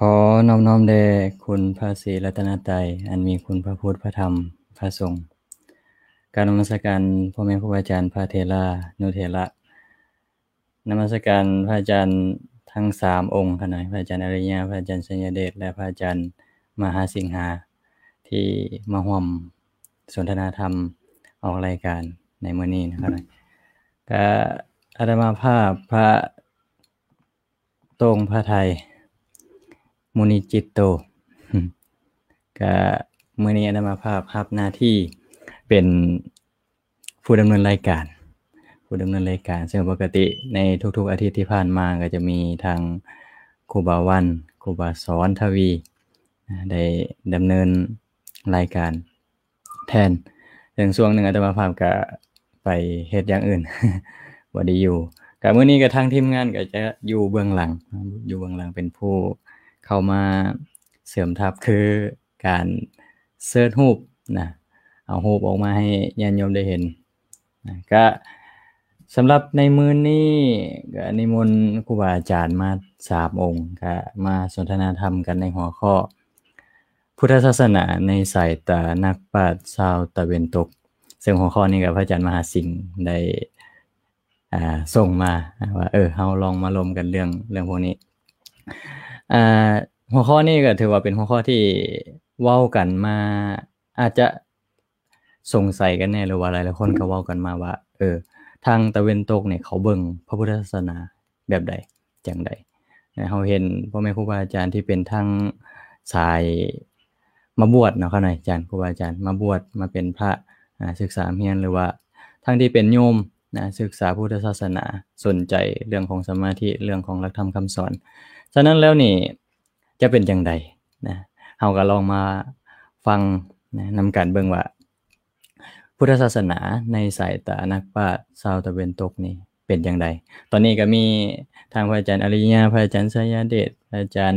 ຂໍນອບນ້ອມແດ່ຄຸນພະສີລັດຕະນະໄຕ ອັນມີຄຸນພະພຸດ ພະທຳ ພະສົງ. ກາບນະມັດສະການພໍ່ແມ່ຄູບາອາຈານ ພະເຖລານຸເຖລະ. ນະມັດສະການພະອາຈານທັງສາມອົງຂ້ານ້ອຍ, ພະອາຈານອະລິຍະ, ພະອາຈານໄຊຍະເດດ ແລະ ພະອາຈານມະຫາສິງຫາ ທີ່ມາຮ່ວມສົນທະນາທຳອອກລາຍການໃນມື້ນີ້ນະຂ້ານ້ອຍ. ກະອາດຕະມາພາບພະ ໂຕ່ງພະໄທ ມຸນີຈິດໂຕ ກະມື້ນີ້ອາດຕະມາພາບຮັບໜ້າທີ່ເປັນຜູ້ດຳເນີນລາຍການ, ຜູ້ດຳເນີນລາຍການ ເຊິ່ງປົກກະຕິໃນທຸກໆອາທິດທີ່ຜ່ານມາກໍຈະມີທາງຄູບາວັນ, ຄູບາສອນທະວີ ໄດ້ດຳເນີນລາຍການ ແທນ. ເຊິ່ງຊ່ວງໜຶ່ງອາດຕະມາພາບກະໄປເຮັດຢ່າງອື່ນ ບໍ່ໄດ້ຢູ່. ກະມື້ນີ້ກະທາງທີມງານກະຈະຢູ່ເບື້ອງຫຼັງ, ຢູ່ເບື້ອງຫຼັງເປັນຜູ້ເຂົ້າມາເສີມທັບ ຄືການເຊີດຮູບນະ, ເອົາຮູບອອກມາໃຫ້ຍາດໂຍມໄດ້ເຫັນນະ. ກະສຳລັບໃນມື້ນີ້ກະນິມົນຄູບາອາຈານມາສາມອົງ ກະມາສົນທະນາທຳກັນໃນຫົວຂໍ້ ພຸດທະສາສະໜາໃນສາຍຕານັກປາດຊາວຕາເວັນຕົກ, ເຊິ່ງຫົວຂໍ້ນີ້ກໍພະອາຈານມະຫາສິງໄດ້ ອ່າ ສົ່ງມາວ່າ ເອີ ເຮົາລອງມາລົມກັນເລື່ອງ ເລື່ອງພວກນີ້. ອ່າ ຫົວຂໍ້ນີ້ກໍຖືວ່າເປັນຫົວຂໍ້ທີ່ເວົ້າກັນມາ ອາດຈະ ສົງໄສກັນແດ່ ຫຼືວ່າຫຼາຍໆຄົນກໍເວົ້າກັນມາວ່າ ເອີ ທາງຕາເວັນຕົກນີ້ເຂົາເບິ່ງພະພຸດທະສາສະໜາແບບໃດ ຈັ່ງໃດ. ເຮົາເຫັນພໍ່ແມ່ຄູບາອາຈານທີ່ເປັນທາງສາຍມາບວດເນາະ ຄະນະອາຈານ ຄູບາອາຈານມາບວດ ມາເປັນພະ ອາ ສຶກສາຮຽນ ຫຼືວ່າທັງທີ່ເປັນໂຍມນະ ສຶກສາພຸດທະສາສະໜາ ສົນໃຈເລື່ອງຂອງສະມາທິ ເລື່ອງຂອງຫຼັກທຳຄຳສອນ. ສະນັ້ນແລ້ວນີ້ ຈະເປັນຈັ່ງໃດນະ? ເຮົາກໍລອງມາຟັງນະ ນຳກັນເບິ່ງວ່າ ພຸດທະສາສະໜາໃນສາຍຕານັກປາດຊາວຕາເວັນຕົກນີ້ເປັນຈັ່ງໃດ? ຕອນນີ້ກໍມີທາງພະອາຈານອະລິຍະ, ພະອາຈານໄຊຍະເດດ, ພະອາຈານ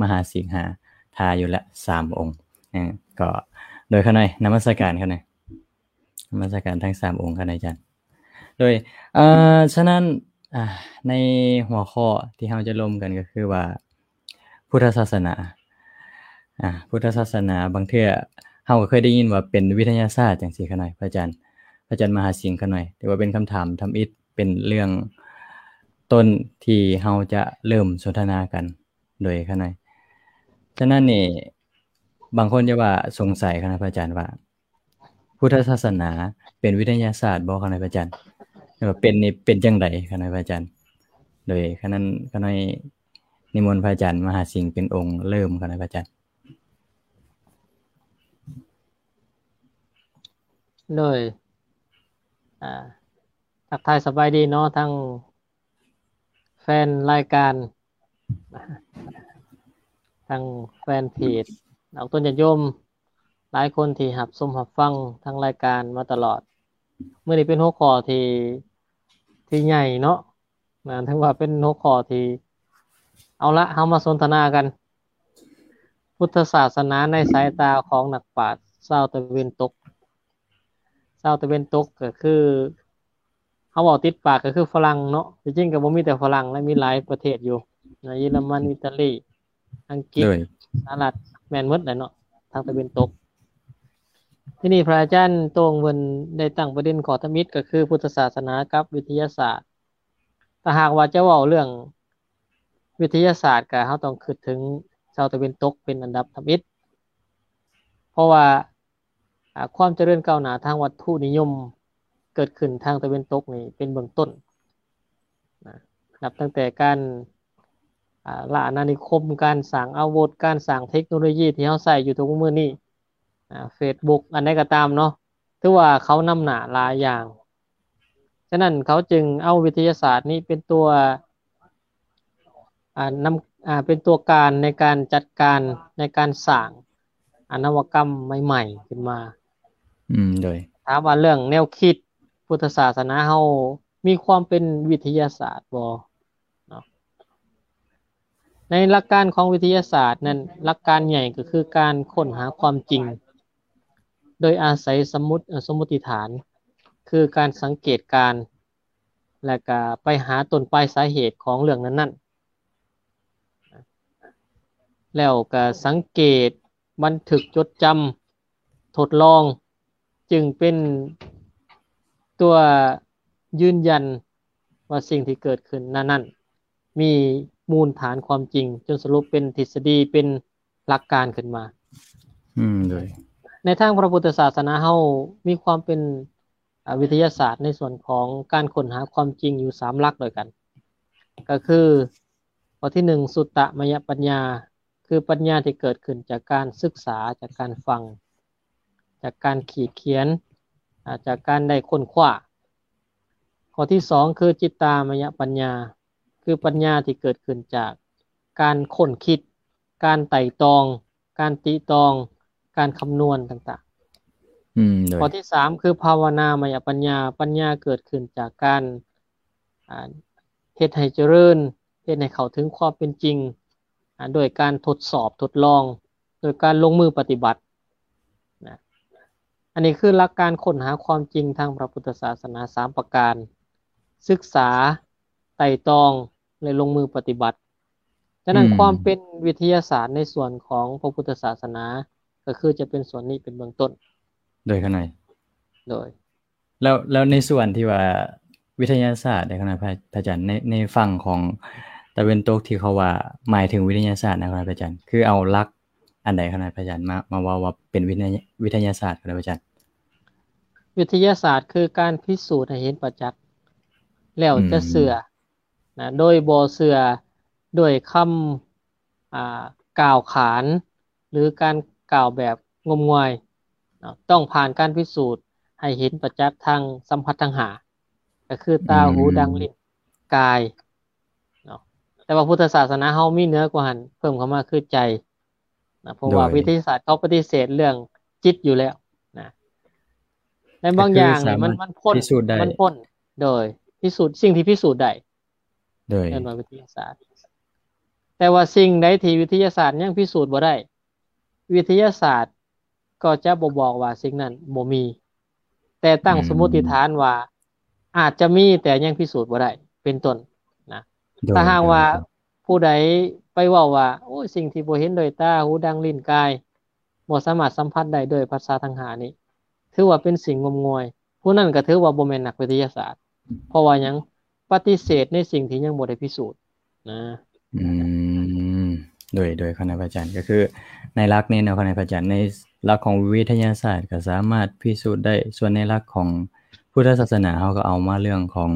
ມະຫາສິງຫາ ຖ້າຢູ່ລະສາມອົງ. ເອີ ກໍໂດຍຂ້ານ້ອຍນະມັດສະການຂ້ານ້ອຍ. ນະມັດສະການທັງສາມອົງ ຄະນະອາຈານ. ໂດຍ ເອີ ສະນັ້ນ ອ່າ ໃນຫົວຂໍ້ທີ່ເຮົາຈະລົມກັນກໍຄືວ່າ ພຸດທະສາສະໜາ ອ່າ ພຸດທະສາສະໜາ ບາງເທື່ອເຮົາກໍເຄີຍໄດ້ຍິນວ່າເປັນວິທະຍາສາດຈັ່ງຊີ້ ຄະນະອາຈານ ພະອາຈານມະຫາສິງ ຄະນະອາຈານ ຖືວ່າເປັນຄຳຖາມທຳອິດ ເປັນເລື່ອງຕົ້ນທີ່ເຮົາຈະເລີ່ມສົນທະນາກັນ ໂດຍ ຄະນະອາຈານ. ສະນັ້ນນີ້ ບາງຄົນຈະວ່າສົງໄສ ຄະນະອາຈານ ວ່າ ພຸດທະສາສະໜາເປັນວິທະຍາສາດບໍ່ ຄະນະອາຈານ? ແລ້ວເປັນນີ້ເປັນຈັ່ງໃດ ຄະນະອາຈານ? ໂດຍ ຄະນະ ຄະນະ ນິມົນພະອາຈານມະຫາສິງເປັນອົງເລີ່ມ ຄະນະອາຈານ. ໂດຍ ອ່າ ທັກທາຍສະບາຍດີເນາະ ທັງແຟນລາຍການ ທັງແຟນເພຈ ອອກຕົນຍາດໂຍມ ຫຼາຍຄົນທີ່ຮັບຊົມຮັບຟັງທາງລາຍການມາຕະຫຼອດ. ມື້ນີ້ເປັນຫົວຂໍ້ທີ່ ທີ່ໃຫຍ່ເນາະ ນະ ຖືວ່າເປັນຫົວຂໍ້ທີ່ ເອົາລະ ເຮົາມາສົນທະນາກັນ ພຸດທະສາສະໜາໃນສາຍຕາຂອງນັກປາດຊາວຕາເວັນຕົກ. ຊາວຕາເວັນຕົກກໍຄື ເຮົາເວົ້າຕິດປາກກໍຄືຝຣັ່ງເນາະ, ທີ່ຈິງກໍບໍ່ມີແຕ່ຝຣັ່ງ ແລະ ມີຫຼາຍປະເທດຢູ່ນະ, ເຢຍລະມັນ, ອີຕາລີ, ອັງກິດ, ໂດຍ ສະຫະລັດ ແມ່ນໝົດແຫຼະເນາະ ທາງຕາເວັນຕົກ. ທີນີ້ພະອາຈານໂຕ່ງເພິ່ນໄດ້ຕັ້ງປະເດັນຂໍ້ທຳອິດ ກໍຄືພຸດທະສາສະໜາກັບວິທະຍາສາດ. ຖ້າຫາກວ່າຈະເວົ້າເລື່ອງວິທະຍາສາດ ກໍເຮົາຕ້ອງຄິດເຖິງຊາວຕາເວັນຕົກເປັນອັນດັບທຳອິດ ເພາະວ່າ ອາ ຄວາມຈະເລີນກ້າວໜ້າທາງວັດຖຸນິຍົມເກີດຂຶ້ນທາງຕາເວັນຕົກນີ້ເປັນເບື້ອງຕົ້ນນະ, ນັບຕັ້ງແຕ່ການ ອາ ລະອານານິຄົມ, ການສ້າງອາວຸດ, ການສ້າງເທັກໂນໂລຢີທີ່ເຮົາໃຊ້ຢູ່ທຸກມື້ນີ້, ອາ ເຟສບຸກ ອັນໃດກໍຕາມເນາະ, ຖືວ່າເຂົານຳໜ້າຫຼາຍຢ່າງ. ສະນັ້ນເຂົາຈຶ່ງເອົາວິທະຍາສາດນີ້ເປັນຕົວ ອາ ນຳ ອາ ເປັນຕົວການໃນການຈັດການ ໃນການສ້າງ ອາ ນະວະກຳໃໝ່ໆຂຶ້ນມາ. ອືມ ໂດຍ ຖາມວ່າເລື່ອງແນວຄິດພຸດທະສາສະໜາເຮົາມີຄວາມເປັນວິທະຍາສາດບໍ່ເນາະ? ໃນຫຼັກການຂອງວິທະຍາສາດນັ້ນ ຫຼັກການໃຫຍ່ກໍຄືການຄົ້ນຫາຄວາມຈິງ ໂດຍອາໄສສະໝຸດ ເອີ ສົມມຸດຕິຖານ ຄືການສັງເກດການ ແລະກະໄປຫາຕົ້ນປາຍສາເຫດຂອງເລື່ອງນັ້ນໆ. ແລ້ວກໍສັງເກດ ບັນທຶກຈົດຈຳ ທົດລອງ ຈຶ່ງເປັນຕົວຢືນຢັນວ່າສິ່ງທີ່ເກີດຂຶ້ນນັ້ນໆ ມີມູນຖານຄວາມຈິງ ຈົນສະຫຼຸບເປັນທິດສະດີ ເປັນຫຼັກການຂຶ້ນມາ. ອືມ ໂດຍ ໃນທາງພະພຸດທະສາສະໜາເຮົາ ມີຄວາມເປັນ ອາ ວິທະຍາສາດໃນສ່ວນຂອງການຄົ້ນຫາຄວາມຈິງຢູ່ສາມຫຼັກດ້ວຍກັນ ກໍຄື ຂໍ້ທີໜຶ່ງ ສຸດຕະມະຍະປັນຍາ ຄືປັນຍາທີ່ເກີດຂຶ້ນຈາກການສຶກສາ, ຈາກການຟັງ, ຈາກການຂີດຂຽນ, ອາ, ຈາກການໄດ້ຄົ້ນຄວ້າ. ຂໍ້ທີສອງ ຄືຈິດຕາມະຍະປັນຍາ ຄືປັນຍາທີ່ເກີດຂຶ້ນຈາກການຄົ້ນຄິດ, ການໄຕ່ຕອງ, ການຕິຕອງ, ການຄຳນວນຕ່າງໆ. ອືມ ໂດຍ ຂໍ້ທີສາມ ຄືພາວະນາມະຍະປັນຍາ, ປັນຍາເກີດຂຶ້ນຈາກການ ອາ ເຮັດໃຫ້ຈະເລີນ, ເຮັດໃຫ້ເຂົ້າເຖິງຄວາມເປັນຈິງ ອາ ໂດຍການທົດສອບທົດລອງ, ໂດຍການລົງມືປະຕິບັດນະ. ອັນນີ້ຄືຫຼັກການຄົ້ນຫາຄວາມຈິງທາງພະພຸດທະສາສະໜາສາມປະການ, ສຶກສາ, ໄຕ່ຕອງ ແລະ ລົງມືປະຕິບັດ. ສະນັ້ນ ອືມ ຄວາມເປັນວິທະຍາສາດໃນສ່ວນຂອງພະພຸດທະສາສະໜາ ກໍຄືຈະເປັນສ່ວນນີ້ເປັນເບື້ອງຕົ້ນ. ໂດຍ ຂະໜາຍ ໂດຍ ແລ້ວ ແລ້ວໃນສ່ວນທີ່ວ່າວິທະຍາສາດເດ້ ຂະໜາຍ ພະ ພະອາຈານ ໃນ ໃນຝັ່ງຂອງຕາເວັນຕົກທີ່ເຂົາວ່າໝາຍເຖິງວິທະຍາສາດນະ ຂະໜາຍ ພະອາຈານ ຄືເອົາຫຼັກອັນໃດ ຂະໜາຍ ພະອາຈານ ມາ ມາເວົ້າວ່າເປັນວິທະຍາ ວິທະຍາສາດ ຂະໜາຍ ພະອາຈານ? ວິທະຍາສາດຄືການພິສູດໃຫ້ເຫັນປະຈັກ ແລ້ວຈະເຊື່ອ ອືມ ນະ ໂດຍບໍ່ເຊື່ອດ້ວຍຄຳ ອ່າ ກ່າວຂານ ຫຼື ການກ່າວແບບງົມງວາຍເນາະ, ຕ້ອງຜ່ານການພິສູດໃຫ້ເຫັນປະຈັກທາງສຳຜັດທັງຫ້າ ກໍຄືຕາ, ອືມ ຫູ, ດັງ, ລີ້ນ, ກາຍເນາະ. ແຕ່ວ່າພຸດທະສາສະໜາເຮົາມີເໜືອກວ່າຫັ້ນ ເພີ່ມເຂົ້າມາຄືໃຈນະ, ເພາະວ່າ ໂດຍ ວິທະຍາສາດເຂົາປະຕິເສດເລື່ອງຈິດຢູ່ແລ້ວນະ. ໃນບາງຢ່າງນີ້ມັນ ມັນພົ້ນ ມັນພົ້ນ ໂດຍ ພິສູດ ສິ່ງທີ່ພິສູດໄດ້ ໂດຍ ເອີ້ນວ່າວິທະຍາສາດ. ແຕ່ວ່າສິ່ງໃດທີ່ວິທະຍາສາດຍັງພິສູດບໍ່ໄດ້ ວິທະຍາສາດກໍຈະບໍ່ບອກວ່າສິ່ງນັ້ນບໍ່ມີ, ແຕ່ຕັ້ງ ອືມ ສົມມຸດຕິຖານວ່າອາດຈະມີແຕ່ຍັງພິສູດບໍ່ໄດ້ ເປັນຕົ້ນນະ. ໂດຍ ຖ້າຫາກວ່າ ໂດຍ ຜູ້ໃດໄປເວົ້າວ່າ ໂອ້ຍ ສິ່ງທີ່ບໍ່ເຫັນດ້ວຍຕາ, ຫູ, ດັງ, ລີ້ນ, ກາຍ ບໍ່ສາມາດສຳຜັດໄດ້ໂດຍປະສາດທັງຫ້ານີ້ ຖືວ່າເປັນສິ່ງງົມງວາຍ, ຜູ້ນັ້ນກໍຖືວ່າບໍ່ແມ່ນນັກວິທະຍາສາດ. ເພາະວ່າຫຍັງ? ປະຕິເສດໃນສິ່ງທີ່ຍັງບໍ່ໄດ້ພິສູດນະ. ອືມ ໂດຍ ໂດຍ ຂະນະພະອາຈານ ກໍຄືໃນຫຼັກນີ້ເນາະ ຂະນະພະອາຈານ ໃນຫຼັກຂອງວິທະຍາສາດກໍສາມາດພິສູດໄດ້, ສ່ວນໃນຫຼັກຂອງພຸດທະສາສະໜາ ເຮົາກໍເອົາມາເລື່ອງຂອງ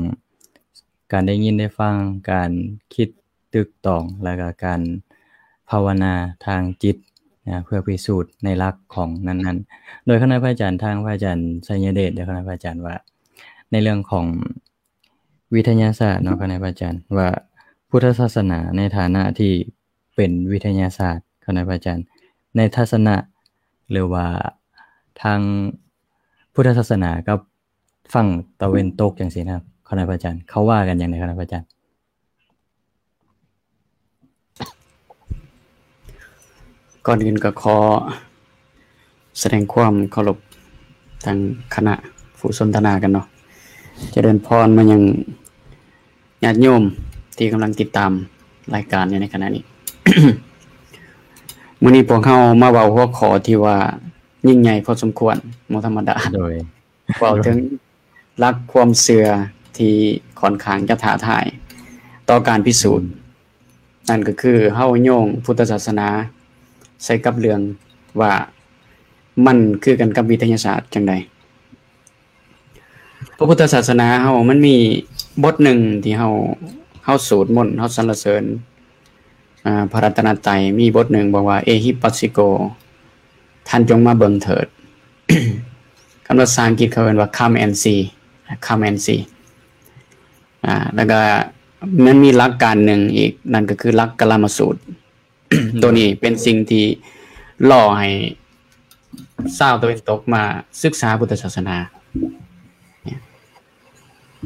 ການໄດ້ຍິນໄດ້ຟັງ, ການຄິດຕຶກຕອງ ແລ້ວກໍການພາວະນາທາງຈິດນະ ເພື່ອພິສູດໃນຫຼັກຂອງນັ້ນໆ. ໂດຍ ຂະນະພະອາຈານ ທາງພະອາຈານໄຊຍະເດດ ໂດຍ ຂະນະພະອາຈານວ່າ ໃນເລື່ອງຂອງ ວິທະຍາສາດເນາະ ຂະນະພະອາຈານ ວ່າພຸດທະສາສະໜາໃນຖານະທີ່ເປັນວິທະຍາສາດ ຂະນະພະອາຈານ ໃນທັດສະນະ ຫຼືວ່າທາງພຸດທະສາສະໜາກັບຝັ່ງຕາເວັນຕົກຈັ່ງຊີ້ນະ ຂະນະພະອາຈານ ເຂົາວ່າກັນຈັ່ງໃດ ຂະນະພະອາຈານ? ກ່ອນອື່ນກໍຂໍສະແດງຄວາມເຄົາລົບທາງຄະນະຜູ້ສົນທະນາກັນເນາະ. ຈະເລີນພອນມາຍັງຍາດໂຍມທີ່ກຳລັງຕິດຕາມລາຍການຢູ່ໃນຂະນະນີ້. ມື້ນີ້ພວກເຮົາມາເວົ້າຫົວຂໍ້ທີ່ວ່າຍິ່ງໃຫຍ່ພໍສົມຄວນ, ບໍ່ທຳມະດາ. ໂດຍ. ເວົ້າເຖິງຫຼັກຄວາມເຊື່ອທີ່ຂ້ອນຂ້າງຈະທ້າທາຍຕໍ່ການພິສູດ. ອືມ. ນັ້ນກໍຄືເຮົາໂຍງພຸດທະສາສະໜາໃສ່ກັບເລື່ອງວ່າມັນຄືກັນກັບວິທະຍາສາດຈັ່ງໃດ. ພະພຸດທະສາສະໜາເຮົາມັນມີບົດໜຶ່ງທີ່ເຮົາ ເຮົາສູດມົນ, ເຮົາສັນລະເສີນ ອ່າ ພະລັດຕະນະໄຕ, ມີບົດໜຶ່ງບອກວ່າ ເອຫິປັດສິໂກ ທ່ານຈົ່ງມາເບິ່ງເຖີດ. ຄຳພາສາອັງກິດເຂົາເອີ້ນວ່າ Come and see, Come and see. ອ່າ ແລ້ວກໍມັນມີຫຼັກການໜຶ່ງອີກ, ນັ້ນກໍຄືຫຼັກກາລາມະສູດ. ໂດຍ. ໂຕນີ້ເປັນສິ່ງທີ່ຫຼໍ່ໃຫ້ຊາວຕາເວັນຕົກມາສຶກສາພຸດທະສາສະໜາ,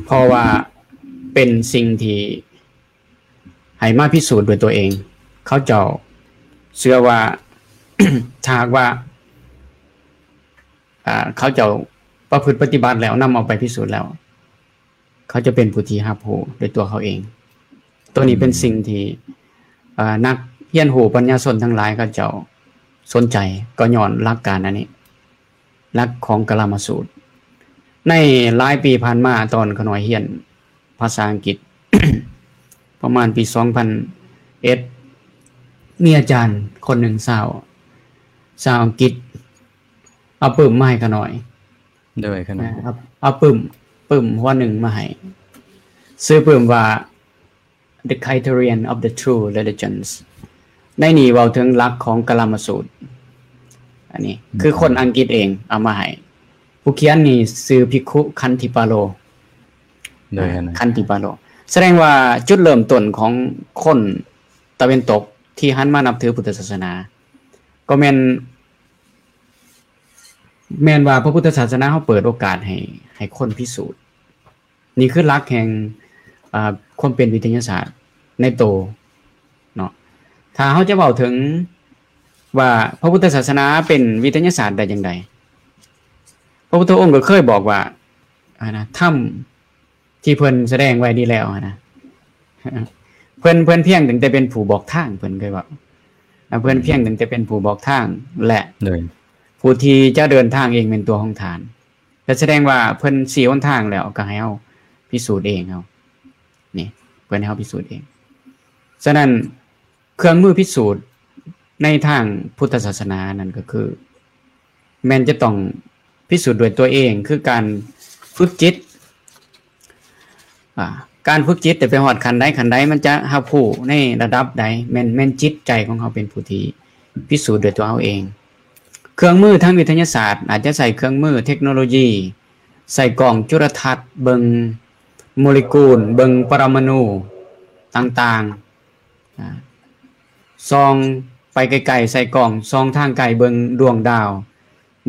ເພາະວ່າເປັນສິ່ງທີ່ ໃຫ້ມາພິສູດດ້ວຍຕົວເອງ. ເຂົາເຈົ້າເຊື່ອວ່າ ຖ້າຫາກວ່າ ອ່າ ເຂົາເຈົ້າປະພຶດປະຕິບັດແລ້ວ ນຳເອົາໄປພິສູດແລ້ວ ເຂົາຈະເປັນຜູ້ທີ່ຮັບຮູ້ດ້ວຍຕົວເຂົາເອງ. ໂຕນີ້ເປັນ ອືມ ສິ່ງທີ່ ເອີ ນັກ ຮຽນຮູ້ປັນຍາຊົນທັງຫຼາຍເຂົາເຈົ້າສົນໃຈ ກໍຍ້ອນຫຼັກການອັນນີ້ ຫຼັກຂອງກະລາມະສູດ. ໃນຫຼາຍປີຜ່ານມາ ຕອນຂ້ານ້ອຍຮຽນພາສາອັງກິດ ປະມານປີສອງພັນເອັດ ມີອາຈານຄົນໜຶ່ງຊາວ ຊາວອັງກິດ ເອົາປຶ້ມມາໃຫ້ຂ້ານ້ອຍ. ໂດຍ ຂ້ານ້ອຍ ເອົາ ເອົາປຶ້ມ ປຶ້ມຫົວໜຶ່ງມາໃຫ້ ຊື່ປຶ້ມວ່າ The Criterion of the True Religions. ໃນນີ້ເວົ້າເຖິງຫຼັກຂອງກະລາມະສູດ. ອັນນີ້ ອືມ ຄືຄົນອັງກິດເອງເອົາມາໃຫ້. ຜູ້ຂຽນນີ້ຊື່ພິກຂຸ ຄັນທິປາໂລ. ໂດຍ ຄັນທິປາໂລ. ສະແດງວ່າຈຸດເລີ່ມຕົ້ນຂອງຄົນຕາເວັນຕົກທີ່ຫັນມານັບຖືພຸດທະສາສະໜາ ກໍແມ່ນ ແມ່ນວ່າພະພຸດທະສາສະໜາເຮົາເປີດໂອກາດໃຫ້ ໃຫ້ຄົນພິສູດ. ນີ້ຄືຫຼັກແຫ່ງ ອາ ຄວາມເປັນວິທະຍາສາດໃນໂຕເນາະ. ຖ້າເຮົາຈະເວົ້າເຖິງວ່າພະພຸດທະສາສະໜາເປັນວິທະຍາສາດໄດ້ຈັ່ງໃດ, ພະພຸດທະອົງກໍເຄີຍບອກວ່າ ອັນນະ ທຳ ທີ່ເພິ່ນສະແດງໄວ້ດີແລ້ວຫັ້ນນະ ເພິ່ນ ເພິ່ນພຽງຕັ້ງແຕ່ເປັນຜູ້ບອກທາງ ເພິ່ນເຄີຍເວົ້າ ເພິ່ນພຽງຕັ້ງແຕ່ເປັນຜູ້ບອກທາງ ແລະ ໂດຍ ຜູ້ທີ່ຈະເດີນທາງເອງແມ່ນຕົວຂອງທ່ານ. ກໍສະແດງວ່າເພິ່ນຊີ້ຫົນທາງແລ້ວ ກໍໃຫ້ເຮົາພິສູດເອງເຮົາ ນີ້ ເພິ່ນໃຫ້ເຮົາພິສູດເອງ. ສະນັ້ນ ເຄື່ອງມືພິສູດໃນທາງພຸດທະສາສະໜານັ້ນກໍຄື ແມ່ນຈະຕ້ອງພິສູດດ້ວຍຕົວເອງ ຄືການຝຶກຈິດ. ອາ ການຝຶກຈິດໄດ້ໄປຮອດຂັ້ນໃດຂັ້ນໃດ ມັນຈະຮັບຮູ້ໃນລະດັບໃດ ແມ່ນ ແມ່ນຈິດໃຈຂອງເຮົາເປັນຜູ້ທີ່ພິສູດດ້ວຍຕົວເຮົາເອງ. ເຄື່ອງມືທາງວິທະຍາສາດ ອາດຈະໃຊ້ເຄື່ອງມືເທັກໂນໂລຢີ ໃຊ້ກ້ອງຈຸລະທັດ ເບິ່ງໂມເລກຸນ ເບິ່ງປະລະມະນູຕ່າງໆ ອາ ສ່ອງໄປໄກໆ ໃສ່ກ້ອງສ່ອງທາງໄກເບິ່ງດວງດາວ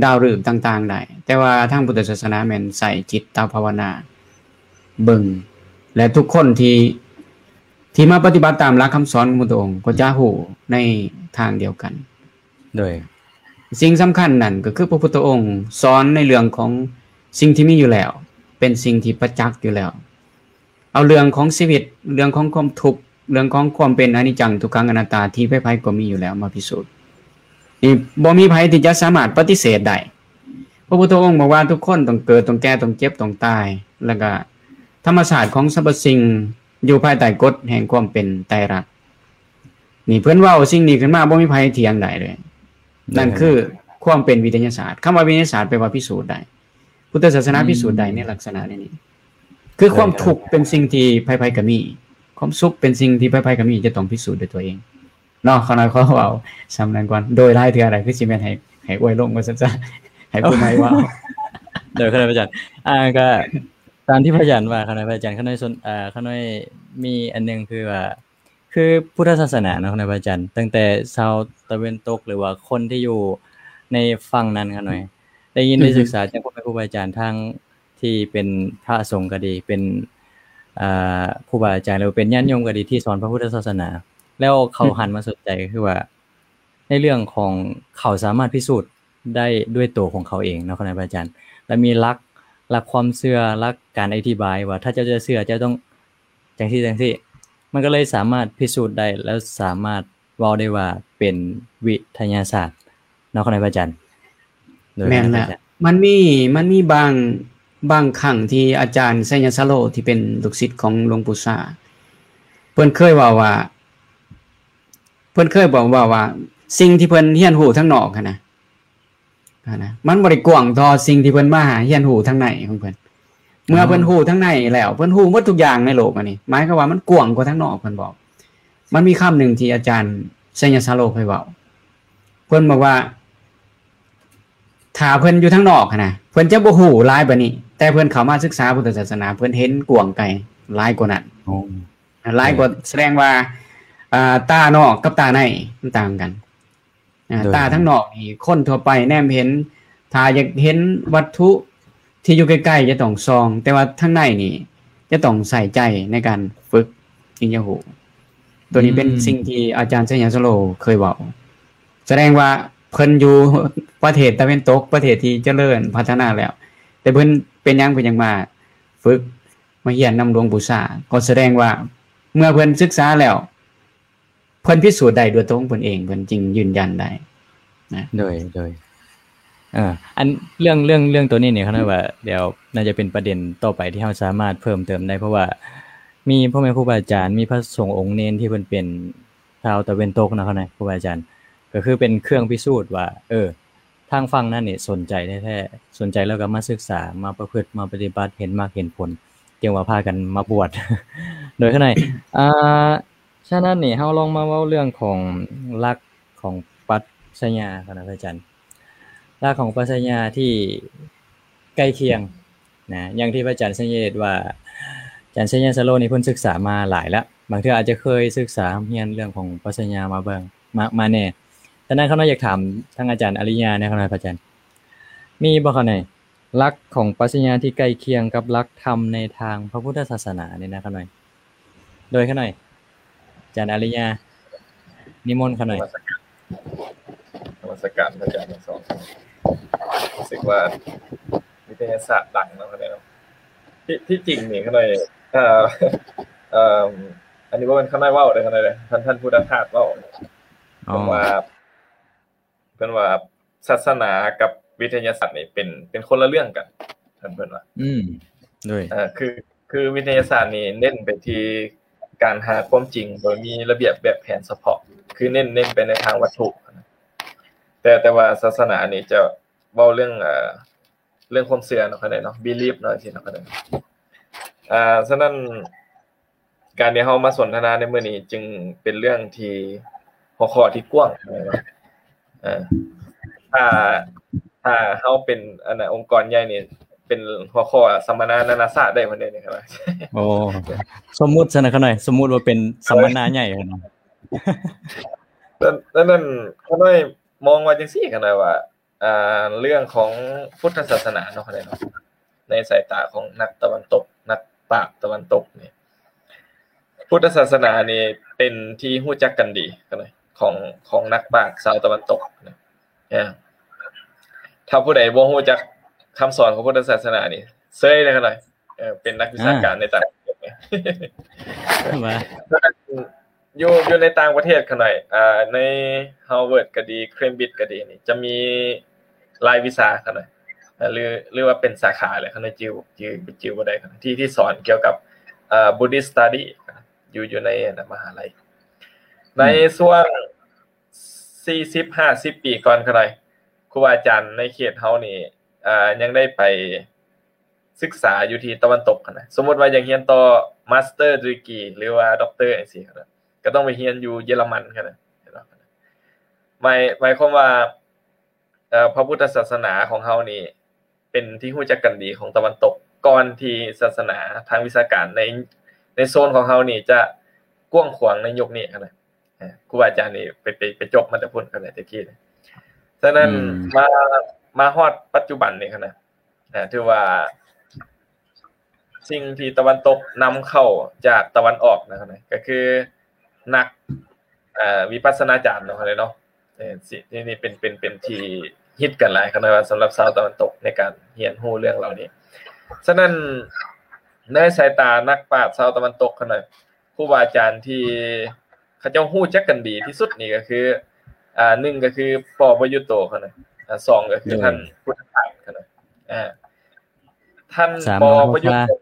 ດາວລືບຕ່າງໆໄດ້, ແຕ່ວ່າທາງພຸດທະສາສະໜາແມ່ນໃຊ້ຈິດຕະພາວະນາເບິ່ງ ແລະ ທຸກຄົນທີ່ ທີ່ມາປະຕິບັດຕາມຫຼັກຄຳສອນຂອງພະພຸດທະອົງກໍຈະຮູ້ໃນທາງດຽວກັນ. ໂດຍ ສິ່ງສຳຄັນນັ້ນກໍຄືພະພຸດທະອົງສອນໃນເລື່ອງຂອງສິ່ງທີ່ມີຢູ່ແລ້ວ ເປັນສິ່ງທີ່ປະຈັກຢູ່ແລ້ວ. ເອົາເລື່ອງຂອງຊີວິດ, ເລື່ອງຂອງຄວາມທຸກ, ເລື່ອງຂອງຄວາມເປັນອະນິດຈັງ ທຸກຂັງ ອະນັດຕາ ທີ່ໃຜໆກໍມີຢູ່ແລ້ວມາພິສູດ. ນີ້ບໍ່ມີໃຜທີ່ຈະສາມາດປະຕິເສດໄດ້. ພະພຸດທະອົງບອກວ່າທຸກຄົນຕ້ອງເກີດ, ຕ້ອງແກ່, ຕ້ອງເຈັບ, ຕ້ອງຕາຍ, ແລ້ວກະທຳມະຊາດຂອງສັບພະສິ່ງຢູ່ພາຍໃຕ້ກົດແຫ່ງຄວາມເປັນໄຕລັກ. ນີ້ເພິ່ນເວົ້າສິ່ງນີ້ຂຶ້ນມາ ບໍ່ມີໃຜຖຽງໄດ້ເລີຍ. ນັ້ນຄືຄວາມເປັນວິທະຍາສາດ. ຄຳວ່າວິທະຍາສາດແປວ່າພິສູດໄດ້. ພຸດທະສາສະໜາພິສູດໄດ້ໃນລັກສະນະນີ້. ຄືຄວາມທຸກເປັນສິ່ງທີ່ໃຜໆກໍມີ, ຄວາມສຸກເປັນສິ່ງທີ່ໃຜໆກໍມີ, ຈະຕ້ອງພິສູດດ້ວຍຕົວເອງເນາະ. ຂ້ານ້ອຍຂໍເວົ້າສ່ຳນັ້ນກ່ອນ, ໂດຍຫຼາຍເທື່ອຫຼາຍຄືຊິແມ່ນໃຫ້ ໃຫ້ອວຍລົງວ່າຊັ້ນຊະ, ໃຫ້ຜູ້ໃໝ່ເວົ້າ. ໂດຍ ຂ້ານ້ອຍພະອາຈານ, ອ່າ ກໍຕາມທີ່ພະອາຈານວ່າ, ຂ້ານ້ອຍພະອາຈານ, ຂ້ານ້ອຍສົນ, ອ່າ ຂ້ານ້ອຍມີອັນໜຶ່ງ ຄືວ່າ ຄືພຸດທະສາສະໜາເນາະ ຂ້ານ້ອຍພະອາຈານ, ຕັ້ງແຕ່ຊາວຕາເວັນຕົກ ຫຼືວ່າຄົນທີ່ຢູ່ໃນຝັ່ງນັ້ນ ຂ້ານ້ອຍໄດ້ຍິນໄດ້ສຶກສາຈາກພໍ່ແມ່ຄູບາອາຈານ ທັງທີ່ເປັນພະສົງກໍດີ ເປັນ ອ່າ ຄູບາອາຈານ ຫຼືວ່າເປັນຍາດໂຍມກໍດີ ທີ່ສອນພະພຸດທະສາສະໜາ ແລ້ວເຂົາຫັນມາສົນໃຈ ກໍຄືວ່າໃນເລື່ອງຂອງເຂົາສາມາດພິສູດໄດ້ດ້ວຍໂຕຂອງເຂົາເອງເນາະ ຂ້ານ້ອຍພະອາຈານ, ແລະ ມີຫຼັກ ຫຼັກຄວາມເຊື່ອ ຫຼັກການອະທິບາຍວ່າ ຖ້າເຈົ້າຈະເຊື່ອ ເຈົ້າຕ້ອງ ຈັ່ງຊີ້ຈັ່ງຊີ້ ມັນກໍເລີຍສາມາດພິສູດໄດ້ ແລ້ວສາມາດເວົ້າໄດ້ວ່າເປັນວິທະຍາສາດເນາະ ຂອບໃຈພະອາຈານ. ໂດຍ ແມ່ນແລ້ວ ມັນມີ ມັນມີບາງ ບາງຄັ້ງທີ່ອາຈານໄຊຍະສາໂລ ທີ່ເປັນລູກສິດຂອງຫຼວງປູ່ຊາ ເພິ່ນເຄີຍເວົ້າວ່າ ເພິ່ນເຄີຍບອກ ເວົ້າວ່າ ສິ່ງທີ່ເພິ່ນຮຽນຮູ້ທາງນອກຫັ້ນນະ ຫັ້ນນະ ມັນບໍ່ໄດ້ກວ້າງເທົ່າສິ່ງທີ່ເພິ່ນມາຮຽນຮູ້ທາງໃນຂອງເພິ່ນ. ເມື່ອເພິ່ນຮູ້ທາງໃນແລ້ວ ເພິ່ນຮູ້ໝົດທຸກຢ່າງໃນໂລກອັນນີ້ ໝາຍຄວາມວ່າມັນກວ້າງກວ່າທາງນອກ. ເພິ່ນບອກ ມັນມີຄຳໜຶ່ງທີ່ອາຈານໄຊຍະສາໂລເຄີຍເວົ້າ ເພິ່ນບອກວ່າ ຖ້າເພິ່ນຢູ່ທາງນອກຫັ້ນນະ ເພິ່ນຈະບໍ່ຮູ້ຫຼາຍປານນີ້ ແຕ່ເພິ່ນເຂົ້າມາສຶກສາພຸດທະສາສະໜາ ເພິ່ນເຫັນກວ້າງໄກຫຼາຍກວ່ານັ້ນ ໂອ້ ຫຼາຍກວ່າ ໂດຍ ສະແດງວ່າ ອ່າ ຕານອກກັບຕາໃນມັນຕ່າງກັນ. ອ່າ ໂດຍ ຕາທາງນອກນີ້ຄົນທົ່ວໄປແນມເຫັນ ຖ້າຢາກເຫັນວັດຖຸທີ່ຢູ່ໃກ້ໆຈະຕ້ອງສ່ອງ ແຕ່ວ່າທາງໃນນີ້ຈະຕ້ອງໃສ່ໃຈໃນການຝຶກຈຶ່ງຈະຮູ້. ໂຕນີ້ເປັນ ອືມ ສິ່ງທີ່ອາຈານໄຊຍະສາໂລເຄີຍເວົ້າ. ສະແດງວ່າເພິ່ນຢູ່ປະເທດຕາເວັນຕົກ ປະເທດທີ່ຈະເລີນພັດທະນາແລ້ວ ແຕ່ເພິ່ນເປັນຫຍັງເພິ່ນຍັງມາຝຶກ ມາຮຽນນຳຫຼວງປູ່ຊາ ກໍສະແດງວ່າເມື່ອເພິ່ນສຶກສາແລ້ວ ເພິ່ນພິສູດໄດ້ດ້ວຍຕົວຂອງເພິ່ນເອງ ເພິ່ນຈຶ່ງຢືນຢັນໄດ້ນະ. ໂດຍ ໂດຍ ເອີ ອັນເລື່ອງ ເລື່ອງ ເລື່ອງໂຕນີ້ນີ້ ຂ້ານ້ອຍວ່າດຽວໜ້າຈະເປັນປະເດັນຕໍ່ໄປທີ່ເຮົາສາມາດເພີ່ມເຕີມໄດ້ ເພາະວ່າມີພໍ່ແມ່ຄູບາອາຈານ ມີພະສົງອົງເນນທີ່ເພິ່ນເປັນຊາວຕາເວັນຕົກເນາະ ຂ້ານ້ອຍ ຄູບາອາຈານ ກໍຄືເປັນເຄື່ອງພິສູດວ່າ ເອີ ທາງຝັ່ງນັ້ນນີ້ສົນໃຈແທ້ໆ ສົນໃຈແລ້ວກໍມາສຶກສາ ມາປະພຶດ ມາປະຕິບັດ ເຫັນມັກເຫັນຜົນ ຈຶ່ງວ່າພາກັນມາບວດ ໂດຍ ຂ້ານ້ອຍ ອ່າ ສະນັ້ນນີ້ ເຮົາລອງມາເວົ້າເລື່ອງຂອງຫຼັກຂອງປັດຊະຍາ ຂ້ານ້ອຍ ພະອາຈານ ຫຼັກຂອງປັດຊະຍາທີ່ໃກ້ຄຽງນະ ຢ່າງທີ່ພະອາຈານໄຊຍະເດດວ່າ ອາຈານໄຊຍະສາໂລນີ້ເພິ່ນສຶກສາມາຫຼາຍແລ້ວ ບາງເທື່ອອາດຈະເຄີຍສຶກສາຮຽນເລື່ອງຂອງປັດຊະຍາມາເບິ່ງ ມາ ມາແດ່. ສະນັ້ນ ຂ້ານ້ອຍຢາກຖາມທາງອາຈານອາລິຍາແດ່ ຂ້ານ້ອຍ ພະອາຈານ ມີບໍ່ ຂ້ານ້ອຍ ຫຼັກຂອງປັດຊະຍາທີ່ໃກ້ຄຽງກັບຫຼັກທຳໃນທາງພະພຸດທະສາສະໜານີ້ນະ ຂ້ານ້ອຍ ໂດຍ ຂ້ານ້ອຍ ອາຈານອາລິຍາ ນິມົນ ຂ້ານ້ອຍ. ນະມັດສະການ ນະມັດສະການພະອາຈານທັງສອງ. ຮູ້ສຶກວ່າວິທະຍາສາດດັງເນາະ ຂ້ານ້ອຍເນາະ. ທີ່ ທີ່ຈິງນີ້ ຂ້ານ້ອຍ ເອີ ເອີ ອັນນີ້ບໍ່ແມ່ນຂ້ານ້ອຍເວົ້າເດີ ຂ້ານ້ອຍເດີ ທ່ານ ທ່ານພຸດທະທາດເວົ້າ. ເພິ່ນວ່າ ເພິ່ນວ່າສາສະໜາກັບວິທະຍາສາດນີ້ເປັນ ເປັນຄົນລະເລື່ອງກັນ ເພິ່ນ ເພິ່ນວ່າ ອືມ ໂດຍ ເອີ ຄື ຄືວິທະຍາສາດນີ້ເນັ້ນໄປທີ່ການຫາຄວາມຈິງໂດຍມີລະບຽບແບບແຜນສະເພາະ ຄືເນັ້ນ ເນັ້ນໄປໃນທາງວັດຖຸ ແຕ່ ແຕ່ວ່າສາສະໜານີ້ຈະເວົ້າເລື່ອງ ເອີ ເລື່ອງຄວາມເຊື່ອເນາະ ຂ້ານ້ອຍເນາະ belief ເນາະ ຈັ່ງຊີ້ເນາະ ຂ້ານ້ອຍ. ອ່າ ສະນັ້ນ ການທີ່ເຮົາມາສົນທະນາໃນມື້ນີ້ຈຶ່ງເປັນເລື່ອງທີ່ ຫົວຂໍ້ທີ່ກວ້າງ ເອີ ຖ້າ ຖ້າເຮົາເປັນ ອັນນ່າ ອົງກອນໃຫຍ່ນີ້ ເປັນຫົວຂໍ້ສຳມະນານານາຊາດໄດ້ພຸ້ນເດ້ນີ້ ຂ້ານ້ອຍ. ໂອ້ ສົມມຸດຊັ້ນນະ ຂ້ານ້ອຍ ສົມມຸດວ່າເປັນສຳມະນາໃຫຍ່ ຂ້ານ້ອຍ. ນັ້ນ ນັ້ນ ຂ້ານ້ອຍມອງວ່າຈັ່ງຊີ້ ຂ້ານ້ອຍວ່າ ອ່າ ເລື່ອງຂອງພຸດທະສາສະໜາເນາະ ເນາະ ໃນສາຍຕາຂອງນັກຕາເວັນຕົກ ນັກປາດຕາເວັນຕົກນີ້ ພຸດທະສາສະໜານີ້ເປັນທີ່ຮູ້ຈັກກັນດີຂອງ ຂອງນັກປາດຊາວຕາເວັນຕົກນະ. ຖ້າຜູ້ໃດບໍ່ຮູ້ຈັກຄຳສອນຂອງພຸດທະສາສະໜານີ້ ເຊີຍເລີຍຂະນ້ອຍ. ເອີ ເປັນນັກວິຊາການໃນຕ່າງປະເທດ ວ່າ ຢູ່ ຢູ່ໃນຕ່າງປະເທດຂະນ້ອຍ ອ່າ ໃນ Harvard ກໍດີ Cambridge ກໍດີນີ້ ຈະມີລາຍວິຊາຂະນ້ອຍ ຫຼື ຫຼືວ່າເປັນສາຂາແຫຼະ ຂະນ້ອຍຈື່ ຈື່ ຈື່ບໍ່ໄດ້ ທີ່ ທີ່ສອນກ່ຽວກັບ ເອີ Buddhist Study ຢູ່ ຢູ່ໃນ ອັນນ່າ ມະຫາໄລ. ໃນ ອືມ ຊ່ວງສີ່ສິບ ຫ້າສິບປີກ່ອນຂະນ້ອຍ ຄູບາອາຈານໃນເຂດເຮົານີ້ ເອີ ຍັງໄດ້ໄປ ສຶກສາຢູ່ທີ່ຕາເວັນຕົກຫັ້ນນະ. ສົມມຸດວ່າຢາກຮຽນຕໍ່ Master Degree ຫຼືວ່າ Doctor ຈັ່ງຊີ້ນະ ກໍຕ້ອງໄປຮຽນຢູ່ເຢຍລະມັນຫັ້ນນະ. ເຫັນບໍ່? ໝາຍ ໝາຍຄວາມວ່າ ເອີ ພະພຸດທະສາສະໜາຂອງເຮົານີ້ ເປັນທີ່ຮູ້ຈັກກັນດີຂອງຕາເວັນຕົກ ກ່ອນທີ່ສາສະໜາທາງວິຊາການໃນ ໃນໂຊນຂອງເຮົານີ້ຈະກວ້າງຂວາງໃນຍຸກນີ້ຫັ້ນນະ. ເອີ ຄູບາອາຈານນີ້ໄປ ໄປ ໄປຈົບມາແຕ່ພຸ້ນ ແຕ່ກີ້. ສະນັ້ນ ອືມ ມາ ມາຮອດປັດຈຸບັນນີ້ຫັ້ນນະ ເອີ ຖືວ່າສິ່ງທີ່ຕາເວັນຕົກນຳເຂົ້າຈາກຕາເວັນອອກນະ ກໍຄືນັກ ເອີ ວິປັດສະນາຈານເນາະ ເນາະ. ເອີ ນີ້ ນີ້ເປັນ ເປັນ ເປັນທີ່ຮິດກັນຫຼາຍຂະນ້ອຍວ່າ ສຳລັບຊາວຕາເວັນຕົກໃນການຮຽນຮູ້ເລື່ອງເຫຼົ່ານີ້. ສະນັ້ນ ໃນສາຍຕານັກປາດຊາວຕາເວັນຕົກຂະນ້ອຍ ຄູບາອາຈານທີ່ເຂົາເຈົ້າຮູ້ຈັກກັນດີທີ່ສຸດນີ້ກໍຄື ອ່າ ໜຶ່ງກໍຄື ປໍ ປະຍຸດໂຕ ຂະນ້ອຍ ອ່າ ສອງກໍຄື ໂດຍ ທ່ານພຸດທະທາດ ຂະນ້ອຍ. ອ່າ ທ່ານ ສາມ ປໍ ປະຍຸດໂຕ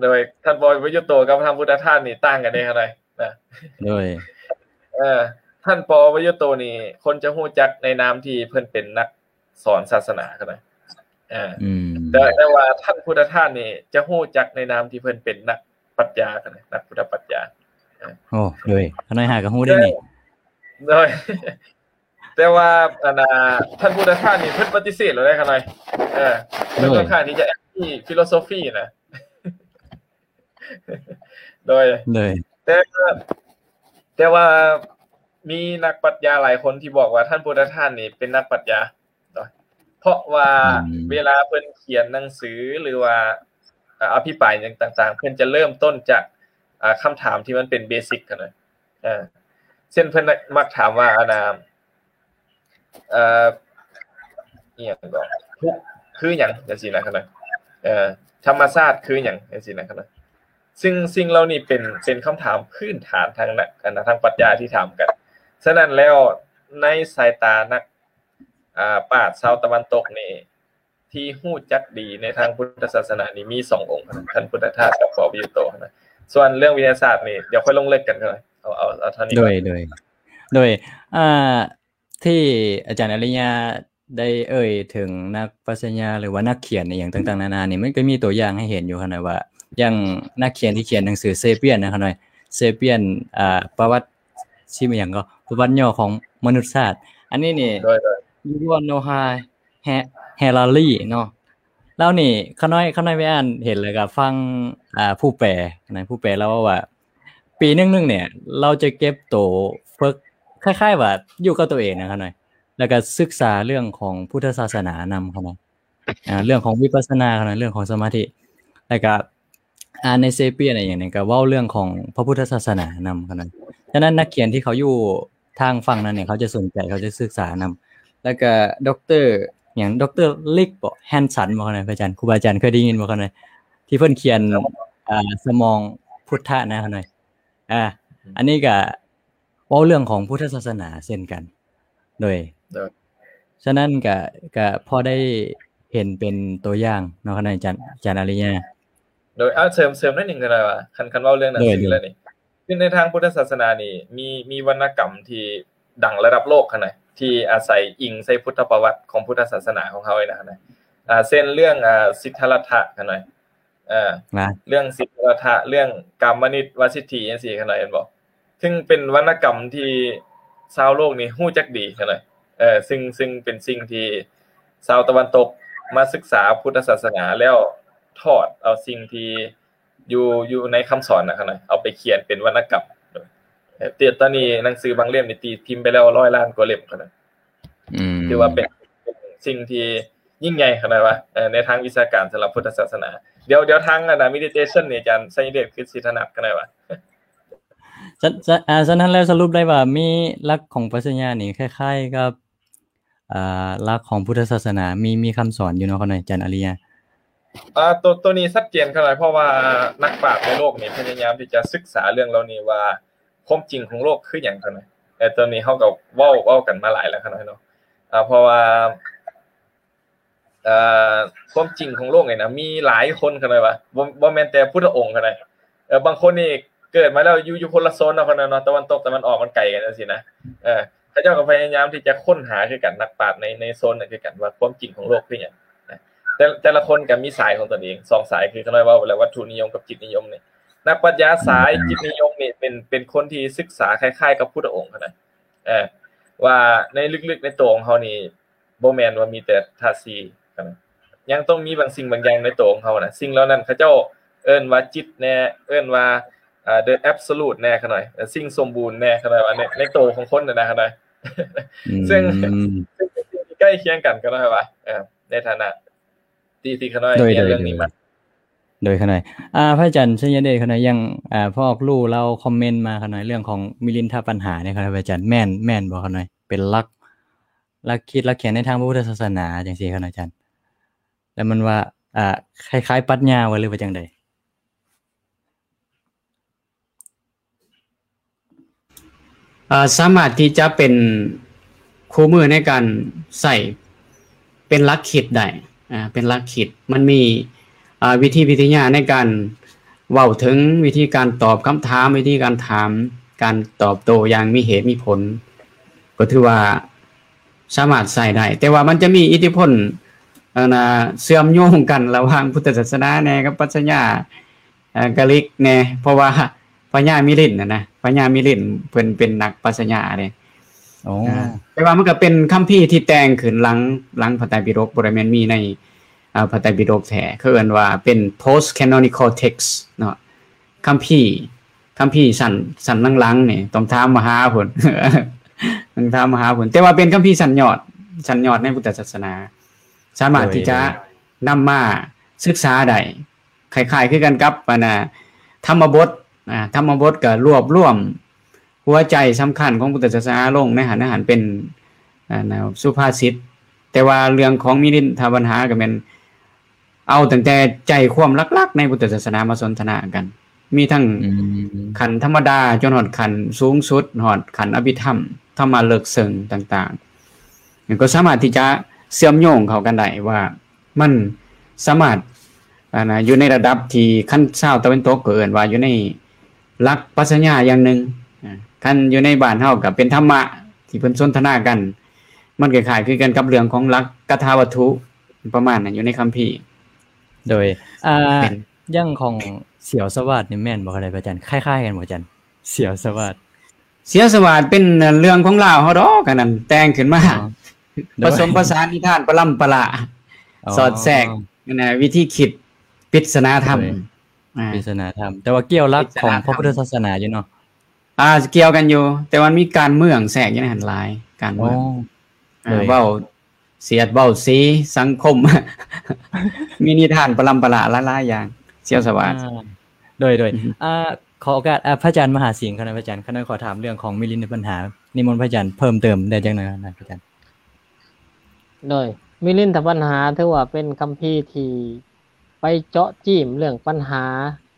ໂດຍ ທ່ານ ປໍ ປະຍຸດໂຕ ກັບທ່ານພຸດທະທາດນີ້ຕ່າງກັນເດ້ຂະນ້ອຍນະ. ໂດຍ ເອີ ທ່ານ ປໍ ປະຍຸດໂຕ ນີ້ ຄົນຈະຮູ້ຈັກໃນນາມທີ່ເພິ່ນເປັນນັກ ສອນສາສະໜາຂະນ້ອຍ. ເອີ ອືມ ແຕ່ ແຕ່ວ່າທ່ານພຸດທະທາດນີ້ຈະຮູ້ຈັກໃນນາມທີ່ເພິ່ນເປັນນັກປັດຊະຍາຂະນ້ອຍ ນັກພຸດທະປັດຊະຍາ. ເອີ ໂອ້ ໂດຍ ຂະນ້ອຍຫາກໍຮູ້ໄດ້ນີ້. ໂດຍ ແຕ່ວ່າ ອັນນ່າ ທ່ານພຸດທະທາດນີ້ເພິ່ນປະຕິເສດແລ້ວເດ້ຂະນ້ອຍ. ເອີ ເພິ່ນ ໂດຍ ຂ້ອນຂ້າງທີ່ຈະແອັນຕີຟີໂລໂຊຟີນະ. ໂດຍ ໂດຍ ແຕ່ ແຕ່ວ່າມີນັກປັດຊະຍາຫຼາຍຄົນທີ່ບອກວ່າທ່ານພຸດທະທາດນີ້ເປັນນັກປັດຊະຍາເນາະ ເພາະວ່າ ອືມ ເວລາເພິ່ນຂຽນໜັງສື ຫຼືວ່າ ເອີ ອະພິປາຍຫຍັງຕ່າງໆ ເພິ່ນຈະເລີ່ມຕົ້ນຈາກ ອ່າ ຄຳຖາມທີ່ມັນເປັນເບສິກຫັ້ນນະ. ເອີ ເຊັ່ນ ເພິ່ນມັກຖາມວ່າ ອັນນ່າ ເອີ ອີ່ຫຍັງກໍ ທຸກຄືຫຍັງ ຈັ່ງຊີ້ນະຂະນ້ອຍ. ເອີ ທຳມະຊາດຄືຫຍັງ ຈັ່ງຊີ້ນະຂະນ້ອຍ. ຊຶ່ງສິ່ງເຫຼົ່ານີ້ເປັນ ເປັນຄຳຖາມພື້ນຖານທາງນັກ ອັນນະ ທາງປັດຊະຍາທີ່ຖາມກັນ. ສະນັ້ນແລ້ວ ໃນສາຍຕານັກ ອາ ປາດຊາວຕາເວັນຕົກນີ້ ທີ່ຮູ້ຈັກດີໃນທາງພຸດທະສາສະໜານີ້ມີສອງອົງເທົ່ານັ້ນ ທ່ານພຸດທະທາດກັບປະວິວໂຕນະ. ສ່ວນເລື່ອງວິທະຍາສາດນີ້ ດຽວຄ່ອຍລົງເລິກກັນເທົ່ານັ້ນ ເອົາ ເອົາ ເອົາເທົ່ານີ້ ໂດຍ ກ່ອນ ໂດຍ ໂດຍ ອ່າ ທີ່ອາຈານອາລິຍາໄດ້ເອີ່ຍເຖິງນັກປັດຊະຍາ ຫຼືວ່ານັກຂຽນອີ່ຫຍັງຕ່າງໆນານານີ້ ມັນກໍມີຕົວຢ່າງໃຫ້ເຫັນຢູ່ຫັ້ນນະວ່າ ຢ່າງນັກຂຽນທີ່ຂຽນໜັງສື Sapiens ນະ ຂະນ້ອຍ Sapiens ອ່າ ປະຫວັດ ຊື່ຫຍັງກໍ ປະຫວັດຫຍໍ້ຂອງມະນຸດຊາດ ອັນນີ້ນີ້ ໂດຍ ໂດຍ Yuval Noah Harari ເນາະ ລາວນີ້ ຂະນ້ອຍ ຂະນ້ອຍໄປອ່ານເຫັນ ແລ້ວກໍຟັງ ອ່າ ຜູ້ແປນະ ຜູ້ແປລາວເວົ້າວ່າ ປີໜຶ່ງໆນີ້ ລາວຈະເກັບໂຕຝຶກ ຄ້າຍໆວ່າຢູ່ກັບຕົວເອງນະ ຂະນ້ອຍ ແລ້ວກໍສຶກສາເລື່ອງຂອງພຸດທະສາສະໜານຳ ຂະນ້ອຍ ອ່າ ເລື່ອງຂອງວິປັດສະນາ ຂະນ້ອຍ ເລື່ອງຂອງສະມາທິ ແລ້ວກໍ ອ່ານໃນ Sapiens ອີ່ຫຍັງນີ້ ກໍເວົ້າເລື່ອງຂອງພະພຸດທະສາສະໜານຳ ຂະນ້ອຍ. ສະນັ້ນນັກຂຽນທີ່ເຂົາຢູ່ທາງຝັ່ງນັ້ນນີ້ ເຂົາຈະສົນໃຈ ເຂົາຈະສຶກສານຳ ແລ້ວກໍ ດຣ ຫຍັງ ດຣ ລິກບໍ ແຮນສັນບໍ ຂະນ້ອຍ ພະອາຈານ ຄູບາອາຈານເຄີຍໄດ້ຍິນບໍ່ ຂະນ້ອຍ ທີ່ເພິ່ນຂຽນ ອ່າ ສະໝອງພຸດທະນະ ຂະນ້ອຍ ອ່າ ອັນນີ້ກໍເວົ້າເລື່ອງຂອງພຸດທະສາສະໜາເຊັ່ນກັນ ໂດຍ ໂດຍ ສະນັ້ນກະ ກະພໍໄດ້ເຫັນເປັນຕົວຢ່າງເນາະ ຂະນ້ອຍ ອາຈານ ອາຈານອາລິຍາ ໂດຍ ເອົາ ເສີມ ເສີມໜ້ອຍໜຶ່ງກໍໄດ້ວ່າ ຄັນ ຄັນເວົ້າເລື່ອງໜັງສືແລ້ວນີ້ ຄືໃນທາງພຸດທະສາສະໜານີ້ ມີ ມີວັນນະກຳທີ່ດັງລະດັບໂລກຫັ້ນນະ ທີ່ອາໄສອີງໃສ່ພຸດທະປະຫວັດຂອງພຸດທະສາສະໜາຂອງເຮົານີ້ນະ ອ່າ ເຊັ່ນເລື່ອງ ອ່າ ສິດທະລັດຖະຫັ້ນນະ ເອີ ເລື່ອງສິດທະລັດຖະ ເລື່ອງກາມະນິດ ວາສິດຖີ ຈັ່ງຊີ້ ຂະນ້ອຍ ເຫັນບໍ່? ຊຶ່ງເປັນວັນນະກຳທີ່ຊາວໂລກນີ້ຮູ້ຈັກດີ ຂະນ້ອຍ ເອີ ຊຶ່ງ ຊຶ່ງເປັນສິ່ງທີ່ຊາວຕາເວັນຕົກມາສຶກສາພຸດທະສາສະໜາ ແລ້ວຖອດເອົາສິ່ງທີ່ຢູ່ ຢູ່ໃນຄຳສອນນະ ຂະນ້ອຍ ເອົາໄປຂຽນເປັນວັນນະກຳ. ເອີ ແຕ່ຕອນນີ້ໜັງສືບາງເຫຼັ້ມນີ້ຕີພິມໄປແລ້ວຮ້ອຍລ້ານກວ່າເຫຼັ້ມ ຂະນ້ອຍ ອືມ ຖືວ່າເປັນ ເປັນສິ່ງທີ່ຍິ່ງໃຫຍ່ຂະໜາດວ່າ ເອີ ໃນທາງວິຊາການສຳລັບພຸດທະສາສະໜາ. ດຽວ ດຽວທາງອັນນະ meditation ນີ້ ອາຈານໄຊຍະເດດຄືຊິຖະໜັດຂະໜາດວ່າ. ສະ ສະ ອາ ສະນັ້ນແລ້ວສະຫຼຸບໄດ້ວ່າມີຫຼັກຂອງປັດຊະຍານີ້ຄ້າຍໆກັບ ອ່າ ຫຼັກຂອງພຸດທະສາສະໜາ ມີ ມີຄຳສອນຢູ່ເນາະ ຂະໜາດ ອາຈານອາລິຍາ. ອ່າ ໂຕ ໂຕນີ້ຊັດເຈນຂະໜາດ ເພາະວ່ານັກປາດໃນໂລກນີ້ພະຍາຍາມທີ່ຈະສຶກສາເລື່ອງເຫຼົ່ານີ້ວ່າ ຄວາມຈິງຂອງໂລກຄືຫຍັງ ຂະໜາດ ແຕ່ໂຕນີ້ເຮົາກໍເວົ້າ ເວົ້າກັນມາຫຼາຍແລ້ວ ຂະໜາດເນາະ ເພາະວ່າ ເອີ ຄວາມຈິງຂອງໂລກນີ້ນະ ມີຫຼາຍຄົນ ຂະໜາດວ່າ ບໍ່ ບໍ່ແມ່ນແຕ່ພຸດທະອົງ ຂະໜາດ ເອີ ບາງຄົນນີ້ເກີດມາແລ້ວຢູ່ ຢູ່ຄົນລະໂຊນເນາະ ຂະໜາດເນາະ ຕາເວັນຕົກຕາເວັນອອກມັນໄກກັນຈັ່ງຊີ້ນະ ເອີ ເຂົາເຈົ້າກໍພະຍາຍາມທີ່ຈະຄົ້ນຫາຄືກັນ ນັກປາດໃນ ໃນໂຊນນັ້ນຄືກັນ ວ່າຄວາມຈິງຂອງໂລກຄືຫຍັງນະ ແຕ່ ແຕ່ລະຄົນກໍມີສາຍຂອງຕົນເອງ ສອງສາຍ ຄືຂະນ້ອຍເວົ້າໄປແລ້ວ ວັດຖຸນິຍົມກັບຈິດນິຍົມນີ້ ນັກປັດຊະຍາສາຍຈິດນິຍົມນີ້ເປັນ ເປັນຄົນທີ່ສຶກສາຄ້າຍໆກັບພຸດທະອົງ ຂະໜາດ ເອີ ວ່າໃນເລິກໆໃນໂຕຂອງເຮົານີ້ ບໍ່ແມ່ນວ່າມີແຕ່ທາດສີ່ ຂະໜາດ ຍັງຕ້ອງມີບາງສິ່ງບາງຢ່າງໃນໂຕຂອງເຮົານະ ສິ່ງເຫຼົ່ານັ້ນເຂົາເຈົ້າເອີ້ນວ່າຈິດແດ່ ເອີ້ນວ່າ ເອີ the absolute ແດ່ ຂະໜາດ ເອີ ສິ່ງສົມບູນແດ່ ຂະໜາດວ່າໃນ ໃນໂຕຂອງຄົນຫັ້ນນະ ຂະໜາດ ອືມ ເຊິ່ງ ເຊິ່ງເປັນສິ່ງທີ່ໃກ້ຄຽງກັນ ຂະໜາດວ່າ ເອີ ໃນຖານະທີ່ ທີ່ຂະນ້ອຍ ໂດຍ ຮຽນເລື່ອງນີ້ມາ ໂດຍ ໂດຍ ຂະນ້ອຍ ອາ ພະອາຈານໄຊຍະເດດ ຂະນ້ອຍ ຢ່າງ ອາ ພໍ່ອອກລູລາວຄອມເມັນມາ ຂະນ້ອຍ ເລື່ອງຂອງມິລິນທະບັນຫານີ້ ຂະນ້ອຍ ພະອາຈານ ແມ່ນ ແມ່ນບໍ່ ຂະນ້ອຍ ເປັນຫຼັກ ຫຼັກຄິດຫຼັກຂຽນໃນທາງພະພຸດທະສາສະໜາຈັ່ງຊີ້ ຂະນ້ອຍ ອາຈານ ແລ້ວມັນວ່າ ອາ ຄ້າຍໆປັດຊະຍາບໍ່ ຫຼືວ່າຈັ່ງໃດ? ເອີ ສາມາດທີ່ຈະເປັນຄູ່ມືໃນການໃຊ້ເປັນຫຼັກຄິດໄດ້ ອາ ເປັນຫຼັກຄິດ ມັນມີ ອາ ວິທີວິທະຍາໃນການເວົ້າເຖິງວິທີການຕອບຄຳຖາມ ວິທີການຖາມ ການຕອບໂຕ້ຢ່າງມີເຫດມີຜົນ ກໍຖືວ່າສາມາດໃຊ້ໄດ້ ແຕ່ວ່າມັນຈະມີອິດທິພົນ ອັນນະ ເຊື່ອມໂຍງກັນລະຫວ່າງພຸດທະສາສະໜາແດ່ກັບປັດຊະຍາ ເອີ ກາລິກແດ່ ເພາະວ່າພະຍາມິລິນນະ ພະຍາມິລິນເພິ່ນເປັນນັກປັດຊະຍາເດ້ ໂອ້ ເອີ ແຕ່ວ່າມັນກໍເປັນຄຳພີທີ່ແຕ່ງຂຶ້ນຫຼັງ ຫຼັງພະໄຕປິດົກ ບໍ່ໄດ້ແມ່ນມີໃນ ເອີ ພະໄຕປິດົກແທ້ ເຂົາເອີ້ນວ່າເປັນ post canonical text ເນາະ ຄຳພີ ຄຳພີຊັ້ນ ຊັ້ນຫຼັງໆນີ້ ຕ້ອງຖາມມະຫາພຸ້ນ ຕ້ອງຖາມມະຫາພຸ້ນ ແຕ່ວ່າເປັນຄຳພີຊັ້ນຍອດ ຊັ້ນຍອດໃນພຸດທະສາສະໜາ ສາມາດທີ່ຈະ ໂດຍ ນຳມາສຶກສາໄດ້ ຄ້າຍໆຄືກັນກັບ ອັນນະ ທຳມະບົດ ອາ ທຳມະບົດກໍລວບລວມຫົວໃຈສຳຄັນຂອງພຸດທະສາສະໜາລົງໃນຫັ້ນ ໃນຫັ້ນເປັນ ອັນນະ ສຸພາສິດ ແຕ່ວ່າເລື່ອງຂອງມິລິນທະບັນຫາກໍແມ່ນເອົາຕັ້ງແຕ່ໃຈຄວາມຫຼັກໆໃນພຸດທະສາສະໜາມາສົນທະນາກັນ ມີທັງ ອືມ ຂັ້ນທຳມະດາ ຈົນຮອດຂັ້ນສູງສຸດ ຮອດຂັ້ນອະພິທຳ ທຳມະເລິກເຊິ່ງຕ່າງໆ ກໍສາມາດທີ່ຈະເຊື່ອມໂຍງເຂົ້າກັນໄດ້ວ່າ ມັນສາມາດ ອັນນະ ຢູ່ໃນລະດັບທີ່ ຄັນຊາວຕາເວັນຕົກກໍເອີ້ນວ່າຢູ່ໃນຫຼັກປັດຊະຍາຢ່າງໜຶ່ງ ອາ ຄັນຢູ່ໃນບ້ານເຮົາກໍເປັນທຳມະທີ່ເພິ່ນສົນທະນາກັນ ມັນຄ້າຍໆຄືກັນກັບເລື່ອງຂອງຫຼັກກະຖາວັດຖຸ ປະມານນັ້ນ ຢູ່ໃນຄຳພີ. ໂດຍ ອ່າ ເປັນ ຢ່າງຂອງສຽວສະຫວາດນີ້ແມ່ນບໍ່ຄະທ່ານອາຈານ? ຄ້າຍໆກັນບໍ່ອາຈານ? ສຽວສະຫວາດ ສຽວສະຫວາດເປັນເລື່ອງຂອງລາວເຮົາດອກ ອັນນັ້ນແຕ່ງຂຶ້ນມາ ອໍ ໂດຍ ປະສົມປະສານນິທານປະລຳປະລາ ອໍ ສອດແຊກ ອັນນະ ວິທີຄິດປິດສະໜາທຳ ໂດຍ ອາ ປິດສະໜາທຳ ແຕ່ວ່າກ່ຽວຫຼັກຂອງພະພຸດທະສາສະໜາຢູ່ເນາະ. ອ່າ ກ່ຽວກັນຢູ່ ແຕ່ວ່າມັນມີການເມືອງແຊກຢູ່ໃນຫັ້ນຫຼາຍ ການເມືອງ ອໍ ອາ ໂດຍ ເວົ້າສຽດເວົ້າສີສັງຄົມ ມີນິທານປະລຳປະລາຫຼາຍໆຢ່າງ ສຽວສະຫວາດ ອາ ໂດຍ ໂດຍ ອືຮຶ ອາ ຂໍໂອກາດ ອາ ພະອາຈານມະຫາສິງຄະນະ ພະອາຈານ ຂ້ານ້ອຍຂໍຖາມເລື່ອງຂອງມິລິນທະບັນຫາ ນິມົນພະອາຈານເພີ່ມເຕີມໄດ້ຈັກໜ້ອຍນະ ພະອາຈານ. ໂດຍ ມິລິນທະບັນຫາຖືວ່າເປັນຄຳພີທີ່ໄປເຈາະຈີ້ມເລື່ອງປັນຫາ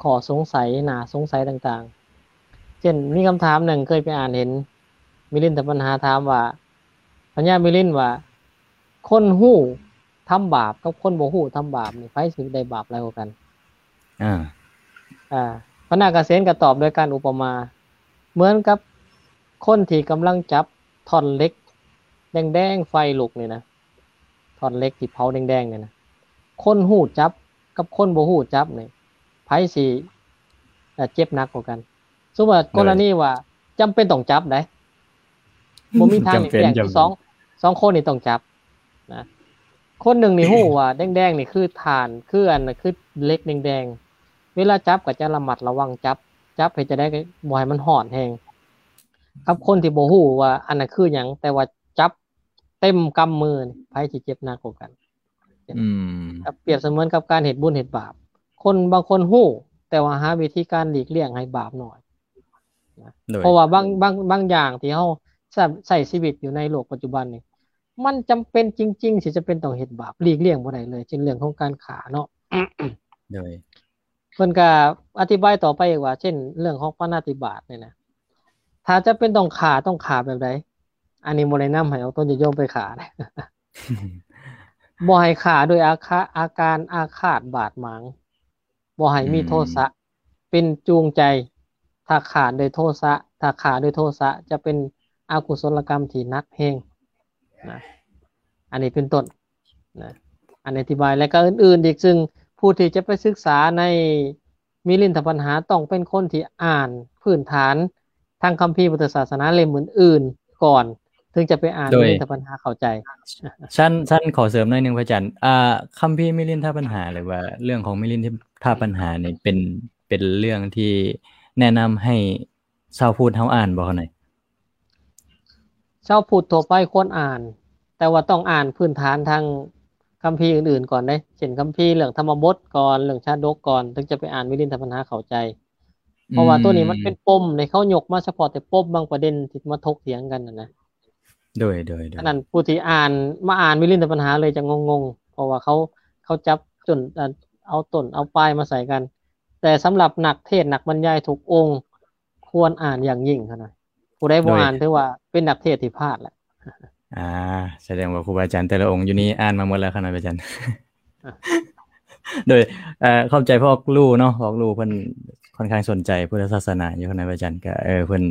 ຂໍ້ສົງໄສ ໜ້າສົງໄສຕ່າງໆ ເຊັ່ນ ມີຄຳຖາມໜຶ່ງເຄີຍໄປອ່ານເຫັນ ມິລິນທະບັນຫາຖາມວ່າ ພະຍາມິລິນວ່າ ຄົນຮູ້ທຳບາບກັບຄົນບໍ່ຮູ້ທຳບາບນີ້ ໃຜຊິໄດ້ບາບຫຼາຍກວ່າກັນ? ອາ ອາ ພະນາກະເສນກໍຕອບໂດຍການອຸປະມາ ເໝືອນກັບຄົນທີ່ກຳລັງຈັບທ່ອນເຫຼັກແດງໆ ໄຟລຸກນີ້ນະ ທ່ອນເຫຼັກທີ່ເຜົາແດງໆນີ້ນະ ຄົນຮູ້ຈັບກັບຄົນບໍ່ຮູ້ຈັບນີ້ ໃຜຊິ ເອີ ເຈັບໜັກກວ່າກັນ? ສົມມຸດວ່າ ໂດຍ ກໍລະນີວ່າ ຈຳເປັນຕ້ອງຈັບໄດ໋ ບໍ່ມີທາງຫຼີກລ້ຽງ ສອງ ສອງຄົນນີ້ຕ້ອງຈັບນະ ຄົນໜຶ່ງນີ້ຮູ້ວ່າແດງໆນີ້ຄືຖ່ານ ຄືອັນ ຄືເຫຼັກແດງໆ ເວລາຈັບກໍຈະລະມັດລະວັງຈັບ ຈັບເຮັດຈັ່ງໃດກໍບໍ່ໃຫ້ມັນຮ້ອນແຮງ ກັບຄົນທີ່ບໍ່ຮູ້ວ່າອັນນັ້ນຄືຫຍັງ ແຕ່ວ່າຈັບເຕັມກຳມືນີ້ ໃຜຊິເຈັບໜັກກວ່າກັນ? ອືມ ກັບ ປຽບສະເໝືອນກັບການເຮັດບຸນເຮັດບາບ ຄົນບາງຄົນຮູ້ ແຕ່ວ່າຫາວິທີການຫຼີກລ້ຽງໃຫ້ບາບໜ້ອຍນະ ໂດຍ ເພາະວ່າບາງ ບາງ ບາງຢ່າງທີ່ເຮົາໃຊ້ ໃຊ້ຊີວິດຢູ່ໃນໂລກປັດຈຸບັນນີ້ ມັນຈຳເປັນຈິງໆ ທີ່ຈຳເປັນຕ້ອງເຮັດບາບ ຫຼີກລ້ຽງບໍ່ໄດ້ເລີຍ ເຊັ່ນເລື່ອງຂອງການຂ້າເນາະ ໂດຍ ເພິ່ນກໍອະທິບາຍຕໍ່ໄປອີກວ່າ ເຊັ່ນເລື່ອງຂອງປານາຕິບາດນີ້ນະ ຖ້າຈຳເປັນຕ້ອງຂ້າ ຕ້ອງຂ້າແບບໃດ? ອັນນີ້ບໍ່ແນະນຳໃຫ້ເອົາຕົນຍາດໂຍມໄປຂ້າ ບໍ່ໃຫ້ຂ້າດ້ວຍອາຄະ ອາການອາຄາດບາດໝາງ ບໍ່ໃຫ້ມີ ອືມ ໂທສະເປັນຈູງໃຈ ຖ້າຂ້າດ້ວຍໂທສະ ຖ້າຂ້າດ້ວຍໂທສະຈະເປັນອະກຸສົລະກຳທີ່ໜັກແຮງນະ ອັນນີ້ເປັນຕົ້ນນະ ອັນອະທິບາຍ ແລະກໍອື່ນໆອີກ ຊຶ່ງຜູ້ທີ່ຈະໄປສຶກສາໃນ ມິລິນທະບັນຫາ ຕ້ອງເປັນຄົນທີ່ອ່ານພື້ນຖານທາງຄຳພີພຸດທະສາສະໜາເຫຼັ້ມອື່ນໆກ່ອນ ເຖິງຈະໄປອ່ານ ໂດຍ ມິລິນທະບັນຫາເຂົ້າໃຈ. ຊັ້ນ ຊັ້ນຂໍເສີມໜ້ອຍໜຶ່ງພະອາຈານ ອ່າ ຄຳພີມິລິນທະບັນຫາ ຫຼືວ່າເລື່ອງຂອງມິລິນທະບັນຫານີ້ ເປັນ ເປັນເລື່ອງທີ່ແນະນຳໃຫ້ຊາວພຸດເຮົາອ່ານບໍ່ຄະ? ຊາວພຸດທົ່ວໄປຄວນອ່ານ ແຕ່ວ່າຕ້ອງອ່ານພື້ນຖານທາງຄຳພີອື່ນໆກ່ອນເດ້ ເຊັ່ນຄຳພີເລື່ອງທຳມະບົດກ່ອນ ເລື່ອງຊາດົກກ່ອນ ເຖິງຈະໄປອ່ານມິລິນທະບັນຫາເຂົ້າໃຈ ເພາະວ່າ ອືມ ໂຕນີ້ມັນເປັນປົມໃນ ເຂົາຍົກມາສະເພາະແຕ່ປົມບາງປະເດັນທີ່ມາຖົກຖຽງກັນຫັ້ນນະ. ໂດຍ ໂດຍ ໂດຍ ອັນນັ້ນຜູ້ທີ່ອ່ານ ມາອ່ານມິລິນທະບັນຫາເລີຍຈະງົງໆ ເພາະວ່າເຂົາ ເຂົາຈັບຕົ້ນ ເອົາຕົ້ນເອົາປາຍມາໃສ່ກັນ ແຕ່ສຳລັບນັກເທດນັກບັນຍາຍທຸກອົງ ຄວນອ່ານຢ່າງຍິ່ງຫັ້ນນະ ຜູ້ໃດບໍ່ ໂດຍ ອ່ານຖືວ່າເປັນນັກເທດທີ່ພາດແຫຼະ. ອ່າ ສະແດງວ່າຄູບາອາຈານແຕ່ລະອົງຢູ່ນີ້ອ່ານມາໝົດແລ້ວຄະນະອາຈານ. ອ່າ ໂດຍ ເອີ ຂອບໃຈພໍ່ອອກລູເນາະ ພໍ່ອອກລູເພິ່ນຄ່ອນຂ້າງສົນໃຈພຸດທະສາສະໜາຢູ່ຄະນະອາຈານ ກະ ເອີ ເພິ່ນ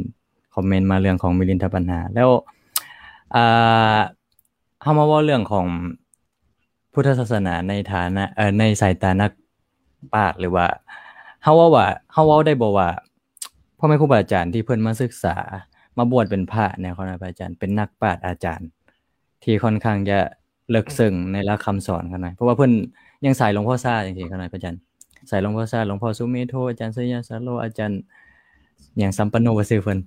ຄອມເມັນມາເລື່ອງຂອງມິລິນທະບັນຫາ ແລ້ວ ອ່າ ເຮົາມາເວົ້າເລື່ອງຂອງພຸດທະສາສະໜາໃນຖານະ ເອີ ໃນສາຍຕານັກປາດ ຫຼືວ່າ ເຮົາເວົ້າວ່າ ເຮົາເວົ້າໄດ້ບໍ່ວ່າ ພໍ່ແມ່ຄູບາອາຈານທີ່ເພິ່ນມາສຶກສາ ມາບວດເປັນພະແນວຄະນະອາຈານ ເປັນນັກປາດອາຈານ ທີ່ຄ່ອນຂ້າງຈະເລິກເຊິ່ງໃນຫຼັກຄຳສອນຄະນະ ເພາະວ່າເພິ່ນຍັງສາຍຫຼວງພໍ່ຊາຈັ່ງຊີ້ຄະນະອາຈານ ສາຍຫຼວງພໍ່ຊາ ຫຼວງພໍ່ສຸເມໂທ ອາຈານໄຊຍະສາໂລ ອາຈານຫຍັງ ສຳປັນໂນ ວ່າຊື່ເພິ່ນ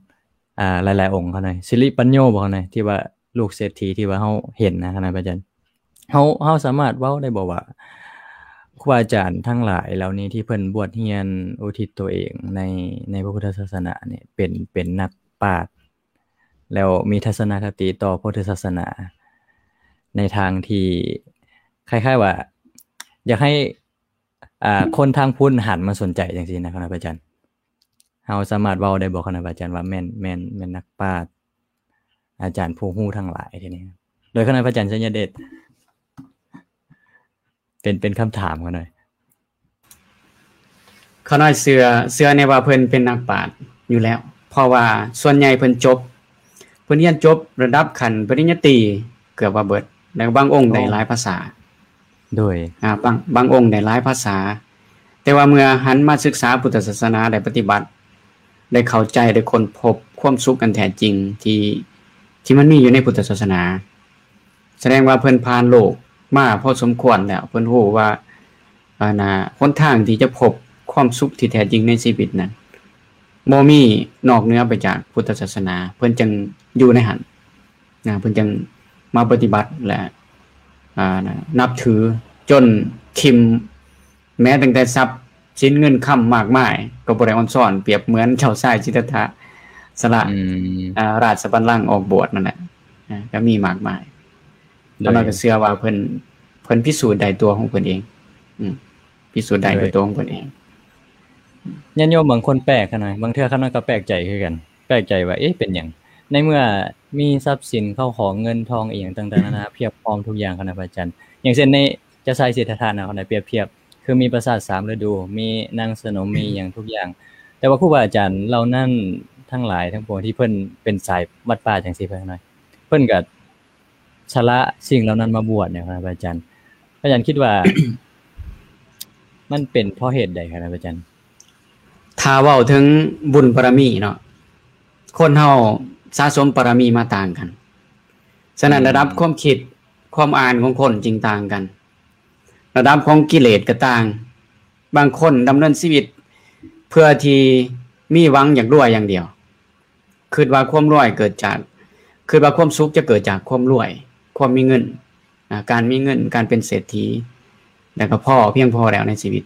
ອ່າ ຫຼາຍໆອົງເຂົານະ ສິລິປັນໂຍບໍ່ເຂົານະ ທີ່ວ່າລູກເສດຖີທີ່ວ່າເຮົາເຫັນນະ ຄະນະອາຈານ ເຮົາ ເຮົາສາມາດເວົ້າໄດ້ບໍ່ວ່າ ຄູບາອາຈານທັງຫຼາຍເຫຼົ່ານີ້ທີ່ເພິ່ນບວດຮຽນອຸທິດຕົວເອງໃນ ໃນພະພຸດທະສາສະໜານີ້ ເປັນ ເປັນນັກປາດ ແລ້ວມີທັດສະນະຄະຕິຕໍ່ພຸດທະສາສະໜາ ໃນທາງທີ່ຄ້າຍໆວ່າ ຢາກໃຫ້ ອ່າ ຄົນທາງພຸ້ນຫັນມາສົນໃຈຈັ່ງຊີ້ນະ ຄະນະອາຈານ? ເຮົາສາມາດເວົ້າໄດ້ບໍ່ ຄະນະພະອາຈານ ວ່າແມ່ນ ແມ່ນ ແມ່ນນັກປາດ ອາຈານຜູ້ຮູ້ທັງຫຼາຍ ທີນີ້ ໂດຍຄະນະພະອາຈານໄຊຍະເດດ ເປັນ ເປັນຄຳຖາມຂ້ານ້ອຍ. ຂ້ານ້ອຍເຊື່ອ ເຊື່ອແນ່ວ່າເພິ່ນເປັນນັກປາດຢູ່ແລ້ວ ເພາະວ່າສ່ວນໃຫຍ່ເພິ່ນຈົບ ເພິ່ນຮຽນຈົບລະດັບຂັ້ນປະລິນຍາຕີເກືອບວ່າເບິດ ແລ້ວບາງອົງໄດ້ຫຼາຍພາສາ. ໂດຍ ອາ ບາງ ບາງອົງໄດ້ຫຼາຍພາສາ ແຕ່ວ່າເມື່ອຫັນມາສຶກສາພຸດທະສາສະໜາ ໄດ້ປະຕິບັດ ໄດ້ເຂົ້າໃຈ ໄດ້ຄົ້ນພົບຄວາມສຸກອັນແທ້ຈິງທີ່ ທີ່ມັນມີຢູ່ໃນພຸດທະສາສະໜາ ສະແດງວ່າເພິ່ນຜ່ານໂລກມາພໍສົມຄວນແລ້ວ ເພິ່ນຮູ້ວ່າ ອັນນ່າ ຫົນທາງທີ່ຈະພົບຄວາມສຸກທີ່ແທ້ຈິງໃນຊີວິດນັ້ນ ບໍ່ມີນອກເໜືອໄປຈາກພຸດທະສາສະໜາ ເພິ່ນຈຶ່ງຢູ່ໃນຫັ້ນນະ ເພິ່ນຈຶ່ງມາປະຕິບັດ ແລະ ອາ ນັບຖື ຈົນຖິ້ມແມ້ຕັ້ງແຕ່ຊັບສິນເງິນຄຳມາກມາຍ ກໍບໍ່ໄດ້ອອນຊອນ ປຽບເໝືອນເຈົ້າຊາຍສິດທັດຖະ ສະຫຼະ ອາ ລາຊະບັນລັງອອກບວດນັ້ນແຫຼະ ອາ ກໍມີມາກມາຍ. ໂດຍ ຂ້ານ້ອຍກໍເຊື່ອວ່າເພິ່ນ ເພິ່ນພິສູດໄດ້ຕົວຂອງເພິ່ນເອງ ອືມ ພິສູດໄດ້ດ້ວຍຕົວຂອງເພິ່ນເອງ. ຍາດໂຍມບາງຄົນແປກຂ້ານ້ອຍ ບາງເທື່ອຂ້ານ້ອຍກໍແປກໃຈຄືກັນ ແປກໃຈວ່າ ເອະ ເປັນຫຍັງ ໃນເມື່ອມີຊັບສິນເຂົ້າຂອງເງິນທອງອີ່ຫຍັງຕ່າງໆນານາ ພຽບພ້ອມທຸກຢ່າງ ຄະນະພະອາຈານ ຢ່າງເຊັ່ນໃນເຈົ້າຊາຍສິດທັດຖະນະ ຂ້ານ້ອຍປຽບທຽບ ຄືມີປາສາດສາມລະດູ ມີນາງສະໜົມ ມີຫຍັງທຸກຢ່າງ ແຕ່ວ່າຄູບາອາຈານເຫຼົ່ານັ້ນທັງຫຼາຍທັງປວງທີ່ເພິ່ນເປັນສາຍວັດປ່າຈັ່ງຊີ້ ເພິ່ນ ເພິ່ນກໍ ສະຫຼະສິ່ງເຫຼົ່ານັ້ນມາບວດນີ້ ພະອາຈານ ພະອາຈານຄິດວ່າ ມັນເປັນເພາະເຫດໃດ ພະອາຈານ? ຖ້າເວົ້າເຖິງບຸນບາລະມີເນາະ ຄົນເຮົາສະສົມບາລະມີມາຕ່າງກັນ ສະນັ້ນ ອືມ ລະດັບຄວາມຄິດ ຄວາມອ່ານຂອງຄົນຈຶ່ງຕ່າງກັນ ລະດັບຂອງກິເລດກໍຕ່າງ ບາງຄົນດຳເນີນຊີວິດເພື່ອທີ່ມີຫວັງຢາກລວຍຢ່າງດຽວ ຄິດວ່າຄວາມລວຍເກີດຈາກ ຄິດວ່າຄວາມສຸກຈະເກີດຈາກຄວາມລວຍ ຄວາມມີເງິນ ອາ ການມີເງິນ ການເປັນເສດຖີ ແລ້ວກໍພໍ ພຽງພໍແລ້ວໃນຊີວິດ.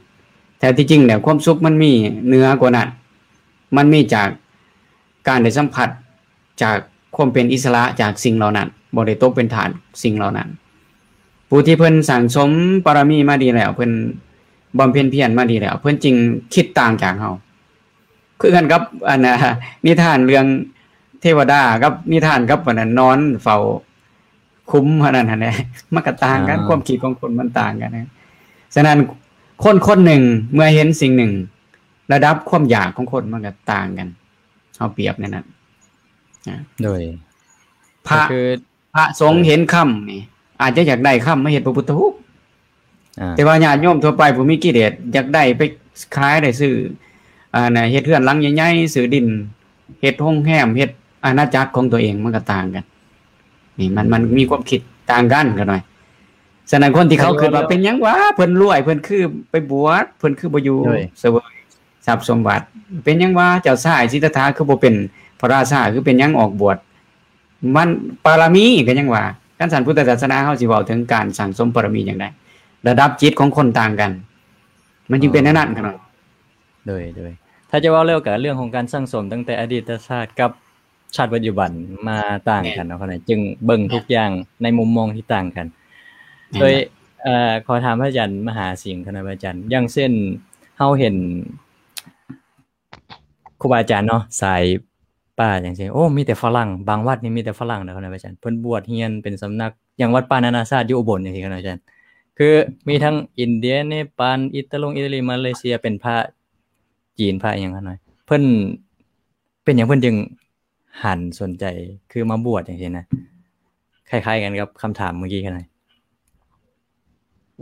ແທ້ທີ່ຈິງແລ້ວຄວາມສຸກມັນມີເໜືອກວ່ານັ້ນ ມັນມີຈາກການໄດ້ສຳຜັດຈາກຄວາມເປັນອິດສະຫຼະຈາກສິ່ງເຫຼົ່ານັ້ນ ບໍ່ໄດ້ຕົກເປັນທາດສິ່ງເຫຼົ່ານັ້ນ. ຜູ້ທີ່ເພິ່ນສັ່ງສົມບາລະມີມາດີແລ້ວ ເພິ່ນບຳເພັນພຽນມາດີແລ້ວ ເພິ່ນຈຶ່ງຄິດຕ່າງຈາກເຮົາ. ຄືກັນກັບອັນນ່າ ນິທານເລື່ອງເທວະດາກັບນິທານກັບອັນນັ້ນ ນອນເຝົ້າຂຸມອັນນັ້ນຫັ້ນແຫຼະ ມັນກໍຕ່າງກັນ ອາ ຄວາມຄິດຂອງຄົນມັນຕ່າງກັນນະ. ສະນັ້ນ ຄົນຄົນໜຶ່ງເມື່ອເຫັນສິ່ງໜຶ່ງ ລະດັບຄວາມຢາກຂອງຄົນມັນກໍຕ່າງກັນ ເຮົາປຽບໃນນັ້ນນະ. ໂດຍ ພະ ກໍຄື ພະສົງເຫັນຄຳນີ້ ອາດຈະຢາກໄດ້ຄຳມາເຮັດພະພຸດທະຮູບ ອາ ແຕ່ວ່າຍາດໂຍມທົ່ວໄປຜູ້ມີກິເລດ ຢາກໄດ້ໄປຂາຍໄດ້ຊື້ ອັນນ່າ ເຮັດເຮືອນຫຼັງໃຫຍ່ໆ ຊື້ດິນ ເຮັດໂຮງແຮມ ເຮັດອານາຈັກຂອງຕົວເອງ ມັນກໍຕ່າງກັນ. ນີ້ມັນ ມັນມີຄວາມຄິດຕ່າງກັນຂ້ານ້ອຍ. ສະນັ້ນ ຄົນທີ່ເຂົາຄິດວ່າ ເປັນຫຍັງຫວາ ເພິ່ນລວຍ ເພິ່ນຄືໄປບວດ ເພິ່ນຄືບໍ່ຢູ່ສະເຫວີຍຊັບສົມບັດ ເປັນຫຍັງຫວາ ເຈົ້າຊາຍສິດທັດຖະຄືບໍ່ເປັນພະລາຊາ ຄືເປັນຫຍັງອອກບວດ ມັນບາລະມີກໍຍັງວ່າ ຄັນຊັ້ນພຸດທະສາສະໜາເຮົາຊິເວົ້າເຖິງການສັ່ງສົມບາລະມີຈັ່ງໃດ? ລະດັບຈິດຂອງຄົນຕ່າງກັນ ມັນຈຶ່ງເປັນແນວນັ້ນຂະນ້ອຍ. ໂດຍ ໂດຍ ຖ້າຈະເວົ້າແລ້ວກໍເລື່ອງຂອງການສັ່ງສົມຕັ້ງແຕ່ອະດີດຕະຊາດກັບຊາດປັດຈຸບັນມາຕ່າງກັນເນາະ ແມ່ນ ຂະນ້ອຍ ຈຶ່ງເບິ່ງທຸກຢ່າງໃນມຸມມອງທີ່ຕ່າງກັນ. ແມ່ນ ໂດຍ ເອີ ຂໍຖາມພະອາຈານມະຫາສິງຂະນ້ອຍ ພະອາຈານ ຢ່າງເຊັ່ນ ເຮົາເຫັນ ຄູບາອາຈານເນາະ ສາຍປ່າຈັ່ງຊີ້ ໂອ້ ມີແຕ່ຝຣັ່ງ ບາງວັດນີ້ມີແຕ່ຝຣັ່ງເນາະ ພະອາຈານ ເພິ່ນບວດຮຽນເປັນສຳນັກ ຢ່າງວັດປ່ານານາຊາດຢູ່ອຸບົນຈັ່ງຊີ້ ພະອາຈານ ຄືມີທັງອິນເດຍ ເນປານ ອິດຕາລົງ ອິຕາລີ ມາເລເຊຍ ເປັນພະຈີນ ພະອີ່ຫຍັງ ພະນ້ອຍ ເພິ່ນ ເປັນຫຍັງເພິ່ນຈຶ່ງຫັນສົນໃຈ ຄືມາບວດຈັ່ງຊີ້ນະ ຄ້າຍໆກັນກັບຄຳຖາມເມື່ອກີ້ ພະນ້ອຍ.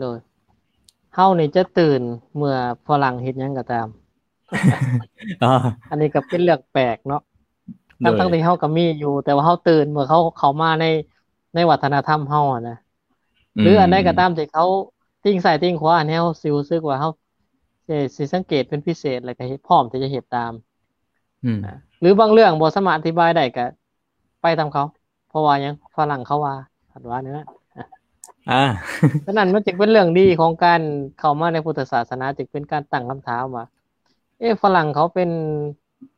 ໂດຍ ເຮົານີ້ຈະຕື່ນເມື່ອຝຣັ່ງເຮັດຫຍັງກໍຕາມ. ອໍ ອັນນີ້ກໍເປັນເລື່ອງແປກເນາະ ໂດຍ ທັງໆທີ່ເຮົາກໍມີຢູ່ ແຕ່ວ່າເຮົາຕື່ນເມື່ອເຂົາເຂົ້າມາໃນ ໃນວັດທະນະທຳເຮົາຫັ້ນນະ ອືມ ຫຼືອັນໃດກໍຕາມທີ່ເຂົາຕິ່ງຊ້າຍຕິ່ງຂວາໃຫ້ເຮົາຊິຮູ້ສຶກວ່າເຮົາ ເອີ ຊິສັງເກດເປັນພິເສດ ແລ້ວກໍເຮັດ ພ້ອມທີ່ຈະເຮັດຕາມ ອືມ ຫຼືບາງເລື່ອງບໍ່ສາມາດອະທິບາຍໄດ້ກໍ ໄປຕາມເຂົາ ເພາະວ່າຫຍັງ ຝຣັ່ງເຂົາວ່າ ເພິ່ນວ່າແນວນັ້ນ ອາ ສະນັ້ນມັນຈຶ່ງເປັນເລື່ອງດີຂອງການເຂົ້າມາໃນພຸດທະສາສະໜາ ຈຶ່ງເປັນການຕັ້ງຄຳຖາມວ່າ ເອະ ຝຣັ່ງເຂົາເປັນ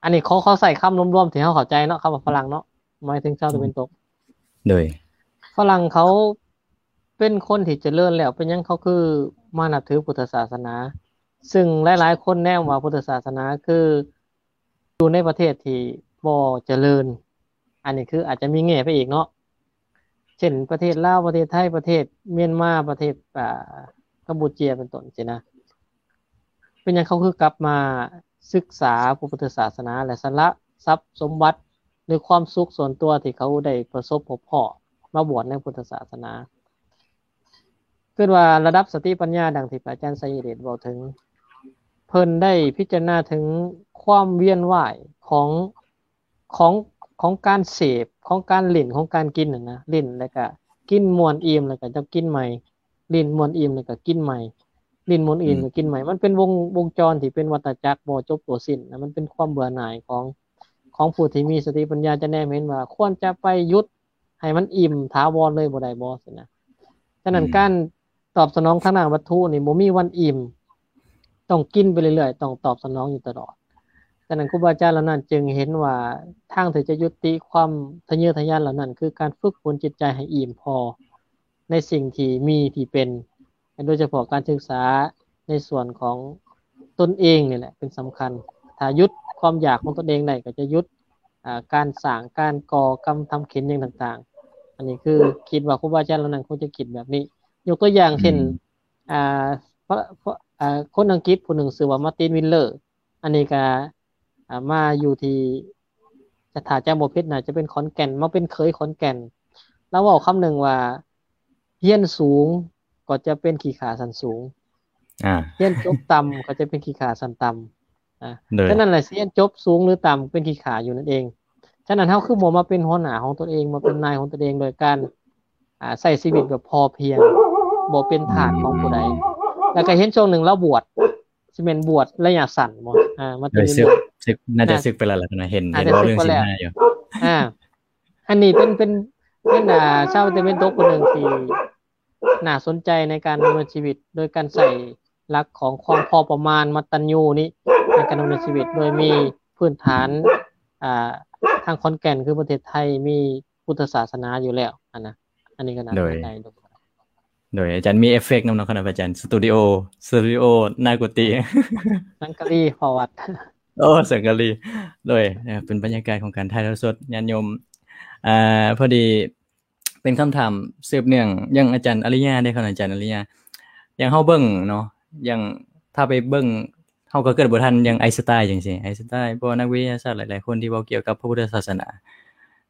ອັນນີ້ເຂົາ ເຂົາໃຊ້ຄຳລວມໆທີ່ເຮົາເຂົ້າໃຈເນາະ ຄຳວ່າຝຣັ່ງເນາະ ໝາຍເຖິງຊາວຕາເວັນຕົກ ໂດຍ ຝຣັ່ງເຂົາເປັນຄົນທີ່ຈະເລີນແລ້ວ ເປັນຫຍັງເຂົາຄືມານັບຖືພຸດທະສາສະໜາ ຊຶ່ງຫຼາຍໆຄົນແນມວ່າພຸດທະສາສະໜາຄື ຢູ່ໃນປະເທດທີ່ບໍ່ຈະເລີນ. ອັນນີ້ຄືອາດຈະມີແງ່ໄປອີກເນາະ ເຊັ່ນ ປະເທດລາວ, ປະເທດໄທ, ປະເທດມຽນມາ, ປະເທດ ອ່າ ກຳປູເຈຍ ເປັນຕົ້ນຊີ້ນະ. ເປັນຫຍັງເຂົາຄືກັບມາສຶກສາພະພຸດທະສາສະໜາ ແລະ ສະຫຼະຊັບສົມບັດ ຫຼື ຄວາມສຸກສ່ວນຕົວທີ່ເຂົາໄດ້ປະສົບພົບພໍ້ມາບວດໃນພຸດທະສາສະໜາ? ຄິດວ່າລະດັບສະຕິປັນຍາ ດັ່ງທີ່ພະອາຈານໄຊຍະເດດເວົ້າເຖິງ, ເພິ່ນໄດ້ພິຈາລະນາເຖິງຄວາມວຽນວ່າຍຂອງ ຂອງ ຂອງການເສບ, ຂອງການຫຼິ້ນ, ຂອງການກິນຫັ້ນນະ, ຫຼິ້ນແລ້ວກະກິນມ່ວນອີ່ມ ແລ້ວກະຈະກິນໃໝ່, ຫຼິ້ນມ່ວນອີ່ມ ແລ້ວກະກິນໃໝ່, ຫຼິ້ນມ່ວນອີ່ມ ອືມ ແລ້ວກິນໃໝ່. ມັນເປັນວົງ ວົງຈອນທີ່ເປັນວັດຕະຈັກບໍ່ຈົບບໍ່ສິ້ນນະ. ມັນເປັນຄວາມເບື່ອໜ່າຍຂອງ ຂອງຜູ້ທີ່ມີສະຕິປັນຍາ ຈະແນມເຫັນວ່າຄວນຈະໄປຢຸດໃຫ້ມັນອີ່ມຖາວອນເລີຍບໍ່ໄດ້ບໍ່? ຊັ້ນນະ. ສະນັ້ນ ອືມ ການຕອບສະໜອງທາງດ້ານວັດຖຸນີ້ບໍ່ມີວັນອີ່ມ, ຕ້ອງກິນໄປເລື້ອຍໆ, ຕ້ອງຕອບສະໜອງຢູ່ຕະຫຼອດ. ສະນັ້ນ ຄູບາອາຈານເຫຼົ່ານັ້ນຈຶ່ງເຫັນວ່າ ທາງທີ່ຈະຍຸຕິຄວາມທະເຍີທະຍານເຫຼົ່ານັ້ນ ຄືການຝຶກຝົນຈິດໃຈໃຫ້ອີ່ມພໍໃນສິ່ງທີ່ມີທີ່ເປັນ, ໂດຍສະເພາະການສຶກສາໃນສ່ວນຂອງຕົນເອງນີ້ແຫຼະເປັນສຳຄັນ. ຖ້າຢຸດຄວາມຢາກຂອງຕົນເອງໄດ້ ກໍຈະຢຸດ ອ່າ ການສ້າງ ການກໍ່ກຳທຳເຂັນຫຍັງຕ່າງໆ. ອັນນີ້ຄືຄິດວ່າຄູບາອາຈານເຫຼົ່ານັ້ນຄົງຈະຄິດແບບນີ້. ຍົກຕົວຢ່າງເຊັ່ນ ອືມ ອ່າ ພະ ພະ ອ່າ ຄົນອັງກິດຜູ້ໜຶ່ງຊື່ວ່າ Martin Wheeler. ອັນນີ້ກໍ ອ່າ ມາຢູ່ທີ່ ຈະ ຖ້າຈຳບໍ່ຜິດ ໜ້າຈະເປັນຂອນແກ່ນ, ມາເປັນເຂີຍຂອນແກ່ນ. ລາວເວົ້າຄຳໜຶ່ງວ່າ ຮຽນສູງກໍຈະເປັນຂີ້ຂ້າຊັ້ນສູງ, ອ່າ ຮຽນຈົບຕ່ຳກໍຈະເປັນຂີ້ຂ້າຊັ້ນຕ່ຳ. ອ່າ ໂດຍ ສະນັ້ນແຫຼະ ຊິຮຽນຈົບສູງຫຼືຕ່ຳ ເປັນຂີ້ຂ້າຢູ່ນັ້ນເອງ. ສະນັ້ນ ເຮົາຄືບໍ່ມາເປັນຫົວໜ້າຂອງຕົນເອງ, ມາເປັນນາຍຂອງຕົນເອງ ໂດຍການ ອ່າ ໃຊ້ຊີວິດແບບພໍພຽງ, ບໍ່ເປັນທາດຂອງຜູ້ໃດ. ແລ້ວກໍເຫັນຊ່ວງໜຶ່ງລາວບວດ, ຊິແມ່ນບວດໄລຍະສັ້ນບໍ່? ອ່າ ມາ ໂດຍ ເປັນ ສຶກ ສຶກ ໜ້າຈະ ອ່າ ສຶກໄປແລ້ວລະນະ, ເຫັນ ອ່າ ເຫັນເວົ້າເລື່ອງ ສຶກໄປແລ້ວ ສິນຫ້າຢູ່. ອ່າ ອັນນີ້ເປັນ ເປັນ ເປັນ ອ່າ ຊາວຕາເວັນຕົກຜູ້ໜຶ່ງທີ່ໜ້າສົນໃຈໃນການດຳເນີນຊີວິດ ໂດຍການໃຊ້ຫຼັກຂອງຄວາມພໍປະມານ ມັດຕັນຍູນີ້ ໃນການດຳເນີນຊີວິດ ໂດຍມີພື້ນຖານ ອ່າ ທາງຂອນແກ່ນ ຄືປະເທດໄທ ມີພຸດທະສາສະໜາຢູ່ແລ້ວຫັ້ນນະ. ອັນນີ້ກໍໜ້າ ໂດຍ ສົນໃຈ. ໂດຍ ອາຈານມີເອຟເຟັກນຳເນາະ ຄະນະອາຈານ, ສະຕູດິໂອ ສະຕູດິໂອໜ້າກຸຕິ ສັງກະລີ ພໍວັດ. ໂອ້ ສັງກະລີ. ໂດຍ ເປັນບັນຍາກາດຂອງການຖ່າຍທອດສົດ ຍາດໂຍມ. ອ່າ ພໍດີເປັນຄຳຖາມສືບເນື່ອງ ຢ່າງອາຈານອາລິຍາເດ້ ຄະນະອາຈານອາລິຍາ, ຢ່າງເຮົາເບິ່ງເນາະ, ຢ່າງຖ້າໄປເບິ່ງ ເຮົາກໍເກີດບໍ່ທັນ ຢ່າງໄອສະຕາຍ ຈັ່ງຊີ້, ໄອສະຕາຍ ພວກນັກວິທະຍາສາດຫຼາຍໆຄົນທີ່ເວົ້າກ່ຽວກັບພະພຸດທະສາສະໜາ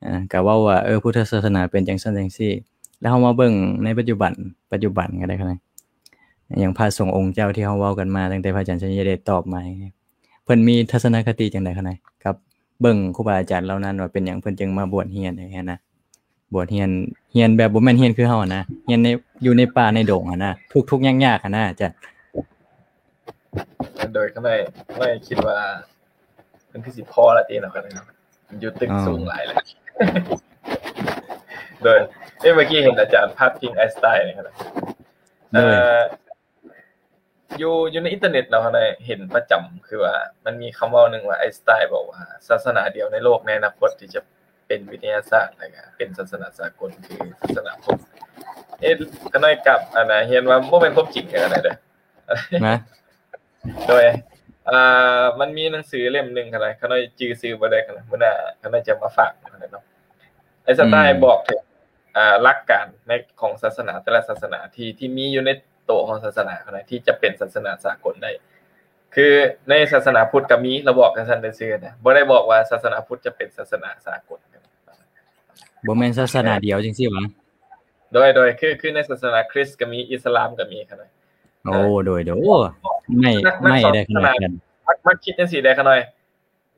ອ່າ ກໍເວົ້າວ່າ ເອີ ພຸດທະສາສະໜາເປັນຈັ່ງຊັ້ນຈັ່ງຊີ້. ແລ້ວເຮົາມາເບິ່ງໃນປັດຈຸບັນ, ປັດຈຸບັນກໍໄດ້ ຄະນະ ຢ່າງພະສົງອົງເຈົ້າທີ່ເຮົາເວົ້າກັນມາ ຕັ້ງແຕ່ພະອາຈານໄຊຍະເດດຕອບມາ ເພິ່ນມີທັດສະນະຄະຕິຈັ່ງໃດ ຄະນະ ກັບເບິ່ງຄູບາອາຈານເຫຼົ່ານັ້ນ ວ່າເປັນຫຍັງເພິ່ນຈຶ່ງມາບວດຮຽນຈັ່ງຊີ້ນະ? ບວດຮຽນ, ຮຽນແບບບໍ່ແມ່ນຮຽນຄືເຮົາຫັ້ນນະ, ຮຽນໃນ ຢູ່ໃນປ່າໃນດົງຫັ້ນນະ, ທຸກໆຍາກໆຫັ້ນນະ ຈ້ະ. ໂດຍ ຂ້ານ້ອຍ ຂ້ານ້ອຍຄິດວ່າ ມັນຄືຊິພໍລະຕິເນາະ ຂ້ານ້ອຍເນາະ, ຢູ່ຕຶກ ອໍ ສູງຫຼາຍແລ້ວ. ໂດຍ ເອີ ເມື່ອກີ້ເຫັນອາຈານພາດພິງໄອສະຕາຍນີ້ ໂດຍ ເອີ ຢູ່ ຢູ່ໃນອິນເຕີເນັດເນາະ ຂ້ານ້ອຍເຫັນປະຈຳ ຄືວ່າມັນມີຄຳເວົ້າໜຶ່ງວ່າ ໄອສະຕາຍບອກວ່າ ສາສະໜາດຽວໃນໂລກໃນອະນາຄົດທີ່ຈະເປັນວິທະຍາສາດ ແລ້ວກະເປັນສາສະໜາສາກົນ ຄືສາສະໜາພຸດ. ເອີ ຂ້ານ້ອຍກັບ ອັນນະ ຮຽນວ່າບໍ່ແມ່ນຄວາມຈິງເດີ ອັນນັ້ນເດີ. ນະ ໂດຍ ອ່າ ມັນມີໜັງສືເຫຼັ້ມໜຶ່ງ ຂ້ານ້ອຍ ຂ້ານ້ອຍຈື່ຊື່ບໍ່ໄດ້ ຂ້ານ້ອຍ ມື້ໜ້າຂ້ານ້ອຍຈະມາຝາກ ຂ້ານ້ອຍເນາະ. ໄອສະຕາຍ ອືມ ບອກເຖິງ ອ່າ ຫຼັກການໃນ ຂອງສາສະໜາແຕ່ລະສາສະໜາ ທີ່ ທີ່ມີຢູ່ໃນໂຕຂອງສາສະໜາ ຂ້ານ້ອຍ ທີ່ຈະເປັນສາສະໜາສາກົນໄດ້. ຄືໃນສາສະໜາພຸດກໍມີ ລາວບອກຈັ່ງຊັ້ນຊື່ໆນະ, ບໍ່ໄດ້ບອກວ່າສາສະໜາພຸດຈະເປັນສາສະໜາສາກົນ. ບໍ່ແມ່ນສາສະໜາດຽວຈັ່ງຊີ້ຫວາ? ໂດຍ ໂດຍ ຄື ຄືໃນສາສະໜາຄຣິສກໍມີ, ອິດສະລາມກໍມີ ຂ້ານ້ອຍ. ໂອ້ ໂດຍ ໂດຍ ໂອ້ ໃໝ່ ໃໝ່ໄດ້ຂະໜາດນັ້ນ. ມັກ ມັກຄິດຈັ່ງຊີ້ໄດ໋ ຂ້ານ້ອຍ.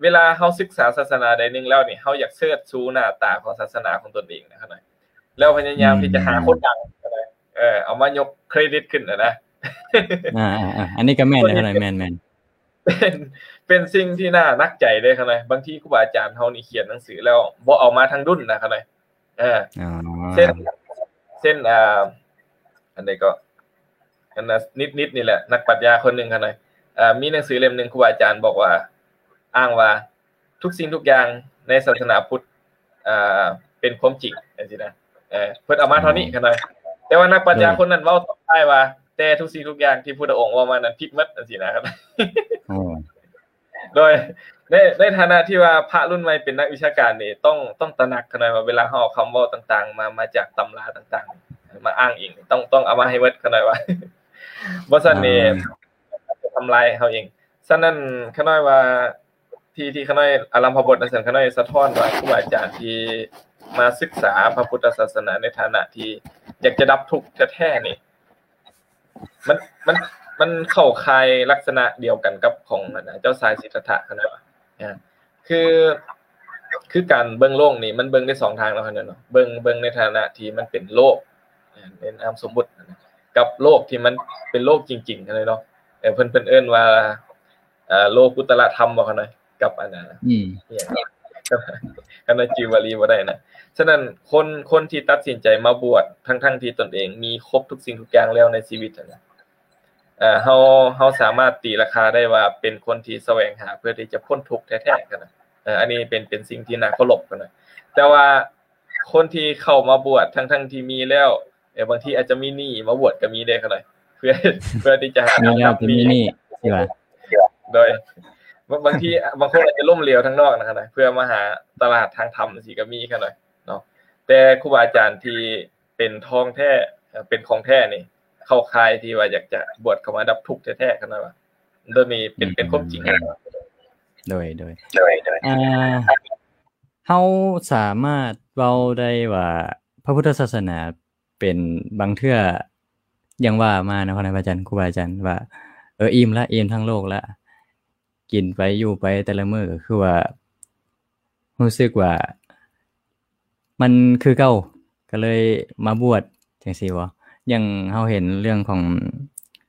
ເວລາເຮົາສຶກສາສາສະໜາໃດໜຶ່ງແລ້ວນີ້ ເຮົາຢາກເຊີດຊູໜ້າຕາຂອງສາສະໜາຂອງຕົນເອງນະ ຂ້ານ້ອຍ. ແລ້ວພະຍາຍາມທີ່ຈະຫາຄົນດັງ ເອີ ເອົາມາຍົກເຄຣດິດຂຶ້ນນະ. ອ່າໆໆ ອັນນີ້ກໍແມ່ນເດ້ ຂ້ານ້ອຍ ແມ່ນໆ. ເປັນ ເປັນສິ່ງທີ່ໜ້າໜັກໃຈເດ້ ຂ້ານ້ອຍ. ບາງທີຄູບາອາຈານເຮົານີ້ຂຽນໜັງສືແລ້ວບໍ່ເອົາມາທັງດຸນນະ ຂ້ານ້ອຍ. ເອີ ອໍ ເຊັ່ນ ເຊັ່ນ ອ່າ ອັນໃດກໍ ອັນນັ້ນ ນິດໆນີ້ແຫຼະ ນັກປັດຊະຍາຄົນໜຶ່ງຫັ້ນນະ ເອີ ມີໜັງສືເຫຼັ້ມໜຶ່ງ ຄູບາອາຈານບອກວ່າ ອ້າງວ່າທຸກສິ່ງທຸກຢ່າງໃນສາສະໜາພຸດ ເອີ ເປັນຄວາມຈິງ ຈັ່ງຊີ້ນະ. ເອີ ເພິ່ນເອົາມາເທົ່ານີ້ ຂ້ານ້ອຍ. ແຕ່ວ່ານັກປັດຊະຍາຄົນນັ້ນເວົ້າຕອນທ້າຍວ່າ ແຕ່ທຸກສິ່ງທຸກຢ່າງທີ່ພຸດທະອົງເວົ້າມານັ້ນຜິດໝົດ ຈັ່ງຊີ້ນະ. ໂອ້ ໂດຍ ໃນ ໃນຖານະທີ່ວ່າພະລຸ້ນໃໝ່ເປັນນັກວິຊາການນີ້ ຕ້ອງ ຕ້ອງຕະໜັກຂະໜ້ອຍວ່າ ເວລາເຮົາເອົາຄຳເວົ້າຕ່າງໆ ມາ ມາຈາກຕຳລາຕ່າງໆ ມາອ້າງອີງ ຕ້ອງ ຕ້ອງເອົາມາໃຫ້ໝົດຂະໜ້ອຍວ່າ ບໍ່ຊັ້ນນີ້ ອ່າ ຈະທຳລາຍເຮົາເອງ. ສະນັ້ນຂະໜ້ອຍວ່າ ທີ່ ທີ່ຂະໜ້ອຍອາລຳພະບົດນັ້ນ ຂະໜ້ອຍສະທ້ອນວ່າ ຄູບາອາຈານທີ່ມາສຶກສາພະພຸດທະສາສະໜາໃນຖານະທີ່ຢາກຈະດັບທຸກແທ້ໆນີ້ ມັນ ມັນ ມັນເຂົ້າຂ່າຍລັກສະນະດຽວກັນກັບຂອງ ອັນນະ ເຈົ້າຊາຍສິດທັດຖະຂະໜ້ອຍວ່າ ອ່າ ຄື ຄືການເບິ່ງໂລກນີ້ ມັນເບິ່ງໄດ້ສອງທາງເນາະ ຂະໜ້ອຍເນາະ ເບິ່ງ ເບິ່ງໃນຖານະທີ່ມັນເປັນໂລກ ອ່າ ໃນນາມສົມມຸດ ກັບໂລກທີ່ມັນເປັນໂລກຈິງໆ ຂະໜ້ອຍເນາະ ເອີ ເພິ່ນ ເພິ່ນເອີ້ນວ່າ ເອີ ໂລກຸດຕະລະທຳບໍຂະໜ້ອຍ ກັບອັນນະ ອືມ ອີຫຍັງ ຂະໜ້ອຍຈື່ບາລີບໍ່ໄດ້ນະ. ສະນັ້ນຄົນ ຄົນທີ່ຕັດສິນໃຈມາບວດ ທັງໆທີ່ຕົນເອງມີຄົບທຸກສິ່ງທຸກຢ່າງແລ້ວໃນຊີວິດຫັ້ນນະ ເອີ ເຮົາ ເຮົາສາມາດຕີລາຄາໄດ້ວ່າເປັນຄົນທີ່ສະແຫວງຫາເພື່ອທີ່ຈະພົ້ນທຸກແທ້ໆ ຂະໜ້ອຍ ເອີ ອັນນີ້ເປັນ ເປັນສິ່ງທີ່ໜ້າເຄົາລົບຂະໜ້ອຍ. ແຕ່ວ່າຄົນທີ່ເຂົ້າມາບວດ ທັງໆທີ່ມີແລ້ວ ເອີ ບາງທີອາດຈະມີໜີ້ມາບວດກໍມີເດ້ຂະໜ້ອຍ ເພື່ອ ເພື່ອທີ່ຈະຫາ ມີແລ້ວກໍມີໜີ້ ຊິວ່າ ໂດຍ ບາງ ບາງທີ ບາງຄົນອາດຈະລົ້ມເຫຼວທາງນອກນະຂະໜ້ອຍ ເພື່ອມາຫາຕະຫຼາດທາງທຳ ຈັ່ງຊີ້ກໍມີຂະໜ້ອຍເນາະ. ແຕ່ຄູບາອາຈານທີ່ເປັນທອງແທ້ ເປັນຂອງແທ້ນີ້ ເຂົ້າຂ່າຍທີ່ວ່າຢາກຈະບວດເຂົ້າມາດັບທຸກແທ້ໆ ຂະໜ້ອຍວ່າ ໂດຍນີ້ເປັນ ເປັນຄວາມຈິງ. ໂດຍ ໂດຍ ໂດຍ ໂດຍ ອ່າ ເຮົາສາມາດເວົ້າໄດ້ວ່າ ພະພຸດທະສາສະໜາເປັນບາງເທື່ອ ຢ່າງວ່າມາເນາະ ຂະນາຍພະອາຈານ ຄູບາອາຈານວ່າ ເອີ ອີ່ມລະ ອີ່ມທາງໂລກລະ ກິນໄປຢູ່ໄປແຕ່ລະມື້ ກໍຄືວ່າ ຮູ້ສຶກວ່າມັນຄືເກົ່າ ກໍເລີຍມາບວດ ຈັ່ງຊີ້ບໍ? ຢ່າງເຮົາເຫັນເລື່ອງຂອງ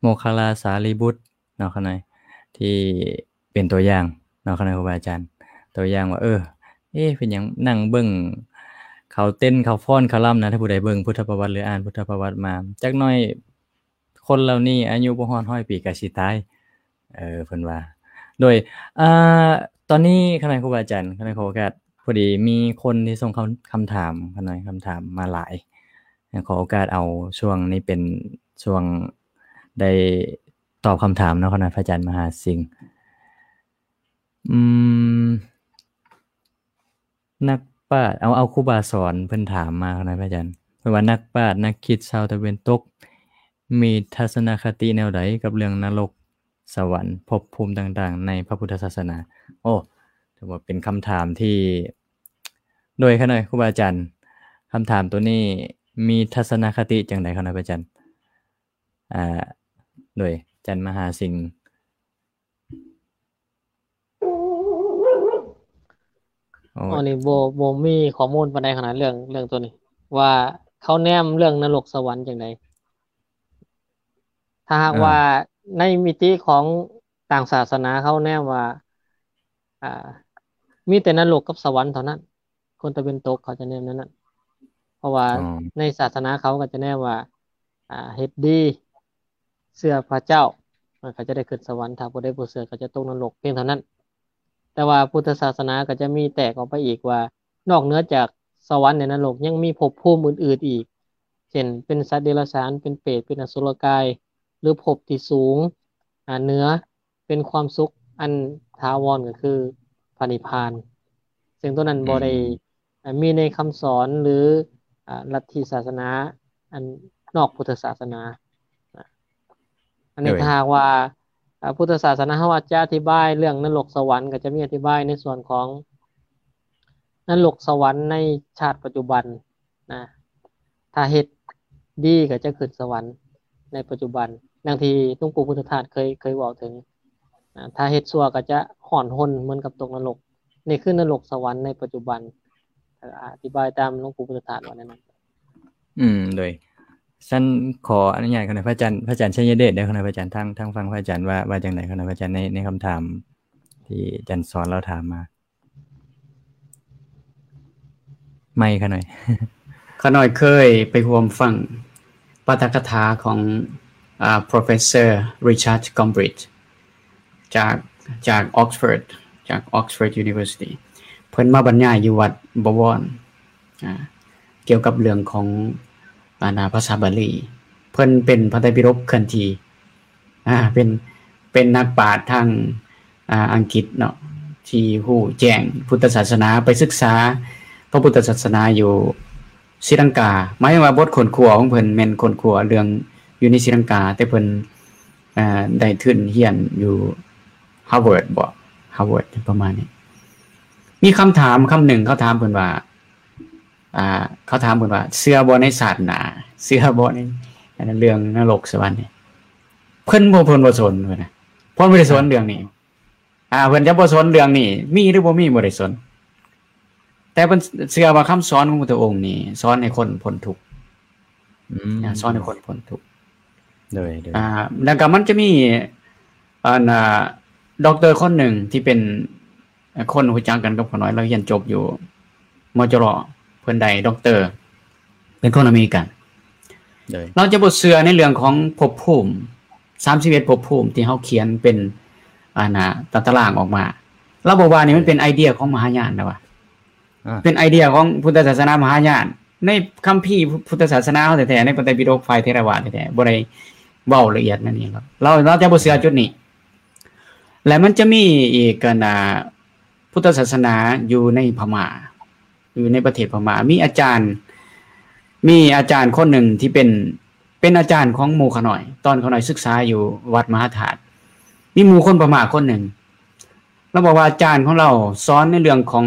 ໂມກຄະລາສາລີບຸດເນາະ ຂະນາຍ ທີ່ເປັນຕົວຢ່າງເນາະ ຂະນາຍຄູບາອາຈານ ຕົວຢ່າງວ່າ ເອີ ເອ ເປັນຫຍັງນັ່ງເບິ່ງເຂົາເຕັ້ນ ເຂົາຟ້ອນ ເຂົາລຳນະ ຖ້າຜູ້ໃດເບິ່ງພຸດທະປະຫວັດ ຫຼື ອ່ານພຸດທະປະຫວັດມາ ຈັກໜ້ອຍ ຄົນເຫຼົ່ານີ້ອາຍຸບໍ່ຮອດຮ້ອຍປີກໍຊິຕາຍ ເອີ ເພິ່ນວ່າ. ໂດຍ ອ່າ ຕອນນີ້ ຂະນາຍຄູບາອາຈານ ຂະນາຍຂໍໂອກາດ ພໍດີມີຄົນທີ່ສົ່ງຄຳ ຄຳຖາມ ຂະນາຍຄຳຖາມມາຫຼາຍ ຂໍໂອກາດເອົາຊ່ວງນີ້ເປັນຊ່ວງໄດ້ຕອບຄຳຖາມເນາະ ຂະນາຍພະອາຈານມະຫາສິງ. ອືມ ນັກປາດ ເອົາ ເອົາຄູບາສອນເພິ່ນຖາມມານະພະອາຈານ ເພິ່ນວ່າ ນັກປາດນັກຄິດຊາວຕາເວັນຕົກມີທັດສະນະຄະຕິແນວໃດກັບເລື່ອງນະລົກ, ສະຫວັນ, ພົບພູມຕ່າງໆໃນພະພຸດທະສາສະໜາ? ໂອ້ ຖືວ່າເປັນຄຳຖາມທີ່ ໂດຍ ຂະນາຍຄູບາອາຈານ ຄຳຖາມໂຕນີ້ມີທັດສະນະຄະຕິຈັ່ງໃດ ຂະນາຍພະອາຈານ? ອ່າ ໂດຍ ອາຈານມະຫາສິງ. ໂອ້ ອັນນີ້ບໍ່ ບໍ່ມີຂໍ້ມູນປານໃດຂະໜາດເລື່ອງ ເລື່ອງໂຕນີ້ ວ່າເຂົາແນມເລື່ອງນະລົກສະຫວັນຈັ່ງໃດ. ຖ້າຫາກ ເອີ ວ່າໃນມິຕິຂອງຕ່າງສາສະໜາ ເຂົາແນມວ່າ ອ່າ ມີແຕ່ນະລົກກັບສະຫວັນເທົ່ານັ້ນ. ຄົນຕາເວັນຕົກເຂົາຈະແນມແນວນັ້ນ ເພາະວ່າ ອໍ ໃນສາສະໜາເຂົາກໍຈະແນມວ່າ ອ່າ ເຮັດດີ ເຊື່ອພະເຈົ້າ ມັນກໍຈະໄດ້ຂຶ້ນສະຫວັນ, ຖ້າຜູ້ໃດບໍ່ເຊື່ອກໍຈະຕົກນະລົກ ພຽງເທົ່ານັ້ນ. ແຕ່ວ່າພຸດທະສາສະໜາກໍຈະມີແຕກອອກໄປອີກວ່າ ນອກເໜືອຈາກສະຫວັນ ແລະ ນະລົກ ຍັງມີພົບພູມອື່ນໆອີກ ເຊັ່ນ ເປັນສັດເດຍລະສານ, ເປັນເປດ, ເປັນອະສຸລະກາຍ ຫຼື ພົບທີ່ສູງ ອ່າ ເໜືອ ເປັນຄວາມສຸກອັນຖາວອນ ກໍຄືພະນິບພານ ເຊິ່ງຕົວນັ້ນ ອືມ ບໍ່ໄດ້ ອ່າ ມີໃນຄຳສອນ ຫຼື ອ່າ ລັດທິສາສະໜາອັນນອກພຸດທະສາສະໜາ. ອັນນີ້ ໂດຍ ຖ້າຫາກວ່າ ອ່າ ພຸດທະສາສະໜາເຮົາອາດຈະອະທິບາຍເລື່ອງນະລົກສະຫວັນ ກໍຈະມີອະທິບາຍໃນສ່ວນຂອງນະລົກສະຫວັນໃນຊາດປັດຈຸບັນ ນະ ຖ້າເຮັດດີກໍຈະຂຶ້ນສະຫວັນໃນປັດຈຸບັນ ດັ່ງທີ່ຫຼວງປູ່ພຸດທະທາດເຄີຍ ເຄີຍເວົ້າເຖິງ ນະ ຖ້າເຮັດຊົ່ວກໍຈະຮ້ອນຮົນເໝືອນກັບຕົກນະລົກ. ນີ້ຄືນະລົກສະຫວັນໃນປັດຈຸບັນ ອະທິບາຍຕາມຫຼວງປູ່ພຸດທະທາດວ່າແນວນັ້ນ. ອືມ ໂດຍ ຊັ້ນຂໍອະນຸຍາດຂະນະພະອາຈານ ພະອາຈານໄຊຍະເດດເດີ ຂະນະພະອາຈານ ທາງ ທາງຝັ່ງພະອາຈານວ່າ ວ່າຈັ່ງໃດ ຂະນະພະອາຈານ ໃນ ໃນຄຳຖາມທີ່ອາຈານສອນລາວຖາມມາ. ໄມຂະໜ້ອຍ ຂະໜ້ອຍເຄີຍໄປຮ່ວມຟັງປາຖະກະຖາຂອງ ອ່າ Professor Richard Gombrich ຈາກ ຈາກ Oxford ຈາກ Oxford University ເພິ່ນມາບັນຍາຍຢູ່ວັດບໍວອນ ອ່າ ກ່ຽວກັບເລື່ອງຂອງ ອ່າ ພາສາບາລີ. ເພິ່ນເປັນພະໄຕປິດົກເຄື່ອນທີ່ ອ່າ ເປັນ ເປັນນັກປາດທາງ ອ່າ ອັງກິດເນາະ ທີ່ຮູ້ແຈ້ງພຸດທະສາສະໜາ ໄປສຶກສາພະພຸດທະສາສະໜາຢູ່ສີລັງກາ. ໝາຍເຖິງວ່າບົດຄົ້ນຄວ້າຂອງເພິ່ນແມ່ນຄົ້ນຄວ້າເລື່ອງຢູ່ໃນສີລັງກາ, ແຕ່ເພິ່ນ ອ່າ ໄດ້ທຶນຮຽນຢູ່ Harvard ບໍ Harvard ປະມານນີ້. ມີຄຳຖາມຄຳໜຶ່ງ ເຂົາຖາມເພິ່ນວ່າ ອ່າ ເຂົາຖາມເພິ່ນວ່າ ເຊື່ອບໍ່ໃນຊາດໜ້າ? ເຊື່ອບໍ່ໃນ ອັນນັ້ນ ເລື່ອງນະລົກສະຫວັນນີ້? ເພິ່ນບໍ່ ເພິ່ນບໍ່ສົນ ເພິ່ນນະ ເພິ່ນບໍ່ໄດ້ສົນເລື່ອງນີ້. ອ່າ ເພິ່ນຈະບໍ່ສົນເລື່ອງນີ້ ມີຫຼືບໍ່ມີ ບໍ່ໄດ້ສົນ, ແຕ່ເພິ່ນເຊື່ອວ່າຄຳສອນຂອງພຸດທະອົງນີ້ ສອນໃຫ້ຄົນພົ້ນທຸກ. ອືມ ອ່າ ສອນໃຫ້ຄົນພົ້ນທຸກ. ໂດຍ ໂດຍ ອ່າ ແລ້ວກໍມັນຈະມີ ອັນ ອ່າ ດັອກເຕີຄົນໜຶ່ງທີ່ເປັນ ຄົນຮູ້ຈັກກັນກັບຂ້ານ້ອຍ, ລາວຮຽນຈົບຢູ່ ມຈລ ເພິ່ນໄດ້ດັອກເຕີ ເປັນຄົນອາເມລິກັນ. ໂດຍ ລາວຈະບໍ່ເຊື່ອໃນເລື່ອງຂອງພົບພູມ ສາມສິບເອັດພົບພູມທີ່ເຮົາຂຽນເປັນ ອັນນ່າ ຕາຕະລາງອອກມາ. ລາວບອກວ່ານີ້ມັນເປັນໄອເດຍຂອງມະຫາຍານ ລາວວ່າ ອ່າ ເປັນໄອເດຍຂອງພຸດທະສາສະໜາມະຫາຍານ. ໃນຄຳພີພຸດທະສາສະໜາເຮົາແທ້ໆ ໃນພະໄຕປິດົກຝ່າຍເຖລະວາດແທ້ໆ ບໍ່ໄດ້ເວົ້າລະອຽດແນວນີ້. ລາວ ລາວ ລາວຈະບໍ່ເຊື່ອຈຸດນີ້. ແລະ ມັນຈະມີອີກ ອັນນ່າ ພຸດທະສາສະໜາຢູ່ໃນພະມ້າ ຢູ່ໃນປະເທດພະມ້າ ມີອາຈານ ມີອາຈານຄົນໜຶ່ງທີ່ເປັນ ເປັນອາຈານຂອງໝູ່ຂ້ານ້ອຍ ຕອນຂ້ານ້ອຍສຶກສາຢູ່ວັດມະຫາທາດ. ມີໝູ່ຄົນພະມ້າຄົນໜຶ່ງ ລາວບອກວ່າອາຈານຂອງລາວສອນໃນເລື່ອງຂອງ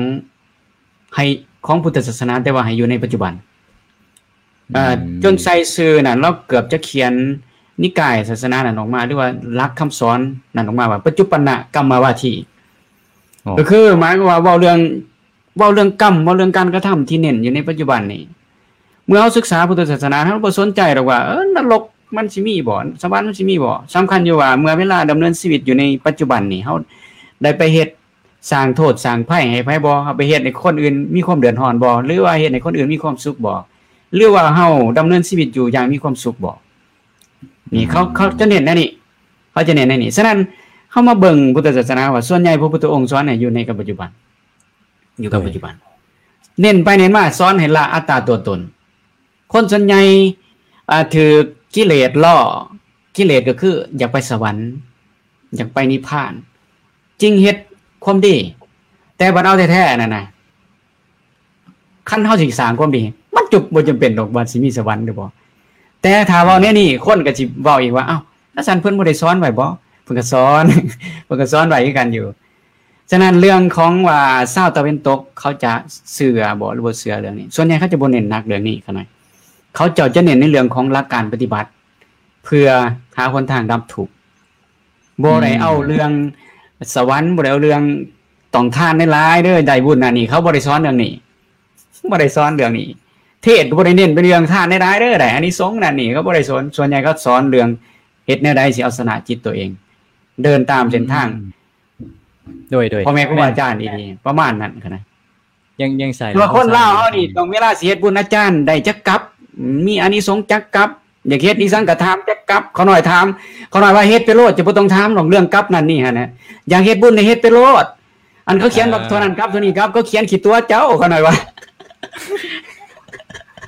ໃຫ້ ຂອງພຸດທະສາສະໜາ ແຕ່ວ່າໃຫ້ຢູ່ໃນປັດຈຸບັນ. ເອີ ອືມ ຈົນໃສ່ຊື່ນັ້ນ ລາວເກືອບຈະຂຽນນິກາຍສາສະໜານັ້ນອອກມາ ຫຼືວ່າຫຼັກຄຳສອນນັ້ນອອກມາວ່າ ປັດຈຸບັນນະກຳມະວາທີ. ອໍ ກໍຄືໝາຍຄວາມວ່າເວົ້າເລື່ອງ ເວົ້າເລື່ອງກຳ ເວົ້າເລື່ອງການກະທຳທີ່ເນັ້ນຢູ່ໃນປັດຈຸບັນນີ້. ເມື່ອເຮົາສຶກສາພຸດທະສາສະໜາ ເຮົາບໍ່ສົນໃຈດອກວ່າ ເອີ ນະລົກມັນຊິມີບໍ່ ສະຫວັນມັນຊິມີບໍ່. ສຳຄັນຢູ່ວ່າເມື່ອເວລາດຳເນີນຊີວິດຢູ່ໃນປັດຈຸບັນນີ້ ເຮົາໄດ້ໄປເຮັດ ສ້າງໂທດສ້າງໄພໃຫ້ໃຜບໍ່? ເຮົາໄປເຮັດໃຫ້ຄົນອື່ນມີຄວາມເດືອດຮ້ອນບໍ່? ຫຼືວ່າເຮັດໃຫ້ຄົນອື່ນມີຄວາມສຸກບໍ່? ຫຼືວ່າເຮົາດຳເນີນຊີວິດຢູ່ຢ່າງມີຄວາມສຸກບໍ່? ນີ້ເຂົາ ອືມ ເຂົາຈະເນັ້ນແນວນີ້ ເຂົາຈະເນັ້ນແນວນີ້. ສະນັ້ນ ເຮົາມາເບິ່ງພຸດທະສາສະໜາວ່າ ສ່ວນໃຫຍ່ພະພຸດທະອົງສອນໃຫ້ຢູ່ໃນກັບປັດຈຸບັນ ຢູ່ກັບ ໂດຍ ປັດຈຸບັນ. ເນັ້ນໄປເນັ້ນມາ ສອນໃຫ້ລະອັດຕາຕົວຕົນ. ຄົນສ່ວນໃຫຍ່ ອ່າ ຖືກກິເລດຫຼໍ່, ກິເລດກໍຄືຢາກໄປສະຫວັນ, ຢາກໄປນິບພານ, ຈຶ່ງເຮັດຄວາມດີ. ແຕ່ບັດເອົາແທ້ໆນັ້ນນະ ຄັນເຮົາຊິສ້າງຄວາມດີ ມັນຈະບໍ່ຈຳເປັນດອກວ່າຊິມີສະຫວັນຫຼືບໍ່. ແຕ່ຖ້າເວົ້າແນວນີ້ ຄົນກໍຊິເວົ້າອີກວ່າ ເອົ້າ ແລ້ວຊັ້ນເພິ່ນບໍ່ໄດ້ສອນໄວ້ບໍ? ເພິ່ນກໍສອນ ເພິ່ນກໍສອນໄວ້ຄືກັນຢູ່. ສະນັ້ນເລື່ອງຂອງວ່າຊາວຕາເວັນຕົກເຂົາຈະເຊື່ອບໍ່ ຫຼືບໍ່ເຊື່ອເລື່ອງນີ້ ສ່ວນໃຫຍ່ເຂົາຈະບໍ່ເນັ້ນໜັກເລື່ອງນີ້ຂະໜ້ອຍ. ເຂົາເຈົ້າຈະເນັ້ນໃນເລື່ອງຂອງຫຼັກການປະຕິບັດ ເພື່ອຫາຫົນທາງດັບທຸກ. ບໍ່ໄດ້ເອົາເລື່ອງ ອືມ ສະຫວັນ ບໍ່ໄດ້ເອົາເລື່ອງຕ້ອງທານຫຼາຍໆເດີ ໄດ້ບຸນນັ້ນນີ້ ເຂົາບໍ່ໄດ້ສອນເລື່ອງນີ້ ບໍ່ໄດ້ສອນເລື່ອງນີ້. ເທດກໍບໍ່ໄດ້ເນັ້ນໄປເລື່ອງທານຫຼາຍໆເດີ ໄດ້ອານິສົງນັ້ນນີ້ ເຂົາບໍ່ໄດ້ສອນ. ສ່ວນໃຫຍ່ເຂົາສອນເລື່ອງເຮັດແນວໃດຊິເອົາຊະນະຈິດຕົວເອງ ເດີນຕາມເສັ້ນທາງ ອືມ ໂດຍ ໂດຍ ພໍ່ແມ່ຄູບາອາຈານດີໆ ປະມານນັ້ນຫັ້ນນະ. ຍັງ ຍັງສາຍ ແຕ່ວ່າຄົນລາວເຮົານີ້ ຕ້ອງເວລາຊິເຮັດບຸນ ອາຈານໄດ້ຈັກກັບ ມີອານິສົງຈັກກັບ ຢາກເຮັດອີ່ສັງກໍຖາມຈັກກັບ. ຂ້ານ້ອຍຖາມ ຂ້ານ້ອຍວ່າເຮັດໄປໂລດ ຈະບໍ່ຕ້ອງຖາມດອກເລື່ອງກັບນັ້ນນີ້ຫັ້ນນະ. ຢາກເຮັດບຸນນີ້ເຮັດໄປໂລດ ອັນເຂົາຂຽນວ່າ ເອີ ເທົ່ານັ້ນກັບ ເທົ່ານີ້ກັບ ເຂົາຂຽນຂີ້ຕົວະເຈົ້າ ຂ້ານ້ອຍວ່າ.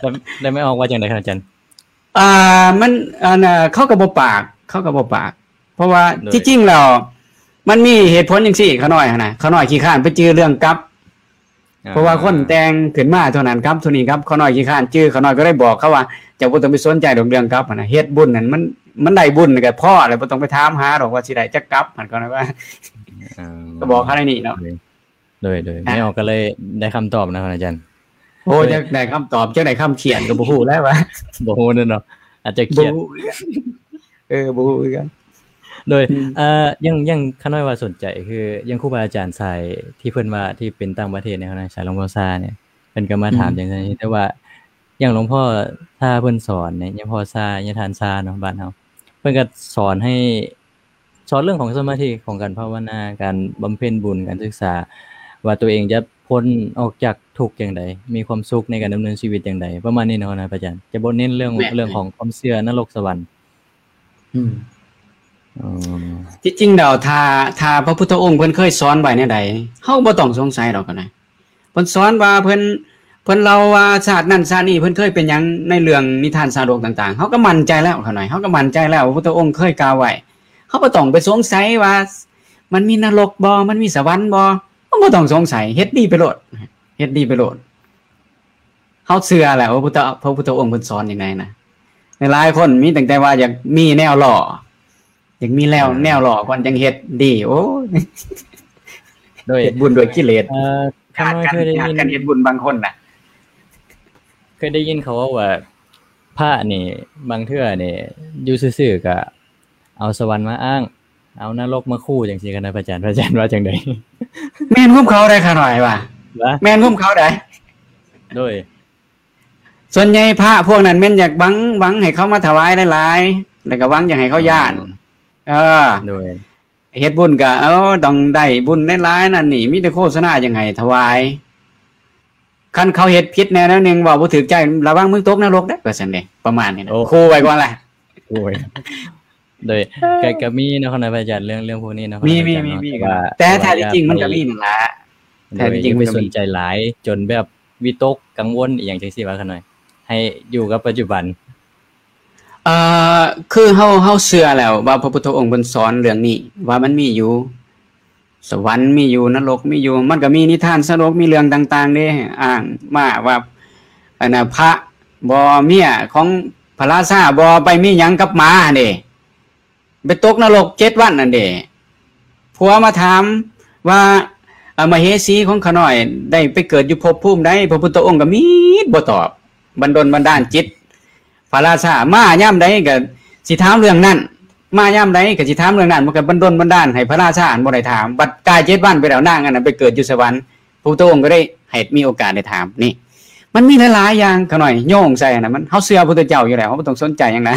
ແລ້ວ ແລ້ວແມ່ອອກວ່າຈັ່ງໃດຄັບອາຈານ? ອ່າ ມັນ ອັນ ເຂົາກໍບໍ່ປາກ ເຂົາກໍບໍ່ປາກ ເພາະວ່າ ໂດຍ ທີ່ຈິງແລ້ວ ມັນມີເຫດຜົນຈັ່ງຊີ້ ຂ້ານ້ອຍຫັ້ນນະ ຂ້ານ້ອຍຂີ້ຄ້ານໄປຈື່ເລື່ອງກັບ ອ່າ ເພາະວ່າຄົນແຕ່ງຂຶ້ນມາເທົ່ານັ້ນກັບ ເທົ່ານີ້ກັບ ຂ້ານ້ອຍຂີ້ຄ້ານຈື່ ຂ້ານ້ອຍກໍເລີຍບອກເຂົາວ່າ ເຈົ້າບໍ່ຕ້ອງໄປສົນໃຈດອກເລື່ອງກັບຫັ້ນນະ ເຮັດບຸນຫັ້ນ ມັນ ມັນໄດ້ບຸນກໍພໍແລ້ວ ບໍ່ຕ້ອງໄປຖາມຫາດອກວ່າຊິໄດ້ຈັກກັບຫັ້ນ ກໍວ່າ ເອີ ກໍບອກເຂົາແນວນີ້ເນາະ. ໂດຍ ໂດຍ ອ່ະ ແມ່ອອກກໍເລີຍໄດ້ຄຳຕອບນະ ອາຈານ. ໂອ້ ໂດຍ ຈັກໄດ້ຄຳຕອບ ຈັກໄດ້ຄຳຂຽນກໍບໍ່ຮູ້ແລ້ວວ່າ ບໍ່ຮູ້ເນາະ ອາດຈະຂຽນ ບໍ່ຮູ້ຄືກັນ ເອີ ບໍ່ຮູ້ຄືກັນ. ໂດຍ ອືມ ເອີ ຍັງ ຍັງຂ້ານ້ອຍວ່າສົນໃຈ ຄື ຢ່າງຄູບາອາຈານສາຍທີ່ເພິ່ນວ່າ ທີ່ເປັນຕ່າງປະເທດແນວນັ້ນ ສາຍຫຼວງພໍ່ຊານີ້ ເພິ່ນກໍມາຖາມ ອືມ ຈັ່ງຊັ້ນ ແຕ່ວ່າຢ່າງຫຼວງພໍ່ຊາເພິ່ນສອນນີ້ ຍາພໍ່ຊາ ຍາທ່ານຊາເນາະ ບ້ານເຮົາ ເພິ່ນກໍສອນໃຫ້ ສອນເລື່ອງຂອງສະມາທິ ຂອງການພາວະນາ ການບຳເພັນບຸນ ການສຶກສາ ວ່າຕົວເອງຈະພົ້ນອອກຈາກທຸກຈັ່ງໃດ ມີຄວາມສຸກໃນການດຳເນີນຊີວິດຈັ່ງໃດ ປະມານນີ້ເນາະ ອາຈານ ຈະບໍ່ເນັ້ນເລື່ອງ ແມ່ນ ເລື່ອງຂອງຄວາມເຊື່ອນະລົກສະຫວັນ. ອືມ ອໍ ທີ່ຈິງແລ້ວ ຖ້າ ຖ້າພະພຸດທະອົງເພິ່ນເຄີຍສອນໄວ້ແນວໃດ ເຮົາບໍ່ຕ້ອງສົງໄສດອກກໍໄດ້. ເພິ່ນສອນວ່າ ເພິ່ນ ເພິ່ນເລົ່າວ່າຊາດນັ້ນຊາດນີ້ເພິ່ນເຄີຍເປັນຫຍັງ ໃນເລື່ອງນິທານຊາດົກຕ່າງໆ ເຮົາກໍໝັ້ນໃຈແລ້ວ ຂ້ານ້ອຍ ເຮົາກໍໝັ້ນໃຈແລ້ວ ພະພຸດທະອົງເຄີຍກ່າວໄວ້. ເຮົາບໍ່ຕ້ອງໄປສົງໄສວ່າ ມັນມີນະລົກບໍ່ ມັນມີສະຫວັນບໍ່ ບໍ່ຕ້ອງສົງໄສ ເຮັດດີໄປໂລດ ເຮັດດີໄປໂລດ. ເຮົາເຊື່ອແຫຼະວ່າພະພຸດທະ ພະພຸດທະອົງເພິ່ນສອນຈັ່ງໃດນະ. ຫຼາຍໆຄົນມີຕັ້ງແຕ່ວ່າຢາກມີແນວຫຼໍ່ ຢາກມີແນວ ອ່າ ແນວຫຼໍ່ກ່ອນຈັ່ງເຮັດດີ. ໂອ້ຍ ໂດຍ ເຮັດບຸນດ້ວຍກິເລດ. ເອີ ຂ້ານ້ອຍເຄີຍໄດ້ຍິນ ການເຮັດບຸນບາງຄົນນະ ເຄີຍໄດ້ຍິນເຂົາເວົ້າວ່າ ພະນີ້ບາງເທື່ອນີ້ຢູ່ຊື່ໆກະເອົາສະຫວັນມາອ້າງ ເອົານະລົກມາຂູ່ຈັ່ງຊີ້ ຄະນະພະອາຈານ ພະອາຈານວ່າຈັ່ງໃດ? ແມ່ນຄວາມເຂົາໄດ໋ ຂ້ານ້ອຍວ່າ ແມ່ນຄວາມເຂົາໄດ໋. ໂດຍ ສ່ວນໃຫຍ່ພະພວກນັ້ນແມ່ນຢາກຫວັງ ຫວັງໃຫ້ເຂົາມາຖວາຍຫຼາຍໆ ແລ້ວກໍຫວັງຢາກໃຫ້ເຂົາຢ້ານ. ເອີ ໂດຍ ເຮັດບຸນກໍ ເອີ ຕ້ອງໄດ້ບຸນຫຼາຍໆ ນັ້ນນີ້ ມີແຕ່ໂຄສະນາຢາກໃຫ້ຖວາຍ. ຄັນເຂົາເຮັດຜິດແນວໜຶ່ງ ເວົ້າບໍ່ຖືກໃຈ ລະວັງມຶງຕົກນະລົກເດີ້ ວ່າຊັ້ນເດ້ ປະມານນີ້ນະ. ໂອ້ ຂູ່ໄວ້ກ່ອນລະ. ໂອ້ຍ ໂດຍ ກໍ ກໍມີເນາະ ຄະນະພະອາຈານ ເລື່ອງ ເລື່ອງພວກນີ້ເນາະ ມີ ຄະນະພະອາຈານເນາະ ມີ ແຕ່ວ່າ ແຕ່ຖ້າທີ່ຈິງມັນກໍມີນັ້ນລະ. ແຕ່ຖ້າທີ່ຈິງມັນກໍມີ ຢ່າໄປສົນໃຈຫຼາຍຈົນແບບວິຕົກກັງວົນອີ່ຫຍັງຈັ່ງຊີ້ວ່າ ຂະນ້ອຍ ໃຫ້ຢູ່ກັບປັດຈຸບັນ. ເອີ ຄືເຮົາ ເຮົາເຊື່ອແລ້ວວ່າພະພຸດທະອົງເພິ່ນສອນເລື່ອງນີ້ ວ່າມັນມີຢູ່ ສະຫວັນມີຢູ່ ນະລົກມີຢູ່. ມັນກໍມີນິທານສະໜຸກ ມີເລື່ອງຕ່າງໆເດ້ ອ້າງມາວ່າ ອັນນະ ພະບໍ່ ເມຍຂອງພະລາຊາບໍ່ໄປມີຫຍັງກັບໝາຫັ້ນເດ້ ໄປຕົກນະລົກເຈັດວັນຫັ້ນເດ້. ຜົວມາຖາມວ່າ ອະ ມະເຫສີຂອງຂ້ານ້ອຍໄດ້ໄປເກີດຢູ່ພົບພູມໃດ? ພະພຸດທະອົງກໍມິດບໍ່ຕອບ ບັນດົນບັນດານຈິດ ພະລາຊາມາຍາມໃດກໍຊິຖາມເລື່ອງນັ້ນ ມາຍາມໃດກໍຊິຖາມເລື່ອງນັ້ນ ມັນກໍບັນດົນບັນດານໃຫ້ພະລາຊາຫັ້ນບໍ່ໄດ້ຖາມ. ບັດກາຍເຈັດວັນໄປແລ້ວ ນາງອັນນັ້ນໄປເກີດຢູ່ສະຫວັນ ພະພຸດທະອົງກໍໄດ້ໃຫ້ມີໂອກາດໄດ້ຖາມ. ນີ້ມັນມີຫຼາຍໆຢ່າງ ຂະນ້ອຍໂຍງໃສ່ຫັ້ນນະ ມັນ ເຮົາເຊື່ອພະພຸດທະເຈົ້າຢູ່ແລ້ວ ເຮົາບໍ່ຕ້ອງສົນໃຈຫຍັງນະ.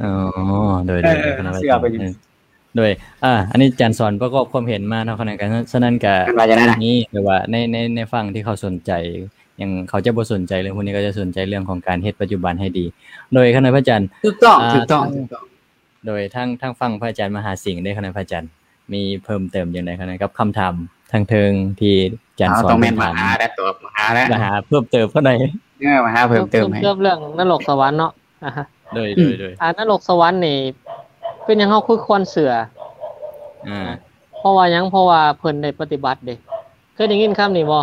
ອໍ ໂດຍ ໂດຍ ເອີ ເຮົາເຊື່ອໄປຢູ່. ໂດຍ ອາ ອັນນີ້ອາຈານສອນປະກອບຄວາມເຫັນມາເນາະ ຂະນ້ອຍ ກໍ ສະນັ້ນກໍ ອັນວ່າຈັ່ງໃດນະ ນີ້ ແຕ່ວ່າໃນ ໃນ ໃນຝັ່ງທີ່ເຂົາສົນໃຈ ຢ່າງເຂົາຈະບໍ່ສົນໃຈເລື່ອງພວກນີ້ ເຂົາຈະສົນໃຈເລື່ອງຂອງການເຮັດປັດຈຸບັນໃຫ້ດີ. ໂດຍ ຂະນ້ອຍພະອາຈານ ຖືກຕ້ອງ ອາ ຖືກຕ້ອງ ຖືກຕ້ອງ. ໂດຍ ທາງ ທາງຝັ່ງພະອາຈານມະຫາສິງເດ້ ຂະນ້ອຍພະອາຈານ ມີເພີ່ມເຕີມຈັ່ງໃດຂະນ້ອຍ ກັບຄຳຖາມທາງເທິງທີ່ອາຈານສອນ ຕ້ອງແມ່ນມາຫາແລ້ວ ມາຫາເພີ່ມເຕີມຂະນ້ອຍ. ເອີ ມາຫາເພີ່ມເຕີມໃຫ້ ເພີ່ມເຕີມເລື່ອງນະລົກສະຫວັນເນາະ. ອາ ໂດຍ ໂດຍ ໂດຍ ອາ ນະລົກສະຫວັນນີ້ ເປັນຫຍັງເຮົາຄືຄວນເຊື່ອ? ອາ ເພາະວ່າຫຍັງ? ເພາະວ່າເພິ່ນໄດ້ປະຕິບັດເດ້. ເຄີຍໄດ້ຍິນຄຳນີ້ບໍ່?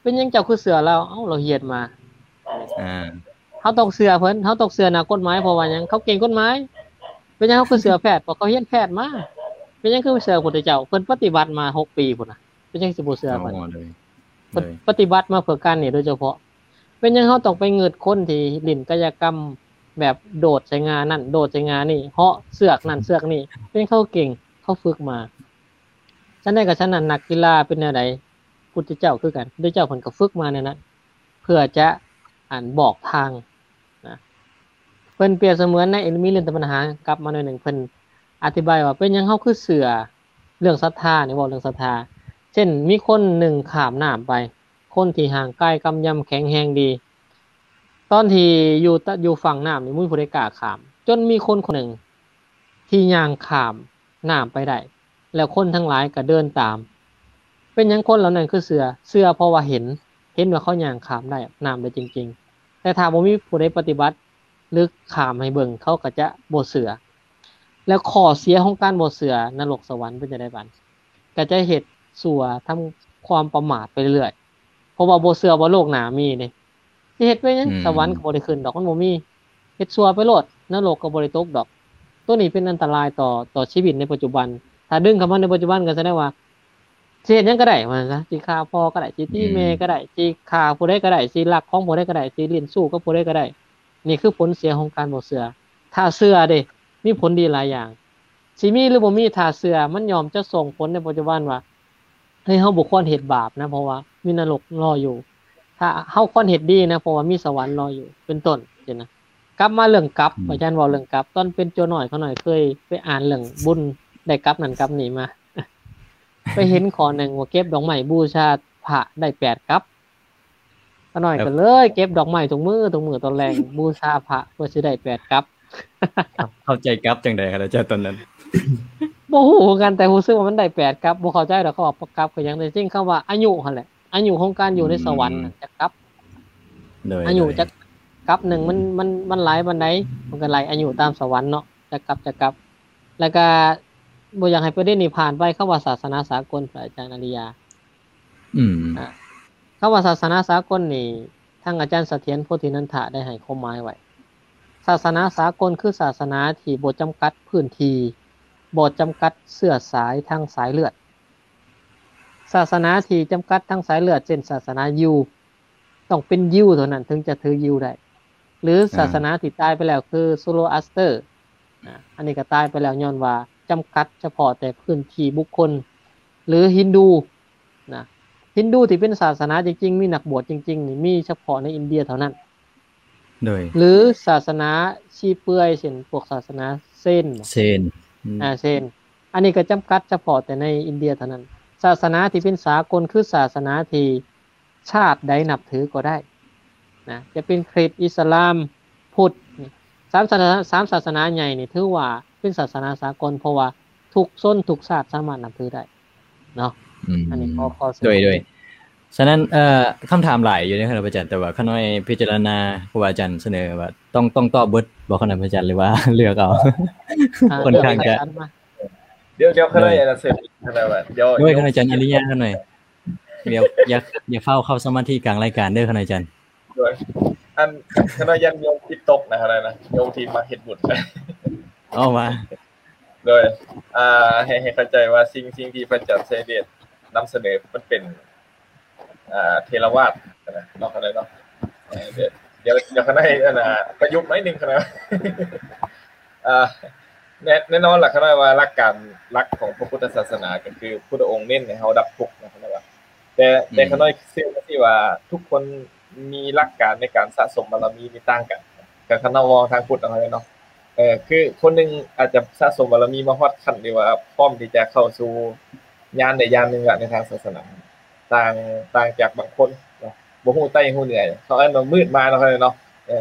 ເປັນຫຍັງເຈົ້າຄືເຊື່ອລາວ? ເອົ້າ ລາວເຮັດມາ. ອາ ເຮົາຕ້ອງເຊື່ອເພິ່ນ ເຮົາຕ້ອງເຊື່ອນັກກົດໝາຍ ເພາະວ່າຫຍັງ? ເຂົາເກັ່ງກົດໝາຍ. ເປັນຫຍັງເຮົາຄືເຊື່ອແພດ? ເພາະເຂົາຮຽນແພດມາ. ເປັນຫຍັງຄືບໍ່ເຊື່ອພະພຸດທະເຈົ້າ? ເພິ່ນປະຕິບັດມາຫົກປີພຸ້ນນະ ເປັນຫຍັງຊິບໍ່ເຊື່ອເພິ່ນ? ອໍ ໂດຍ ເພິ່ນ ໂດຍ ປະຕິບັດມາເພື່ອການນີ້ໂດຍສະເພາະ. ເປັນຫຍັງເຮົາຕ້ອງໄປງຶດຄົນທີ່ຫຼິ້ນກາຍະກຳແບບໂດດໃສ່ງ່ານັ້ນ ໂດດໃສ່ງ່ານີ້ ເຫາະເຊືອກນັ້ນເຊືອກນີ້? ເປັນເຂົາເກັ່ງ ເຂົາຝຶກມາ. ຊັ້ນໃດກໍຊັ້ນນັ້ນ ນັກກິລາເປັນແນວໃດ? ພຸດທະເຈົ້າຄືກັນ ພຸດທະເຈົ້າເພິ່ນກໍຝຶກມາແນວນັ້ນ ເພື່ອຈະ ອັນ ບອກທາງນະ. ເພິ່ນປຽບສະເໝືອນໃນ ມີເລື່ອງຕະບັນຫາກັບມາໜ້ອຍໜຶ່ງ ເພິ່ນອະທິບາຍວ່າ ເປັນຫຍັງເຮົາຄືເຊື່ອເລື່ອງສັດທານີ້ ເວົ້າເລື່ອງສັດທາ. ເຊັ່ນ ມີຄົນໜຶ່ງຂ້າມນ້ຳໄປ ຄົນທີ່ຮ່າງກາຍກຳຍຳແຂງແຮງດີ ຕອນທີ່ຢູ່ຕະ ຢູ່ຝັ່ງນ້ຳນີ້ ບໍ່ມີຜູ້ໃດກ້າຂ້າມ ຈົນມີຄົນຄົນໜຶ່ງທີ່ຍ່າງຂ້າມນ້ຳໄປໄດ້ ແລ້ວຄົນທັງຫຼາຍກໍເດີນຕາມ. ເປັນຫຍັງຄົນເຫຼົ່ານັ້ນຄືເຊື່ອ? ເຊື່ອເພາະວ່າເຫັນ ເຫັນວ່າເຂົາຍ່າງຂ້າມໄດ້ ນ້ຳໄດ້ຈິງໆ. ແຕ່ຖ້າບໍ່ມີຜູ້ໃດປະຕິບັດ ຫຼື ຂ້າມໃຫ້ເບິ່ງ ເຂົາກໍຈະບໍ່ເຊື່ອ. ແລ້ວຂໍ້ເສຍຂອງການບໍ່ເຊື່ອ ນະລົກສະຫວັນເປັນຈັ່ງໃດບາດ? ກໍຈະເຮັດຊົ່ວ ທຳຄວາມປະໝາດໄປເລື້ອຍ ເພາະວ່າບໍ່ເຊື່ອວ່າໂລກໜ້າມີເດ້. ຊິເຮັດໄປຫຍັງ? ອືມ ສະຫວັນກໍບໍ່ໄດ້ຂຶ້ນດອກ ມັນບໍ່ມີ. ເຮັດຊົ່ວໄປໂລດ ນະລົກກໍບໍ່ໄດ້ຕົກດອກ. ໂຕນີ້ເປັນອັນຕະລາຍຕໍ່ ຕໍ່ຊີວິດໃນປັດຈຸບັນ. ຖ້າດຶງເຂົ້າມາໃນປັດຈຸບັນກໍສະແດງວ່າ ຊິເຮັດຫຍັງກໍໄດ້ວ່າຊັ້ນຊະ ຊິຂ້າພໍ່ກໍໄດ້ ຊິຕີແມ່ກໍໄດ້ ອືມ ຊິຂ້າຜູ້ໃດກໍໄດ້ ຊິລັກຂອງຜູ້ໃດກໍໄດ້ ຊິຫຼິ້ນຊູ້ກັບຜູ້ໃດກໍໄດ້. ນີ້ຄືຜົນເສຍຂອງການບໍ່ເຊື່ອ. ຖ້າເຊື່ອເດ້ ມີຜົນດີຫຼາຍຢ່າງ. ຊິມີຫຼືບໍ່ມີ ຖ້າເຊື່ອ ມັນຍ່ອມຈະສົ່ງຜົນໃນປັດຈຸບັນວ່າ ເຮີ້ຍ ເຮົາບໍ່ຄວນເຮັດບາບນະ ເພາະວ່າມີນະລົກລໍຢູ່. ຖ້າເຮົາຄວນເຮັດດີນະ ເພາະວ່າມີສະຫວັນລໍຢູ່ ເປັນຕົ້ນຊີ້ນະ. ກັບມາເລື່ອງກັບ ອືມ ອາຈານເວົ້າເລື່ອງກັບ ຕອນເປັນໂຈນ້ອຍ ຂ້ານ້ອຍເຄີຍໄປອ່ານເລື່ອງບຸນ ໄດ້ກັບນັ້ນກັບນີ້ມາ. ໄປເຫັນຂໍ້ໜຶ່ງວ່າເກັບດອກໄມ້ບູຊາພະໄດ້ແປດກັບ. ຂ້ານ້ອຍ ແລ້ວ ກໍເລີຍເກັບດອກໄມ້ທຸກມື້ ທຸກມື້ຕອນແລງ ບູຊາພະເພື່ອຊິໄດ້ແປດກັບ. ເຂົ້າ ເຂົ້າໃຈກັບຈັ່ງໃດຄະ ອາຈານ ຕອນນັ້ນ? ບໍ່ຮູ້ຄືກັນ ແຕ່ຮູ້ສຶກວ່າມັນໄດ້ແປດກັບ. ບໍ່ເຂົ້າໃຈດອກ ເຂົາວ່າກັບຄືຫຍັງ ແຕ່ຈິງຄຳວ່າອາຍຸຫັ້ນແຫຼະ ອາຍຸຂອງການຢູ່ໃນສະຫວັນ ອືມ ນະ ຈັກກັບ. ໂດຍ ອາຍຸ ໂດຍ ຈັກກັບໜຶ່ງ ມັນ ມັນ ມັນຫຼາຍປານໃດ? ມັນກໍໄລ່ອາຍຸຕາມສະຫວັນເນາະ ຈັກກັບ ຈັກກັບ. ແລ້ວກໍບໍ່ຢາກໃຫ້ປະເດັນນີ້ຜ່ານໄປ ຄຳວ່າສາສະໜາສາກົນ ພະອາຈານອາລິຍາ ອືມ ອ່າ ຄຳວ່າສາສະໜາສາກົນນີ້ ທາງອາຈານສະຖຽນ ໂພທິນັນທະ ໄດ້ໃຫ້ຄວາມໝາຍໄວ້. ສາສະໜາສາກົນຄືສາສະໜາທີ່ບໍ່ຈຳກັດພື້ນທີ່, ບໍ່ຈຳກັດເຊື້ອສາຍທາງສາຍເລືອດ. ສາສະໜາທີ່ຈຳກັດທາງສາຍເລືອດ ເຊັ່ນ ສາສະໜາຢິວ ຕ້ອງເປັນຢິວເທົ່ານັ້ນເຖິງຈະຖືຢິວໄດ້ ຫຼື ອ່າ ສາສະໜາທີ່ຕາຍໄປແລ້ວຄືໂຊໂລອາສເຕີ ນະ ອັນນີ້ກໍຕາຍໄປແລ້ວຍ້ອນວ່າຈຳກັດສະເພາະແຕ່ພື້ນທີ່ບຸກຄົນ ຫຼື ຮິນດູ ນະ ຮິນດູທີ່ເປັນສາສະໜາຈິງໆ ມີນັກບວດຈິງໆ ນີ້ມີສະເພາະໃນອິນເດຍເທົ່ານັ້ນ. ໂດຍ ຫຼື ສາສະໜາຊີເປືອຍ ເຊັ່ນ ພວກສາສະໜາເຊນ ເຊນ ອືມ ອ່າ ເຊນ ອັນນີ້ກໍຈຳກັດສະເພາະແຕ່ໃນອິນເດຍເທົ່ານັ້ນ. ສາສະໜາທີ່ເປັນສາກົນຄືສາສະໜາທີ່ຊາດໃດນັບຖືກໍໄດ້ນະ ຈະເປັນຄຣິດ, ອິດສະລາມ, ພຸດ ນີ້ ສາມສາສະໜາ ສາມສາສະໜາໃຫຍ່ນີ້ຖືວ່າເປັນສາສະໜາສາກົນ ເພາະວ່າທຸກຊົນທຸກຊາດສາມາດນັບຖືໄດ້ເນາະ. ອືມ ອັນນີ້ຂໍ ຂໍເສີຍ ໂດຍ ໂດຍ ສະນັ້ນ ເອີ ຄຳຖາມຫຼາຍຢູ່ເດ້ ຄະນະອາຈານ ແຕ່ວ່າຂ້ານ້ອຍພິຈາລະນາ ຄູອາຈານສະເໜີວ່າຕ້ອງ ຕ້ອງຕອບເບິດບໍ່ ຄະນະອາຈານ ຫຼືວ່າເລືອກເອົາ? ອ່າ ຄ່ອນຂ້າງຈະ ດຽວ ດຽວຂ້ານ້ອຍ ໂດຍ ຈະເສີມອີກ ຄະນະ ວ່າ ດຽວ ໂດຍ ຂ້ານ້ອຍ ອາຈານອາລິຍະ ຂ້ານ້ອຍ ດຽວ ຢ່າ ຢ່າຟ້າວເຂົ້າສະມາທິກາງລາຍການເດີ ຂ້ານ້ອຍ ອາຈານ. ໂດຍ ອັນ ຂ້ານ້ອຍຢ້ານໂຍມຄິດຕົກນະ ຂ້ານ້ອຍນະ ໂຍມທີ່ມາເຮັດບຸນ ເອົາມາ ໂດຍ ອ່າ ໃຫ້ ໃຫ້ເຂົ້າໃຈວ່າສິ່ງ ສິ່ງທີ່ພະອາຈານໄຊຍະເດດນຳສະເໜີ ມັນເປັນ ອ່າ ເຖລະວາດນະເນາະ ຂ້ານ້ອຍເນາະ. ເອີ ດຽວ ດຽວຂ້ານ້ອຍ ອັນນ່າ ປະຍຸກໜ້ອຍໜຶ່ງ ຂ້ານ້ອຍ ອ່າ ແນ່ ແນ່ນອນລະ ຂ້ານ້ອຍວ່າຫຼັກການຫຼັກຂອງພະພຸດທະສາສະໜາ ກໍຄືພຸດທະອົງເນັ້ນໃຫ້ເຮົາດັບທຸກນະ ຂ້ານ້ອຍວ່າ ແຕ່ ອືມ ແຕ່ຂ້ານ້ອຍເຊື່ອວ່າ ທຸກຄົນມີຫຼັກການໃນການສະສົມບາລະມີນີ້ຕ່າງກັນ ຄັນ ຄັນເຮົາເວົ້າທາງພຸດເນາະ ເອີ ຄືຄົນໜຶ່ງອາດຈະສະສົມບາລະມີມາຮອດຂັ້ນທີ່ວ່າພ້ອມທີ່ຈະເຂົ້າສູ່ຍານໃດຍານໜຶ່ງລະໃນທາງສາສະໜາ ຕ່າງ ຕ່າງຈາກບາງຄົນເນາະ ບໍ່ຮູ້ໃຕ້ຮູ້ເໜືອ ເຂົາເອີ້ນວ່າມືດມາເນາະ ເຂົາເອີ້ນເນາະ ເອີ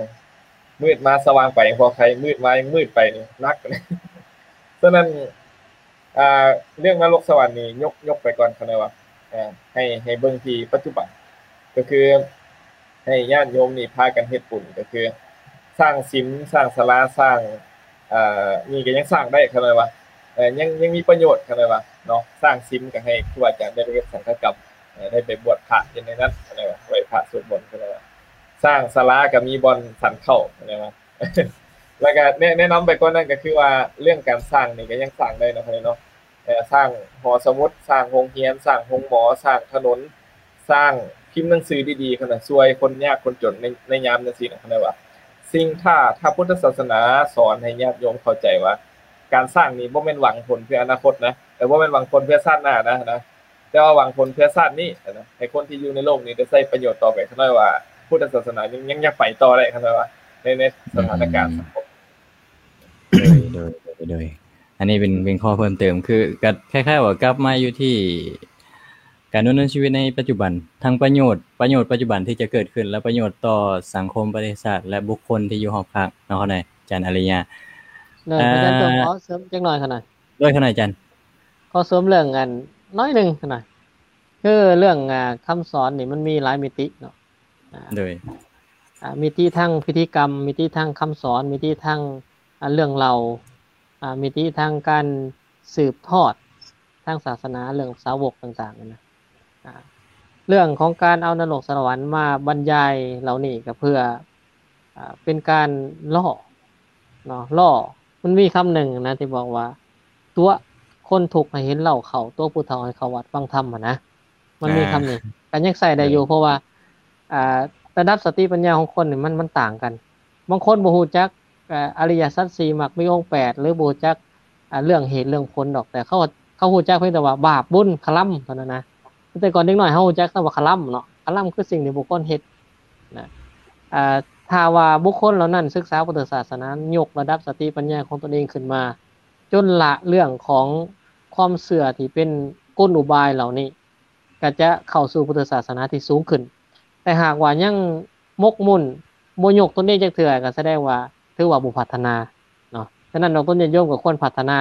ມືດມາສະຫວ່າງໄປ ພໍໃຄ ມືດມາຍັງມືດໄປນີ້ໜັກ. ສະນັ້ນ ອ່າ ເລື່ອງນະລົກສະຫວັນນີ້ຍົກ ຍົກໄປກ່ອນ ຂ້ານ້ອຍວ່າ ເອີ ໃຫ້ ໃຫ້ເບິ່ງທີ່ປັດຈຸບັນ ກໍຄືໃຫ້ຍາດໂຍມນີ້ພາກັນເຮັດບຸນ ກໍຄືສ້າງສິມ ສ້າງສາລາ ສ້າງ ອ່າ ນີ້ກໍຍັງສ້າງໄດ້ ຂ້ານ້ອຍວ່າ ເອີ ຍັງ ຍັງມີປະໂຫຍດ ຂ້ານ້ອຍວ່າເນາະ. ສ້າງສິມກໍໃຫ້ຄູອາຈານໄດ້ໄປເຮັດສັງຄະກຳ ເອີ ໄດ້ໄປບວດພະຢູ່ໃນນັ້ນ ຂ້ານ້ອຍວ່າ ໄຫວ້ພະສວດມົນ ຂ້ານ້ອຍວ່າ ສ້າງສາລາກໍມີບ່ອນສັນເຂົ້າ ຂ້ານ້ອຍວ່າ ແລ້ວກໍແນະ ແນະນຳໄປກ່ອນນັ້ນກໍຄືວ່າ ເລື່ອງການສ້າງນີ້ກໍຍັງສ້າງໄດ້ເນາະ ເນາະ ເອີ ສ້າງຫໍສະໝຸດ ສ້າງໂຮງຮຽນ ສ້າງໂຮງໝໍ ສ້າງຖະໜົນ ສ້າງພິມໜັງສືດີໆ ຫັ້ນນະ ຊ່ວຍຄົນຍາກຄົນຈົນໃນ ໃນຍາມຈັ່ງຊີ້ນະ ເຂົາເອີ້ນວ່າ ສິ່ງ ຖ້າ ຖ້າພຸດທະສາສະໜາສອນໃຫ້ຍາດໂຍມເຂົ້າໃຈວ່າ ການສ້າງນີ້ບໍ່ແມ່ນຫວັງຜົນເພື່ອອະນາຄົດນະ ແຕ່ບໍ່ແມ່ນຫວັງຜົນເພື່ອຊາດໜ້ານະ ນະ ແຕ່ວ່າຫວັງຜົນເພື່ອຊາດນີ້ນະ ໃຫ້ຄົນທີ່ຢູ່ໃນໂລກນີ້ໄດ້ໃຊ້ປະໂຫຍດຕໍ່ໄປ ຂ້ານ້ອຍວ່າພຸດທະສາສະໜາຍັງ ຍັງຢາກໄປຕໍ່ໄດ້ ຂ້ານ້ອຍວ່າ ໃນ ໃນສະຖານະການ ອືມ ສັງຄົມ. ໂດຍ ໂດຍ ໂດຍ ໂດຍ ອັນນີ້ເປັນ ເປັນຂໍ້ເພີ່ມເຕີມ ຄື ກໍຄ້າຍໆວ່າກັບມາຢູ່ທີ່ການດຳເນີນຊີວິດໃນປັດຈຸບັນ ທັງປະໂຫຍດ ປະໂຫຍດປັດຈຸບັນທີ່ຈະເກີດຂຶ້ນ ແລະ ປະໂຫຍດຕໍ່ສັງຄົມ ປະເທດຊາດ ແລະ ບຸກຄົນທີ່ຢູ່ຮອບຂ້າງເນາະ ຂະນ້ອຍ ອາຈານອາລິຍະ. ໂດຍ ອາ ອາຈານ ຕ້ອງຂໍເສີມຈັກໜ້ອຍຂະນ້ອຍ. ໂດຍ ຂະນ້ອຍອາຈານ. ຂໍເສີມເລື່ອງອັນໜ້ອຍໜຶ່ງຂະນ້ອຍ ຄືເລື່ອງ ອ່າ ຄຳສອນນີ້ມັນມີຫຼາຍມິຕິເນາະ. ອ່າ ໂດຍ ອ່າ ມິຕິທາງພິທີກຳ, ມິຕິທາງຄຳສອນ, ມິຕິທາງ ອ່າ ເລື່ອງເລົ່າ, ອ່າ ມິຕິທາງການສືບທອດທາງສາສະໜາ, ເລື່ອງສາວົກຕ່າງໆ ນັ້ນນະ. ອ່າ ເລື່ອງຂອງການເອົານະລົກສະຫວັນມາບັນຍາຍເຫຼົ່ານີ້ ກໍເພື່ອ ອ່າ ເປັນການລໍ້ເນາະ ລໍ້. ມັນມີຄຳໜຶ່ງນະທີ່ບອກວ່າ ຕົວະຄົນທຸກໃຫ້ເຫັນເຫຼົ້າເຂົ້າ, ຕົວະຜູ້ເຖົ້າໃຫ້ເຂົ້າວັດຟັງທຳ ຫັ້ນນະ. ມັນມີຄຳນີ້ ອ່າ ກໍຍັງໃຊ້ໄດ້ຢູ່ ເອີ ເພາະວ່າ ອ່າ ລະດັບສະຕິປັນຍາຂອງຄົນນີ້ມັນ ມັນຕ່າງກັນ. ບາງຄົນບໍ່ຮູ້ຈັກ ເອີ ອະລິຍະສັດສີ່ ມັກມີອົງແປດ ຫຼື ບໍ່ຮູ້ຈັກ ອ່າ ເລື່ອງເຫດເລື່ອງຜົນດອກ ແຕ່ເຂົາ ເຂົາຮູ້ຈັກພຽງແຕ່ວ່າບາບບຸນຄະລຳເທົ່ານັ້ນນະ. ແຕ່ກ່ອນເດັກນ້ອຍເຮົາຮູ້ຈັກຄຳວ່າຄະລຳເນາະ, ຄະລຳຄືສິ່ງທີ່ບຸກຄົນເຮັດນະ. ອ່າ ຖ້າວ່າບຸກຄົນເຫຼົ່ານັ້ນສຶກສາພຸດທະສາສະໜາ, ຍົກລະດັບສະຕິປັນຍາຂອງຕົນເອງຂຶ້ນມາ ຈົນລະເລື່ອງຂອງຄວາມເຊື່ອທີ່ເປັນກົນອຸບາຍເຫຼົ່ານີ້ ກໍຈະເຂົ້າສູ່ພຸດທະສາສະໜາທີ່ສູງຂຶ້ນ. ແຕ່ຫາກວ່າຍັງໝົກໝຸ່ນ ບໍ່ຍົກຕົນເອງຈັກເທື່ອ ກໍສະແດງວ່າຖືວ່າບໍ່ພັດທະນາເນາະ. ສະນັ້ນ ດອກຕາຍາດໂຍມກໍຄວນພັດທະນາ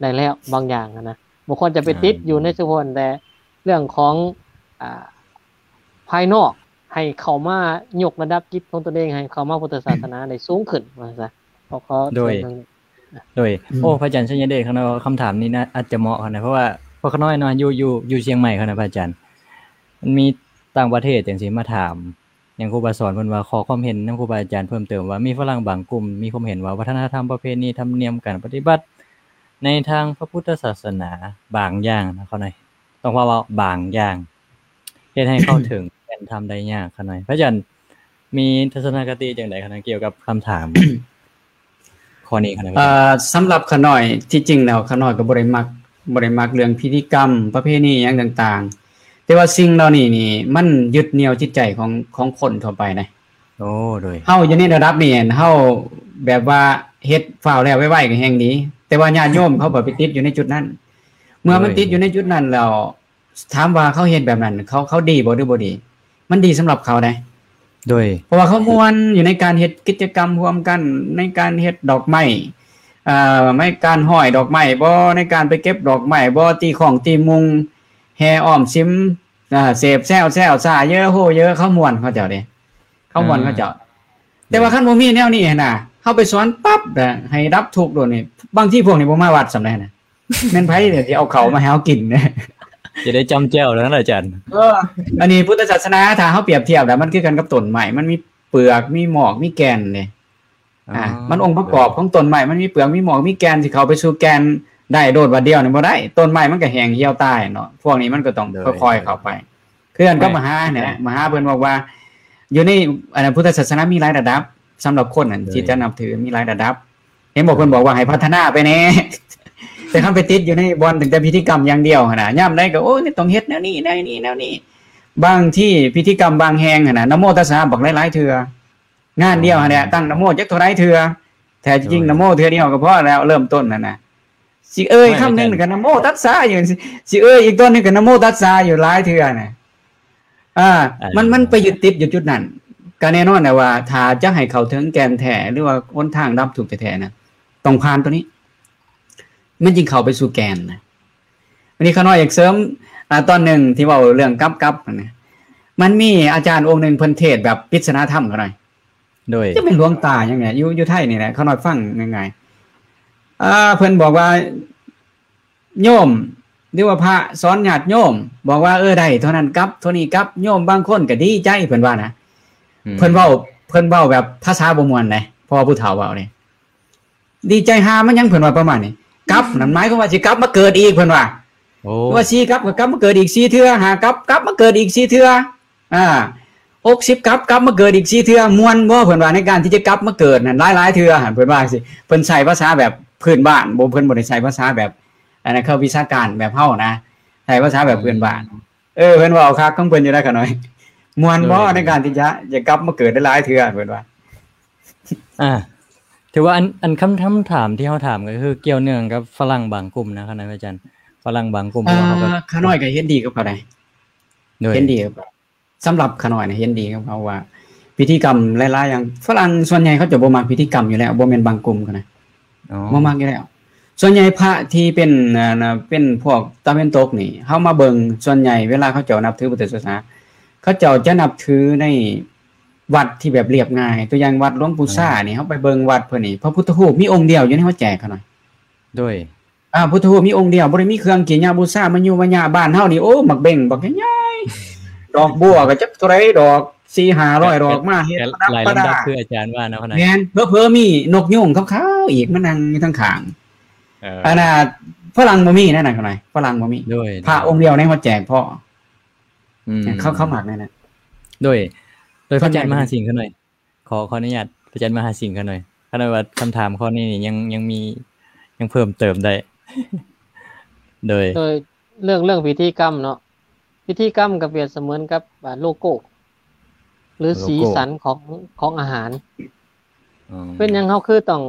ໄດ້ແລ້ວບາງຢ່າງຫັ້ນນະ, ບໍ່ຄວນຈະໄປຕິດຢູ່ໃນສະພາບແຕ່ເລື່ອງຂອງ ອ່າ ພາຍນອກ ໃຫ້ເຂົ້າມາຍົກລະດັບຈິດຂອງຕົນເອງ ໃຫ້ເຂົ້າມາພຸດທະສາສະໜາໄດ້ສູງຂຶ້ນ ວ່າຊັ້ນຊະ. ຂໍ ຂໍ ໂດຍ ໂດຍ ອືມ ໂອ້ ພະອາຈານໄຊຍະເດດ ຂ້ານ້ອຍວ່າຄຳຖາມນີ້ນະ ອາດຈະເໝາະຫັ້ນນະ ເພາະວ່າພວກຂ້ານ້ອຍເນາະ ຢູ່ ຢູ່ ຢູ່ຊຽງໃໝ່ຫັ້ນນະ ພະອາຈານ. ມັນມີຕ່າງປະເທດຈັ່ງຊີ້ມາຖາມຫຍັງຄູບາສອນເພິ່ນວ່າ ຂໍຄວາມເຫັນນຳຄູບາອາຈານເພີ່ມເຕີມວ່າ ມີຝຣັ່ງບາງກຸ່ມມີຄວາມເຫັນວ່າ ວັດທະນະທຳ ປະເພນີ ທຳນຽມ ການປະຕິບັດໃນທາງພະພຸດທະສາສະໜາບາງຢ່າງນະ ເຂົາໜ້ອຍ ຕ້ອງເວົ້າວ່າບາງຢ່າງ ເຮັດໃຫ້ເຂົ້າເຖິງແກ່ນທຳໄດ້ຍາກ ເຂົາໜ້ອຍ. ພະອາຈານມີທັດສະນະຄະຕິຈັ່ງໃດ ເຂົາໜ້ອຍ ກ່ຽວກັບຄຳຖາມ ຂໍ້ນີ້ ເອີ ສຳລັບຂ້ານ້ອຍ ທີ່ຈິງແລ້ວຂ້ານ້ອຍກໍບໍ່ໄດ້ມັກ ບໍ່ໄດ້ມັກເລື່ອງພິທີກຳ ປະເພນີຫຍັງຕ່າງໆ ແຕ່ວ່າສິ່ງເຫຼົ່ານີ້ນີ້ ມັນຍຶດໜ່ຽວຈິດໃຈຂອງ ຂອງຄົນທົ່ວໄປນະ. ໂອ້ ໂດຍ ເຮົາຢູ່ໃນລະດັບນີ້ ເຮົາແບບວ່າເຮັດຟ້າວແລ້ວໄວໆກໍແຮ່ງດີ ແຕ່ວ່າຍາດໂຍມເຂົາກໍໄປຕິດຢູ່ໃນຈຸດນັ້ນ. ເມື່ອມັນ ໂດຍ ຕິດຢູ່ໃນຈຸດນັ້ນແລ້ວ ຖາມວ່າເຂົາເຮັດແບບນັ້ນ ເຂົາ ເຂົາດີບໍ່ ຫຼື ບໍ່ດີ? ມັນດີສຳລັບເຂົາໃດ໋ ໂດຍ ເພາະວ່າເຂົາມ່ວນຢູ່ໃນການເຮັດກິດຈະກຳຮ່ວມກັນ ໃນການເຮັດດອກໄມ້ ເອີ ໃນການຮ້ອຍດອກໄມ້ບໍ ໃນການໄປເກັບດອກໄມ້ບໍ ຕີຄ້ອງຕີມຸງ ແຫ່ອ້ອມສິມ ເອີ ເສບແຊວແຊວຊາເຢີໂຮເຢີ ເຂົາມ່ວນເຂົາເຈົ້າເດ້ ເຂົາມ່ວນເຂົາເຈົ້າ. ແຕ່ວ່າຄັນບໍ່ມີແນວນີ້ຫັ້ນນະ ເຮົາໄປສອນປັບນະ ໃຫ້ດັບທຸກໂລດນີ້ ບາງທີພວກນີ້ບໍ່ມາວັດສ່ຳໃດນະ ແມ່ນໃຜທີ່ເອົາເຂົ້າມາໃຫ້ເຮົາກິນ ຈະໄດ້ຈ້ຳແຈ່ວແລ້ວນະອາຈານ. ເອີ ອັນນີ້ພຸດທະສາສະໜາ ຖ້າເຮົາປຽບທຽບແລ້ວ ມັນຄືກັນກັບຕົ້ນໄມ້ ມັນມີເປືອກ ມີໝອກ ມີແກ່ນເດ້. ອ່າ ອ່າ ມັນອົງປະກອບຂອງຕົ້ນໄມ້ ມັນມີເປືອກ ມີໝອກ ມີແກ່ນ ຊິເຂົ້າໄປສູ່ແກ່ນໄດ້ໂດດບາດດຽວນີ້ບໍ່ໄດ້ ຕົ້ນໄມ້ມັນກໍແຫ້ງຫ່ຽວຕາຍເນາະ. ພວກນີ້ມັນກໍຕ້ອງ ໂດຍ ຄ່ອຍໆເຂົ້າໄປ ຄືກັນກັບ ໂດຍ ມະຫາແຫຼະ ມະຫາເພິ່ນບອກວ່າ ຢູ່ໃນ ອັນນັ້ນ ພຸດທະສາສະໜາມີຫຼາຍລະດັບ ສຳລັບຄົນນັ້ນ ໂດຍ ທີ່ຈະນັບຖືມີຫຼາຍລະດັບ. ເຫັນບໍ່ ໂດຍ ເພິ່ນບອກວ່າໃຫ້ພັດທະນາໄປແດ່ ແຕ່ຄັນໄປຕິດຢູ່ໃນບ່ອນຕັ້ງແຕ່ພິທີກຳຢ່າງດຽວຫັ້ນນະ ຍາມໃດກໍ ໂອ້ຍ ຕ້ອງເຮັດແນວນີ້ ແນວນີ້ ແນວນີ້. ບາງທີພິທີກຳບາງແຫ່ງຫັ້ນນະ ນະໂມຕັດສະບັກຫຼາຍໆເທື່ອ ງານດຽວຫັ້ນແຫຼະ ອໍ ຕັ້ງນະໂມຈັກເທົ່າໃດເທື່ອ ແທ້ຈິງ ໂດຍ ນະໂມເທື່ອດຽວກໍພໍແລ້ວ ເລີ່ມຕົ້ນຫັ້ນນະ. ຊິເອີ່ຍຄຳໜຶ່ງກໍນະໂມຕັດສະຢູ່ ຊິເອີ່ຍອີກຕອນໜຶ່ງກໍນະໂມຕັດສະຢູ່ຫຼາຍເທື່ອນະ. ອ່າ ມັນ ມັນໄປຍຶດຕິດຢູ່ຈຸດນັ້ນ. ກໍແນ່ນອນແຫຼະວ່າ ຖ້າຈະໃຫ້ເຂົ້າເຖິງແກ່ນແທ້ ຫຼືວ່າຫົນທາງດັບທຸກແທ້ໆນະ ຕ້ອງຜ່ານຕົວນີ້ ມັນຈຶ່ງເຂົ້າໄປສູ່ແກ່ນນະ. ອັນນີ້ຂ້ານ້ອຍຢາກເສີມ ອ່າ ຕອນໜຶ່ງທີ່ເວົ້າເລື່ອງກັບ ກັບຫັ້ນນະ ມັນມີອາຈານອົງໜຶ່ງເພິ່ນເທດແບບປິດສະນາທຳຂ້ານ້ອຍ ໂດຍ ຈະເປັນຫຼວງຕາຫຍັງນີ້ ຢູ່ ຢູ່ໄທນີ້ແຫຼະ ຂ້ານ້ອຍຟັງງ່າຍໆ. ອ່າ ເພິ່ນບອກວ່າ ໂຍມ ຫຼືວ່າພະສອນຍາດໂຍມ ບອກວ່າ ເອີ ໄດ້ເທົ່ານັ້ນກັບ ເທົ່ານີ້ກັບ ໂຍມບາງຄົນກໍດີໃຈ ເພິ່ນວ່ານະ. ອືມ ເພິ່ນເວົ້າ ເພິ່ນເວົ້າແບບພາສາບໍ່ມ່ວນເດ້ ເພາະວ່າຜູ້ເຖົ້າເວົ້າເດ້. ດີໃຈຫາມັນຫຍັງ ເພິ່ນວ່າປະມານນີ້. ກັບນັ້ນໝາຍຄວາມວ່າຊິກັບມາເກີດອີກ ເພິ່ນວ່າ. ໂອ້ ວ່າສີ່ກັບກໍກັບມາເກີດອີກສີ່ເທື່ອ ຫ້າກັບກັບມາເກີດອີກສີ່ເທື່ອ ອ່າ ຫົກສິບກັບກັບມາເກີດອີກສີ່ເທື່ອ. ມ່ວນບໍ່ ເພິ່ນວ່າ ໃນການທີ່ຈະກັບມາເກີດນັ້ນຫຼາຍໆເທື່ອຫັ້ນ ເພິ່ນວ່າຈັ່ງຊີ້. ເພິ່ນໃຊ້ພາສາແບບພື້ນບ້ານ ບໍ່ ເພິ່ນບໍ່ໄດ້ໃຊ້ພາສາແບບ ອັນນັ້ນ ເຂົາວິຊາການແບບເຮົານະ ໃຊ້ພາສາແບບພື້ນບ້ານ. ເອີ ເພິ່ນເວົ້າຄັກຂອງເພິ່ນຢູ່ນະຂ້ານ້ອຍ. ມ່ວນບໍ່ ໂດຍ ໃນການທີ່ຈະ ຈະກັບມາເກີດຫຼາຍໆເທື່ອ ເພິ່ນວ່າ. ອ່າ ຖືວ່າອັນ ອັນຄຳ ຄຳຖາມທີ່ເຮົາຖາມກໍຄືກ່ຽວເນື່ອງກັບຝຣັ່ງບາງກຸ່ມນະ ຄະນະອາຈານ. ຝຣັ່ງບາງກຸ່ມ ອ່າ ເຂົາກໍ ຂ້ານ້ອຍກໍເຫັນດີກັບເຂົາໄດ໋ ໂດຍ ເຫັນດີກັບເຂົາ. ສຳລັບຂ້ານ້ອຍນະ ເຫັນດີກັບເຂົາວ່າ ພິທີກຳຫຼາຍໆຢ່າງ ຝຣັ່ງສ່ວນໃຫຍ່ເຂົາຈະບໍ່ມັກພິທີກຳຢູ່ແລ້ວ ບໍ່ແມ່ນບາງກຸ່ມເຂົານະ. ອໍ ບໍ່ມັກຢູ່ແລ້ວ. ສ່ວນໃຫຍ່ພະທີ່ເປັນ ອ່າ ເປັນພວກຕາເວັນຕົກນີ້ ເຮົາມາເບິ່ງ ສ່ວນໃຫຍ່ເວລາເຂົາເຈົ້ານັບຖືພຸດທະສາສະໜາ ເຂົາເຈົ້າຈະນັບຖືໃນວັດທີ່ແບບລຽບງ່າຍ. ຕົວຢ່າງວັດຫຼວງປູ່ຊານີ້ ເຮົາໄປເບິ່ງວັດເພິ່ນນີ້ ພະພຸດທະຮູບມີອົງດຽວຢູ່ໃນຫົວແຈກເຂົານະ. ໂດຍ ອ່າ ພຸດທະຮູບມີອົງດຽວ ບໍ່ໄດ້ມີເຄື່ອງກິນຍາບູຊາມາຍຸມາຍະ. ບ້ານເຮົານີ້ ໂອ້ ໝາກເບັງບັກໃຫຍ່ໆ ດອກບົວກໍຈັກເທົ່າໃດດອກ ສີ່ຫ້າຮ້ອຍດອກ ມາເຮັດປະດັບປະດາ ຄືອາຈານວ່າເນາະ. ແມ່ນ ເຜີໆມີນົກຍູງຂາວໆອີກມານັ່ງຢູ່ທາງຂ້າງ. ເອີ ອັນນ່າ ຝຣັ່ງບໍ່ມີແນວນັ້ນຂ້ານ້ອຍ ຝຣັ່ງບໍ່ມີ. ໂດຍ ພະອົງດຽວໃນຫົວແຈກພໍ. ອືມ ເຂົາ ເຂົາມັກແນວນັ້ນ. ໂດຍ ໂດຍ ພະອາຈານມະຫາສິງຂ້ານ້ອຍ ຂໍ ຂໍອະນຸຍາດພະອາຈານມະຫາສິງຂ້ານ້ອຍ ຂ້ານ້ອຍວ່າຄຳຖາມຂໍ້ນີ້ນີ້ຍັງ ຍັງມີ ຍັງເພີ່ມເຕີມໄດ້. ໂດຍ ໂດຍ ເລື່ອງ ເລື່ອງພິທີກຳເນາະ ພິທີກຳກໍປຽບສະເໝືອນກັບ ອ່າ ໂລໂກ້ ຫຼື ໂລໂກ້ ສີສັນຂອງ ຂອງອາຫານ. ອໍ ເປັນຫຍັງເຮົາຄືຕ້ອງ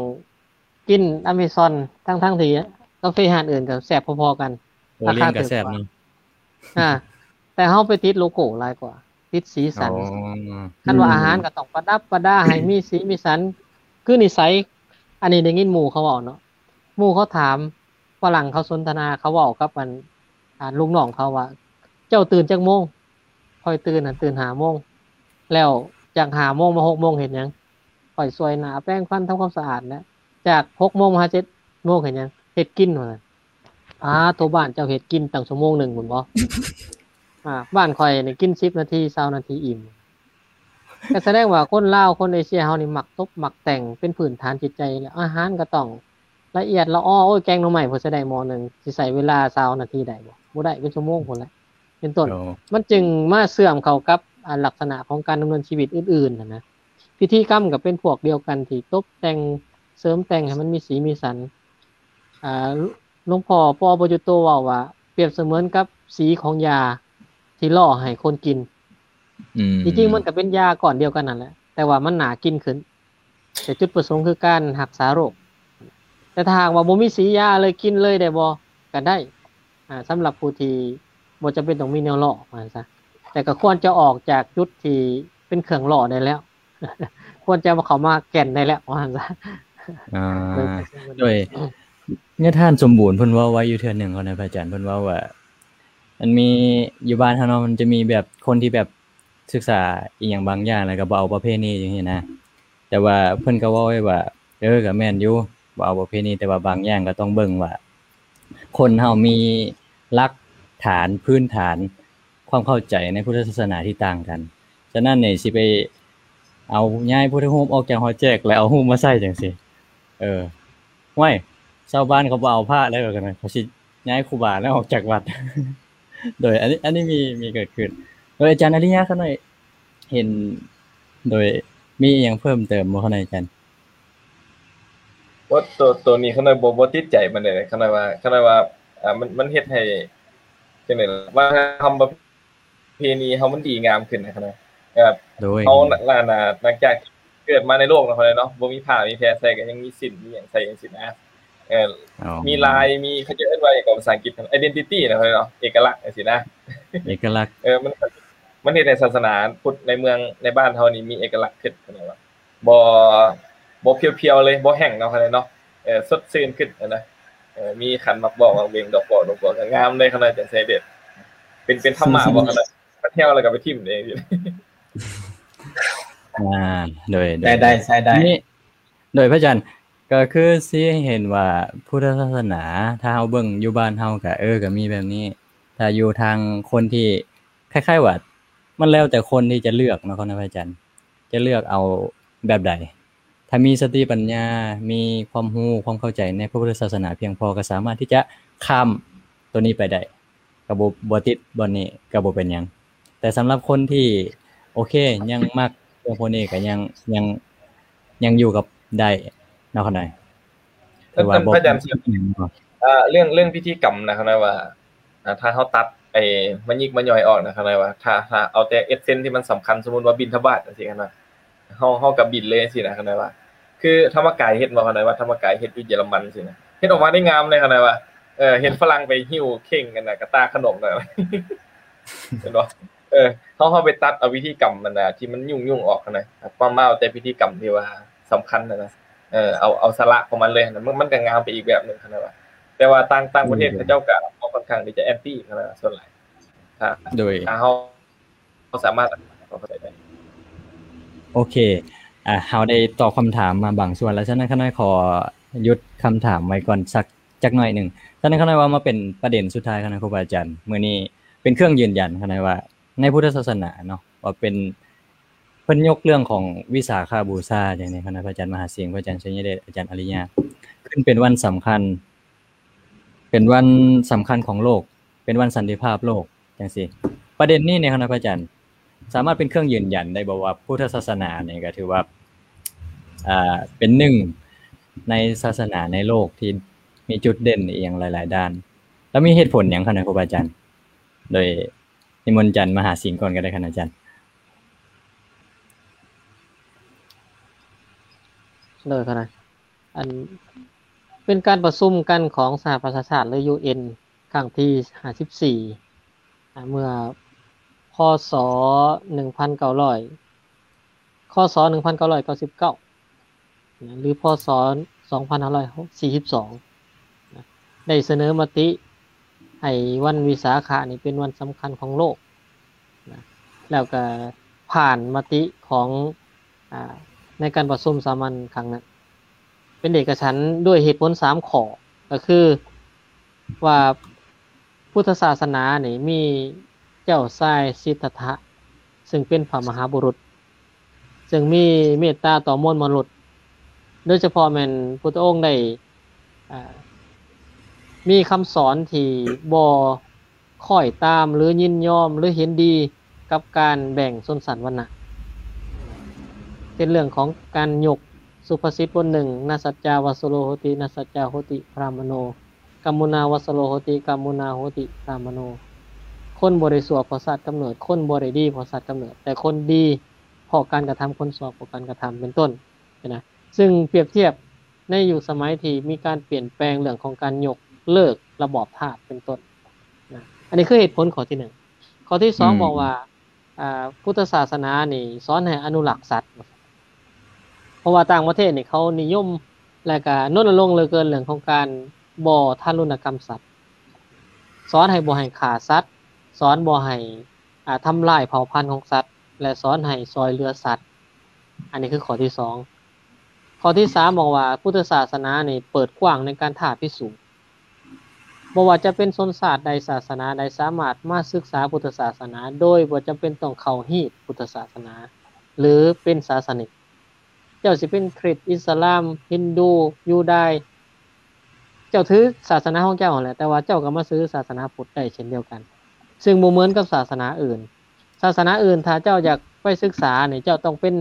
ກິນອາເມຊອນ ທັງໆທີ່ກາເຟຮ້ານອື່ນກໍແຊບພໍໆກັນ ໂອລຽນກໍແຊບເນາະ. ອ່າ ແຕ່ເຮົາໄປຕິດໂລໂກ້ຫຼາຍກວ່າ ຕິດສີສັນ. ອໍ ຄັນວ່າອາຫານກໍຕ້ອງປະດັບປະດາໃຫ້ມີສີມີສັນ ຄືນິໄສ. ອັນນີ້ໄດ້ຍິນໝູ່ເຂົາເວົ້າເນາະ ໝູ່ເຂົາຖາມ ຝຣັ່ງເຂົາສົນທະນາ ເຂົາເວົ້າກັບອັນ ອ່າ ລູກນ້ອງເຂົາວ່າ ເຈົ້າຕື່ນຈັກໂມງ? ຂ້ອຍຕື່ນຫັ້ນຕື່ນຫ້າໂມງ ແລ້ວຈາກຫ້າໂມງມາຫົກໂມງເຮັດຫຍັງ? ຂ້ອຍສວຍໜ້າ ແປງຟັນ ທຳຄວາມສະອາດ ແລະ ຈາກຫົກໂມງມາຫາເຈັດໂມງເຮັດຫຍັງ? ເຮັດກິນ ວ່າຊັ້ນ. ປາໂທ ບ້ານເຈົ້າເຮັດກິນຕັ້ງຊົ່ວໂມງໜຶ່ງພຸ້ນບໍ? ອ່າ ບ້ານຂ້ອຍນີ້ກິນສິບນາທີ ຊາວນາທີອີ່ມ. ກໍສະແດງວ່າຄົນລາວ ຄົນເອເຊຍເຮົານີ້ມັກຕົບມັກແຕ່ງເປັນພື້ນຖານຈິດໃຈ ແລະອາຫານກໍຕ້ອງລະອຽດລະອໍ. ໂອ້ຍ ແກງໜໍ່ໄມ້ເພິ່ນຊິໄດ້ໝໍ້ໜຶ່ງ ຊິໃຊ້ເວລາຊາວນາທີໄດ້ບໍ່? ບໍ່ໄດ້ ເປັນຊົ່ວໂມງພຸ້ນແຫຼະ ເປັນຕົ້ນ. ໂອ້ ມັນຈຶ່ງມາເຊື່ອມເຂົ້າກັບ ອ່າ ລັກສະນະຂອງການດຳເນີນຊີວິດອື່ນໆຫັ້ນນະ. ພິທີກຳກໍເປັນພວກດຽວກັນທີ່ຕົບແຕ່ງ ເສີມແຕ່ງໃຫ້ມັນມີສີມີສັນ. ອ່າ ຫຼວງພໍ່ ປໍ ປະຍຸດໂຕ ເວົ້າວ່າ ປຽບສະເໝືອນກັບສີຂອງຢາທີ່ຫຼໍ່ໃຫ້ຄົນກິນ. ອືມ ທີ່ຈິງມັນກໍເປັນຢາກ້ອນດຽວກັນນັ້ນແຫຼະ ແຕ່ວ່າມັນໜ້າກິນຂຶ້ນ ແຕ່ຈຸດປະສົງຄືການຮັກສາໂລກ. ແຕ່ຖ້າຫາກວ່າບໍ່ມີສີຢາເລີຍ ກິນເລີຍໄດ້ບໍ່? ກໍໄດ້ ອ່າ ສຳລັບຜູ້ທີ່ບໍ່ຈຳເປັນຕ້ອງມີແນວຫຼໍ່ ວ່າຊັ້ນຊະ. ແຕ່ກໍຄວນຈະອອກຈາກຈຸດທີ່ເປັນເຄື່ອງຫຼໍ່ໄດ້ແລ້ວ ຄວນຈະເຂົ້າມາແກ່ນໄດ້ແລ້ວ ວ່າຊັ້ນຊະ. ອ່າ ໂດຍ ໂດຍ ຍາທ່ານສົມບູນເພິ່ນເວົ້າໄວ້ຢູ່ເທື່ອໜຶ່ງເນາະ ພະອາຈານ ເພິ່ນເວົ້າວ່າ ມັນມີ ຢູ່ບ້ານເຮົາເນາະ ມັນຈະມີແບບຄົນທີ່ແບບສຶກສາອີ່ຫຍັງບາງຢ່າງ ແລ້ວກໍບໍ່ເອົາປະເພນີຈັ່ງຊີ້ນະ. ແຕ່ວ່າເພິ່ນກໍເວົ້າໄວ້ວ່າ ເອີ ກໍແມ່ນຢູ່ ບໍ່ເອົາປະເພນີ ແຕ່ວ່າບາງຢ່າງກໍຕ້ອງເບິ່ງວ່າ ຄົນເຮົາມີຫຼັກຖານພື້ນຖານຄວາມເຂົ້າໃຈໃນພຸດທະສາສະໜາທີ່ຕ່າງກັນ. ສະນັ້ນນີ້ ຊິໄປເອົາຍ້າຍພຸດທະຮູບອອກຈາກຫໍແຈກ ແລ້ວເອົາຮູບມາໃສ່ຈັ່ງຊີ້ ເອີ ຫ້ວຍ ຊາວບ້ານເຂົາບໍ່ເອົາພະແລ້ວ ເຂົາຊິຍ້າຍຄູບາແລ້ວອອກຈາກວັດ. ໂດຍ ອັນນີ້ ອັນນີ້ມີ ມີເກີດຂຶ້ນ. ໂດຍ ອາຈານອາລິຍະ ຂ້ານ້ອຍເຫັນ ໂດຍ ມີອີ່ຫຍັງເພີ່ມເຕີມບໍ່ ຂ້ານ້ອຍ ອາຈານ? ໂອ້ ໂຕ ໂຕນີ້ຂ້ານ້ອຍບໍ່ ບໍ່ຕິດໃຈປານໃດ. ຂ້ານ້ອຍວ່າ ຂ້ານ້ອຍວ່າ ອ່າ ມັນ ມັນເຮັດໃຫ້ ຈັ່ງໃດລະ ວັດທະນະທຳປະເພນີເຮົາມັນດີງາມຂຶ້ນນະ ຂ້ານ້ອຍ. ແບບ ໂດຍ ເຮົາ ນ- ນ- ນ- ຫຼັງຈາກເກີດມາໃນໂລກເນາະ ຂ້ານ້ອຍເນາະ ບໍ່ມີຜ້າມີແພໃສ່ ກໍຍັງມີສິ້ນ ມີຫຍັງໃສ່ຈັ່ງຊີ້ນະ. ເອີ ອໍ ມີລາຍ ມີ ເຂົາເຈົ້າເອີ້ນວ່າຫຍັງກໍພາສາອັງກິດ identity ນະ ເນາະ ເອກະລັກຈັ່ງຊີ້ນະ. ເອກະລັກ ເອີ ມັນ ມັນເຮັດໃຫ້ສາສະໜາພຸດໃນເມືອງ ໃນບ້ານເຮົານີ້ມີເອກະລັກຂຶ້ນ ເຂົາເອີ້ນວ່າ ບໍ່ ບໍ່ພຽວໆເລີຍ ບໍ່ແຫ້ງເນາະ ເຂົາເອີ້ນເນາະ. ເອີ ສົດຊື່ນຂຶ້ນຫັ້ນນະ. ເອີ ມີຂັນໝາກບອກ ໝາກເບັງ ດອກບອກ ດອກບວກ ກໍງາມເລີຍ ເຂົາເອີ້ນຈັ່ງຊີ້ເດ. ເປັນ ເປັນທຳມະບໍ່ ເຂົາເອີ້ນ ມັນແຫ້ວແລ້ວກໍໄປຖິ້ມເອງ. ອ່າ ໂດຍ ໂດຍ ໃຊ້ໄດ້ ໃຊ້ໄດ້ ນີ້ ໂດຍ ພະອາຈານ ກໍຄືຊິເຫັນວ່າພຸດທະສາສະໜາ ຖ້າເຮົາເບິ່ງຢູ່ບ້ານເຮົາກໍ ເອີ ກໍມີແບບນີ້. ຖ້າຢູ່ທາງຄົນທີ່ ຄ້າຍໆວ່າ ມັນແລ້ວແຕ່ຄົນທີ່ຈະເລືອກເນາະ ເນາະ ພະອາຈານ ຈະເລືອກເອົາແບບໃດ. ຖ້າມີສະຕິປັນຍາ ມີຄວາມຮູ້ ຄວາມເຂົ້າໃຈໃນພະພຸດທະສາສະໜາພຽງພໍ ກໍສາມາດທີ່ຈະຂ້າມໂຕນີ້ໄປໄດ້ ກໍບໍ່ ບໍ່ຕິດບ່ອນນີ້ ກໍບໍ່ເປັນຫຍັງ. ແຕ່ສຳລັບຄົນທີ່ ໂອເຄ ຍັງມັກເລື່ອງພວກນີ້ ກໍຍັງ ຍັງ ຍັງຢູ່ກັບໄດ້ເນາະ ຂ້ານ້ອຍ. ເອີ ພະອາຈານ ເອີ ເລື່ອງ ເລື່ອງພິທີກຳນະ ຂ້ານ້ອຍວ່າ ອ່າ ຖ້າເຮົາຕັດໄອ້ມະຍິກມະຍ່ອຍອອກນະ ຂ້ານ້ອຍວ່າ ຖ້າ ຖ້າເອົາແຕ່ເອັດເຊັນທີ່ມັນສຳຄັນ ສົມມຸດວ່າບິນທະບາດຈັ່ງຊີ້ນະ ເຮົາ ເຮົາກໍບິນເລີຍຈັ່ງຊີ້ນະ ຂ້ານ້ອຍວ່າ. ຄືທຳມະກາຍເຮັດບໍ່ ຂ້ານ້ອຍວ່າ ທຳມະກາຍເຮັດຢູ່ເຢຍລະມັນຊີ້ນະ ເຮັດອອກມາໄດ້ງາມເລີຍ ຂ້ານ້ອຍວ່າ. ເອີ ເຫັນຝຣັ່ງໄປຫິ້ວເຄັ່ງອັນນະ ກະຕ່າຂະໜົມນະ ເຫັນບໍ່? ເອີ ເຮົາ ເຮົາໄປຕັດເອົາພິທີກຳອັນນະທີ່ມັນຫຍຸ້ງໆອອກຫັ້ນນະ ມາ ມາເອົາແຕ່ພິທີກຳທີ່ວ່າສຳຄັນຫັ້ນນະ. ເອີ ເອົາ ເອົາສາລະຂອງມັນເລີຍຫັ້ນນະ ມັນ ມັນກໍງາມໄປອີກແບບໜຶ່ງຫັ້ນນະ. ແຕ່ວ່າຕ່າງ ຕ່າງປະເທດເຂົາເຈົ້າກໍ ອືມ ເຂົາຂ້ອນຂ້າງທີ່ຈະແອນຕີຫັ້ນນະ ສ່ວນຫຼາຍ. ໂດຍ ຖ້າເຮົາ ເຮົາສາມາດເຂົ້າໃຈໄດ້. ໂອເຄ ອ່າ ເຮົາໄດ້ຕອບຄຳຖາມມາບາງສ່ວນແລ້ວ, ສະນັ້ນຂ້ານ້ອຍຂໍຢຸດຄຳຖາມໄວ້ກ່ອນສັກ ຈັກໜ້ອຍໜຶ່ງ. ສະນັ້ນຂ້ານ້ອຍວ່າມາເປັນປະເດັນສຸດທ້າຍ ຂ້ານ້ອຍ ຄູບາອາຈານ, ມື້ນີ້ເປັນເຄື່ອງຢືນຢັນ ຂ້ານ້ອຍວ່າ ໃນພຸດທະສາສະໜາເນາະ ວ່າເປັນ ເພິ່ນຍົກເລື່ອງຂອງວິສາຂະບູຊາ ຢ່າງນີ້ ຄະນະພະອາຈານມະຫາສິງ, ພະອາຈານໄຊຍະເດດ, ອາຈານອາລິຍະ ຂຶ້ນເປັນວັນສຳຄັນ ເປັນວັນສຳຄັນຂອງໂລກ, ເປັນວັນສັນຕິພາບໂລກ ຈັ່ງຊີ້. ປະເດັນນີ້ນີ້ ຄະນະພະອາຈານ ສາມາດເປັນເຄື່ອງຢືນຢັນໄດ້ບໍ່ວ່າ ພຸດທະສາສະໜານີ້ກໍຖືວ່າ ອ່າ ເປັນໜຶ່ງໃນສາສະໜາໃນໂລກທີ່ມີຈຸດເດັ່ນອີ່ຫຍັງຫຼາຍໆດ້ານ ແລ້ວມີເຫດຜົນຫຍັງ ຄະນະຄູບາອາຈານ? ໂດຍ ນິມົນອາຈານມະຫາສິງກ່ອນກໍໄດ້ ຄະນະອາຈານ. ໂດຍ ຄະນະ ອັນ ເປັນການປະຊຸມກັນຂອງສະຫະປະຊາຊາດ ຫຼື ຢູເອັນ ຄັ້ງທີຫ້າສິບສີ່ ອາ ເມື່ອ ພ.ສ. ໜຶ່ງພັນເກົ້າຮ້ອຍ ຄ.ສ. ໜຶ່ງພັນເກົ້າຮ້ອຍເກົ້າສິບເກົ້າ ນະ ຫຼື ພ.ສ. ສອງພັນຫ້າຮ້ອຍສີ່ສິບສອງ ນະ ໄດ້ສະເໜີມະຕິໃຫ້ວັນວິສາຂະນີ້ເປັນວັນສຳຄັນຂອງໂລກ ນະ ແລ້ວກະຜ່ານມະຕິຂອງ ອາ ໃນການປະຊຸມສາມັນຄັ້ງນັ້ນ ເປັນເອກະສັນດ້ວຍເຫດຜົນສາມຂໍ້ ກໍຄືວ່າ ພຸດທະສາສະໜານີ້ມີ ເຈົ້າຊາຍສິດທັດຖະ ຊຶ່ງເປັນພະມະຫາບຸລຸດ ຊຶ່ງມີເມດຕາຕໍ່ມວນມະນຸດ ໂດຍສະເພາະແມ່ນພຸດທະອົງໄດ້ ອ່າ ມີຄຳສອນທີ່ບໍ່ ຄ້ອຍຕາມ ຫຼື ຍິນຍອມ ຫຼື ເຫັນດີກັບການແບ່ງຊົນຊັ້ນວັນນະ ເປັນເລື່ອງຂອງການຍົກສຸພາສິດບົດໜຶ່ງ ນະສັດຈາວັດສະໂລໂຫຕິ ນະສັດຈາໂຫຕິພຣາມະໂນ ກຳມຸນາວັດສະໂລໂຫຕິ ກຳມຸນາໂຫຕິພຣາມະໂນ ຄົນບໍ່ໄດ້ຊົ່ວເພາະຊາດກຳເນີດ ຄົນບໍ່ໄດ້ດີເພາະຊາດກຳເນີດ ແຕ່ຄົນດີເພາະການກະທຳ ຄົນຊົ່ວເພາະການກະທຳ ເປັນຕົ້ນ ນະ ຊຶ່ງປຽບທຽບໃນຍຸກສະໄໝທີ່ມີການປ່ຽນແປງເລື່ອງຂອງການຍົກເລີກລະບອບທາດເປັນຕົ້ນນະ ອັນນີ້ຄືເຫດຜົນຂໍ້ທີໜຶ່ງ. ຂໍ້ທີສອງ ອືມ ບອກວ່າ ອ່າ ພຸດທະສາສະໜານີ້ສອນໃຫ້ອະນຸລັກສັດ ເພາະວ່າຕ່າງປະເທດນີ້ເຂົານິຍົມ ແລະກະລົນນະລົງເຫຼືອເກີນເລື່ອງຂອງການບໍ່ທາລຸນນະກຳສັດ ສອນໃຫ້ບໍ່ໃຫ້ຂ້າສັດ ສອນບໍ່ໃຫ້ ອ່າ ທຳລາຍເຜົ່າພັນຂອງສັດ ແລະ ສອນໃຫ້ຊ່ອຍເຫຼືອສັດ. ອັນນີ້ຄືຂໍ້ທີສອງ. ຂໍ້ທີສາມ ບອກວ່າພຸດທະສາສະໜານີ້ເປີດກວ້າງໃນການທ້າພິສູດ ບໍ່ວ່າຈະເປັນຊົນຊາດໃດ ສາສະໜາໃດ ສາມາດມາສຶກສາພຸດທະສາສະໜາ ໂດຍບໍ່ຈຳເປັນຕ້ອງເຂົ້າຮີດພຸດທະສາສະໜາ ຫຼື ເປັນສາສະນິກ. ເຈົ້າຊິເປັນຄຣິດ ອິດສະລາມ ຮິນດູ ຢູດາຍ ເຈົ້າຖືສາສະໜາຂອງເຈົ້າຫັ້ນແຫຼະ ແຕ່ວ່າເຈົ້າກໍມາຖືສາສະໜາພຸດໄດ້ເຊັ່ນດຽວກັນ ຊຶ່ງບໍ່ເໝືອນກັບສາສະໜາອື່ນ. ສາສະໜາອື່ນ ຖ້າເຈົ້າຢາກໄປສຶກສານີ້ ເຈົ້າຕ້ອງເປັນ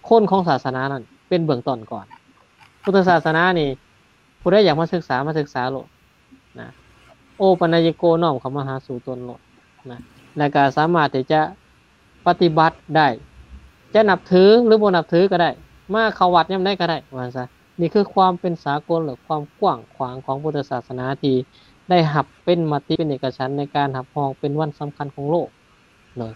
ຄົນຂອງສາສະໜານັ້ນເປັນເບື້ອງຕົ້ນກ່ອນ. ພຸດທະສາສະໜານີ້ ຜູ້ໃດຢາກມາສຶກສາ ມາສຶກສາໂລດນະ ໂອປະນາຍິໂກ ນ້ອມເຂົ້າມາຫາສູ່ຕົນໂລດນະ ແລະກະສາມາດທີ່ຈະປະຕິບັດໄດ້ ຈະນັບຖື ຫຼື ບໍ່ນັບຖືກໍໄດ້ ມາເຂົ້າວັດຍາມໃດກໍໄດ້ ວ່າຊັ້ນຊະ. ນີ້ຄືຄວາມເປັນສາກົນ ແລະ ຄວາມກວ້າງຂວາງຂອງພຸດທະສາສະໜາທີ່ໄດ້ຮັບເປັນມະຕິເປັນເອກະສັນໃນການຮັບຮອງເປັນວັນສຳຄັນຂອງໂລກເນາະ.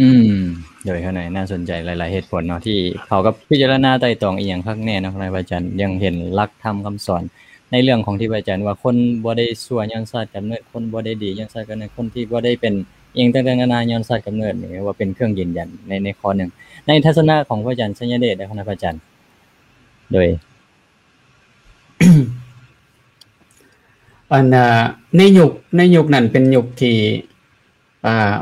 ອືມ ໂດຍ ຂ້າໃນໜ້າສົນໃຈຫຼາຍໆເຫດຜົນເນາະ ທີ່ເຂົາກໍພິຈາລະນາໄຕ່ຕອງອີ່ຫຍັງຄັກແນ່ເນາະ ພະອາຈານ ຍັງເຫັນຫຼັກທຳຄຳສອນໃນເລື່ອງຂອງທີ່ພະອາຈານວ່າ ຄົນບໍ່ໄດ້ຊົ່ວຍ້ອນຊາດກຳເນີດ ຄົນບໍ່ໄດ້ດີຍ້ອນຊາດກຳເນີດ ຄົນທີ່ບໍ່ໄດ້ເປັນອີ່ຫຍັງຕ່າງໆນານາຍ້ອນຊາດກຳເນີດ ນີ້ວ່າເປັນເຄື່ອງຢືນຢັນໃນ ໃນຂໍ້ໜຶ່ງ. ໃນທັດສະນະຂອງພະອາຈານໄຊຍະເດດເດ້ ພະອາຈານ ໂດຍ ອັນ ໃນຍຸກ ໃນຍຸກນັ້ນເປັນຍຸກທີ່ ອ່າ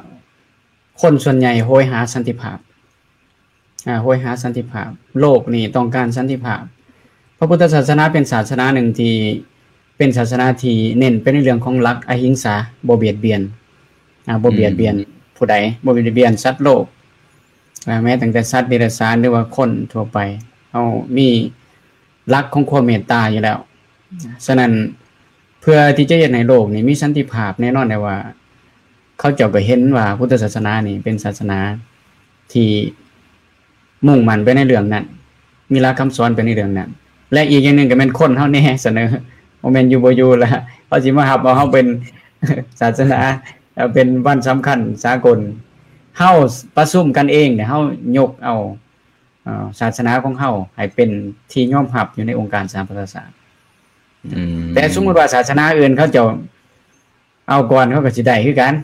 ຄົນສ່ວນໃຫຍ່ໂຫຍຫາສັນຕິພາບ ອ່າ ໂຫຍຫາສັນຕິພາບ ໂລກນີ້ຕ້ອງການສັນຕິພາບ. ພະພຸດທະສາສະໜາເປັນສາສະໜາໜຶ່ງທີ່ເປັນສາສະໜາທີ່ເນັ້ນໄປໃນເລື່ອງຂອງຫຼັກອະຫິງສາ ບໍ່ບຽດບຽນ ອ່າ ບໍ່ບຽດບຽນ ອືມ ຜູ້ໃດ ບໍ່ບຽດບຽນສັດໂລກ ອ່າ ແມ້ຕັ້ງແຕ່ສັດເດຍລະສານ ຫຼືວ່າຄົນທົ່ວໄປ ເຮົາມີຫຼັກຂອງຄວາມເມດຕາຢູ່ແລ້ວ. ສະນັ້ນ ເພື່ອທີ່ຈະເຮັດໃຫ້ໂລກນີ້ມີສັນຕິພາບ ແນ່ນອນໄດ້ວ່າ ເຂົາເຈົ້າກໍເຫັນວ່າພຸດທະສາສະໜານີ້ເປັນສາສະໜາທີ່ມຸ່ງໝັ້ນໄປໃນເລື່ອງນັ້ນ ມີຫຼັກຄຳສອນໄປໃນເລື່ອງນັ້ນ ແລະ ອີກຢ່າງໜຶ່ງກໍແມ່ນຄົນເຮົາແນ່ສະເໜີ ບໍ່ແມ່ນຢູ່ບໍ່ຢູ່ລະ ເຂົາຊິມາຮັບເອົາເຮົາເປັນສາສະໜາ ເປັນວັນສຳຄັນສາກົນ. ເຮົາປະຊຸມກັນເອງ ເຮົາຍົກເອົາ ເອີ ສາສະໜາຂອງເຮົາໃຫ້ເປັນທີ່ຍອມຮັບຢູ່ໃນອົງການສະຫະປະຊາຊາດ. ອືມ ແຕ່ສົມມຸດວ່າສາສະໜາອື່ນເຂົາເຈົ້າເອົາກ່ອນ ເຂົາກໍຊິໄດ້ຄືກັນ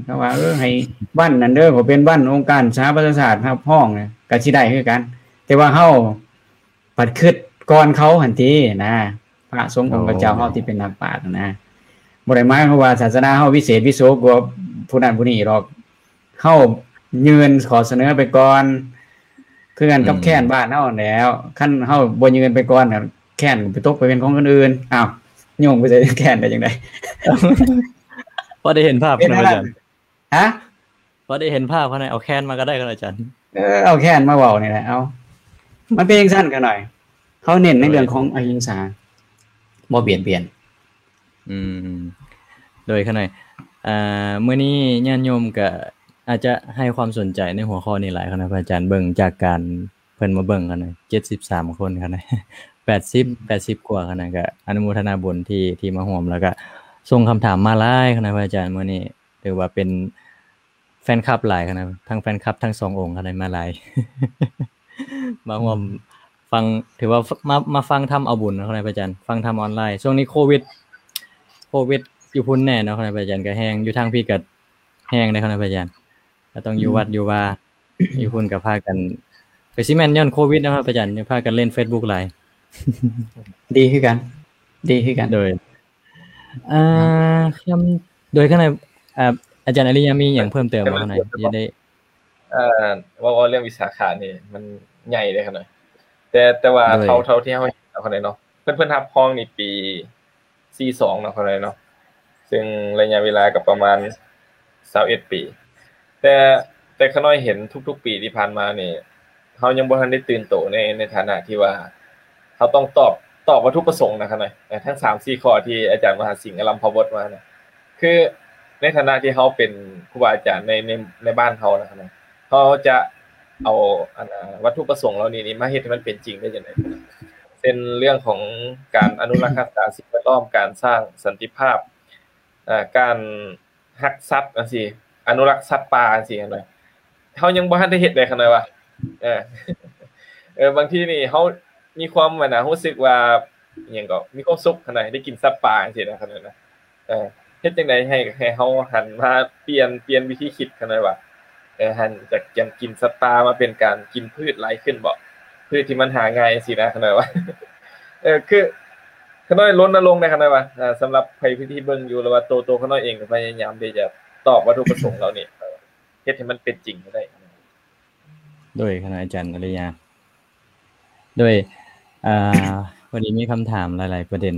ເຂົາວ່າ ເອີ ໃຫ້ວັນນັ້ນເດີ ກໍເປັນວັນອົງການສະຫະປະຊາຊາດຮັບຮອງ ກໍຊິໄດ້ຄືກັນ. ແຕ່ວ່າເຮົາພັດຄິດກ່ອນເຂົາຫັ້ນຕິນະ ພະສົງອົງຂະເຈົ້າເຮົາທີ່ເປັນນັກປາດນະ ບໍ່ໄດ້ໝາຍຄວາມວ່າສາສະໜາເຮົາວິເສດວິໂສກວ່າຜູ້ນັ້ນຜູ້ນີ້ດອກ. ເຮົາຍື່ນຂໍ້ສະເໜີໄປກ່ອນ ຄືກັນກັບ ອືມ ແຄນບ້ານເຮົາຫັ້ນແຫຼ້ວ. ຄັນເຮົາບໍ່ຍື່ນໄປກ່ອນ ແຄນກໍໄປຕົກໄປເປັນຂອງຄົນອື່ນ. ອ້າວ ໂຍງໄປໃສ່ແຄນໄດ້ຈັ່ງໃດ? ພໍໄດ້ເຫັນພາບ ເປັນ ນະ ອາຈານ. ຮະ? ພໍໄດ້ເຫັນພາບ ຂະໜ້ອຍເອົາແຄນມາກໍໄດ້ ຂະໜ້ອຍ ອາຈານ. ເອີ ເອົາແຄນມາເວົ້ານີ້ແຫຼະ. ເອົາ ມັນເປັນຈັ່ງຊັ້ນ ຂະໜ້ອຍ. ເຮົາເນັ້ນໃນເລື່ອງຂອງອະຫິງສາ ບໍ່ບຽດບຽນ. ອືມ ໂດຍ ຂະໜ້ອຍ ອ່າ ມື້ນີ້ຍາດໂຍມກະອາດຈະໃຫ້ຄວາມສົນໃຈໃນຫົວຂໍ້ນີ້ຫຼາຍ ຂະໜ້ອຍ ພະອາຈານ. ເບິ່ງຈາກການເພິ່ນມາເບິ່ງ ຂະໜ້ອຍ ເຈັດສິບສາມຄົນ ຂະໜ້ອຍ ແປດສິບ ແປດສິບກວ່າ ຂະໜ້ອຍ ກະອະນຸໂມທະນາບຸນທີ່ ທີ່ມາຮ່ວມ ແລ້ວກະສົ່ງຄຳຖາມມາຫຼາຍ ຂະໜ້ອຍ ພະອາຈານ. ມື້ນີ້ຖືວ່າເປັນ ແຟນຄລັບຫຼາຍຂະໜາດ ທັງແຟນຄລັບທັງສອງອົງຂະໜາດ ມາຫຼາຍ ມາຮ່ວມ ອືມ ຟັງ ຖືວ່າ ມາ ມາຟັງທຳເອົາບຸນເນາະ ຂະໜາດ ພະອາຈານ ຟັງທຳອອນລາຍ. ຊ່ວງນີ້ໂຄວິດ ໂຄວິດຢູ່ພຸ້ນແນ່ເນາະ ຂະໜາດ ພະອາຈານ ກະແຮງ ຢູ່ທາງພີ້ກະແຮງເດ້ ຂະໜາດ ພະອາຈານ ກະຕ້ອງຢູ່ ອືມ ວັດຢູ່ວາ ຢູ່ພຸ້ນກະພາກັນ ກະຊິແມ່ນຍ້ອນໂຄວິດເນາະ ພະອາຈານ ຈຶ່ງພາກັນຫຼິ້ນເຟສບຸກຫຼາຍ. ດີຄືກັນ ດີຄືກັນ ໂດຍ ອ່າ ຄຳ ໂດຍຂະໜາດ ອ່າ ອາຈານອາລິຍະມີຫຍັງເພີ່ມເຕີມບໍ່ ຂ້ານ້ອຍ? ຢາກໄດ້ ເອີ ເວົ້າ ເວົ້າເລື່ອງວິສາຂະນີ້ມັນໃຫຍ່ເດ້ຂ້ານ້ອຍ ແຕ່ ແຕ່ວ່າ ໂດຍ ເທົ່າ ເທົ່າທີ່ເຮົາເຫັນເນາະ ຂ້ານ້ອຍເນາະ ເພິ່ນ ເພິ່ນຮັບຮອງນີ້ປີສີ່ສອງເນາະ ຂ້ານ້ອຍເນາະ ເຊິ່ງໄລຍະເວລາກໍປະມານຊາວເອັດປີ ແຕ່ ແຕ່ຂ້ານ້ອຍເຫັນທຸກໆປີທີ່ຜ່ານມານີ້ ເຮົາຍັງບໍ່ທັນໄດ້ຕື່ນໂຕໃນ ໃນຖານະທີ່ວ່າ ເຮົາຕ້ອງຕອບ ຕອບວັດຖຸປະສົງນະ ຂ້ານ້ອຍ ເອີ ທັງສາມສີ່ຂໍ້ທີ່ອາຈານມະຫາສິງອາລັມພະບົດມານະ ຄືໃນຖານະທີ່ເຮົາເປັນຄູບາອາຈານໃນ ໃນ ໃນບ້ານເຮົານະ ເຮົາຈະເອົາ ອັນ ວັດຖຸປະສົງເຫຼົ່ານີ້ນີ້ມາເຮັດໃຫ້ມັນເປັນຈິງໄດ້ຈັ່ງໃດ? ເຊັ່ນເລື່ອງຂອງການອະນຸລັກຮັກສາສິ່ງແວດລ້ອມ, ການສ້າງສັນຕິພາບ, ເອີ ການຮັກສັດຈັ່ງຊີ້, ອະນຸລັກສັດປ່າຈັ່ງຊີ້ຫັ້ນນະ, ເຮົາຍັງບໍ່ທັນໄດ້ເຮັດເດ້ ຂ້ານ້ອຍວ່າ ເອີ ເອີ ບາງທີນີ້ເຮົາມີຄວາມ ອັນນະ ຮູ້ສຶກວ່າ ອີ່ຫຍັງກໍ ມີຄວາມສຸກຫັ້ນນະ ໄດ້ກິນສັດປ່າຈັ່ງຊີ້ນະ ຄັນນັ້ນນະ ເອີ ເຮັດຈັ່ງໃດໃຫ້ ໃຫ້ເຮົາຫັນມາປ່ຽນ ປ່ຽນວິທີຄິດ ຄັນໄດ້ວ່າ ເອີ ຫັນຈາກການກິນສັດປ່າມາເປັນການກິນພືດຫຼາຍຂຶ້ນບໍ? ພືດທີ່ມັນຫາງ່າຍຊີ້ນະ ຄັນໄດ້ວ່າ ເອີ ຄື ຂ້ານ້ອຍລົນນະລົງໃນ ຄັນໄດ້ວ່າ ເອີ ສຳລັບໃຜທີ່ເບິ່ງຢູ່ ຫຼືວ່າໂຕ ໂຕຂ້ານ້ອຍເອງກໍພະຍາຍາມທີ່ຈະຕອບວັດຖຸປະສົງເຫຼົ່ານີ້ ເຮັດໃຫ້ມັນເປັນຈິງໃຫ້ໄດ້. ໂດຍ ຄະນະອາຈານອາລິຍາ ໂດຍ ອ່າ ພໍດີມີຄຳຖາມຫຼາຍໆປະເດັນ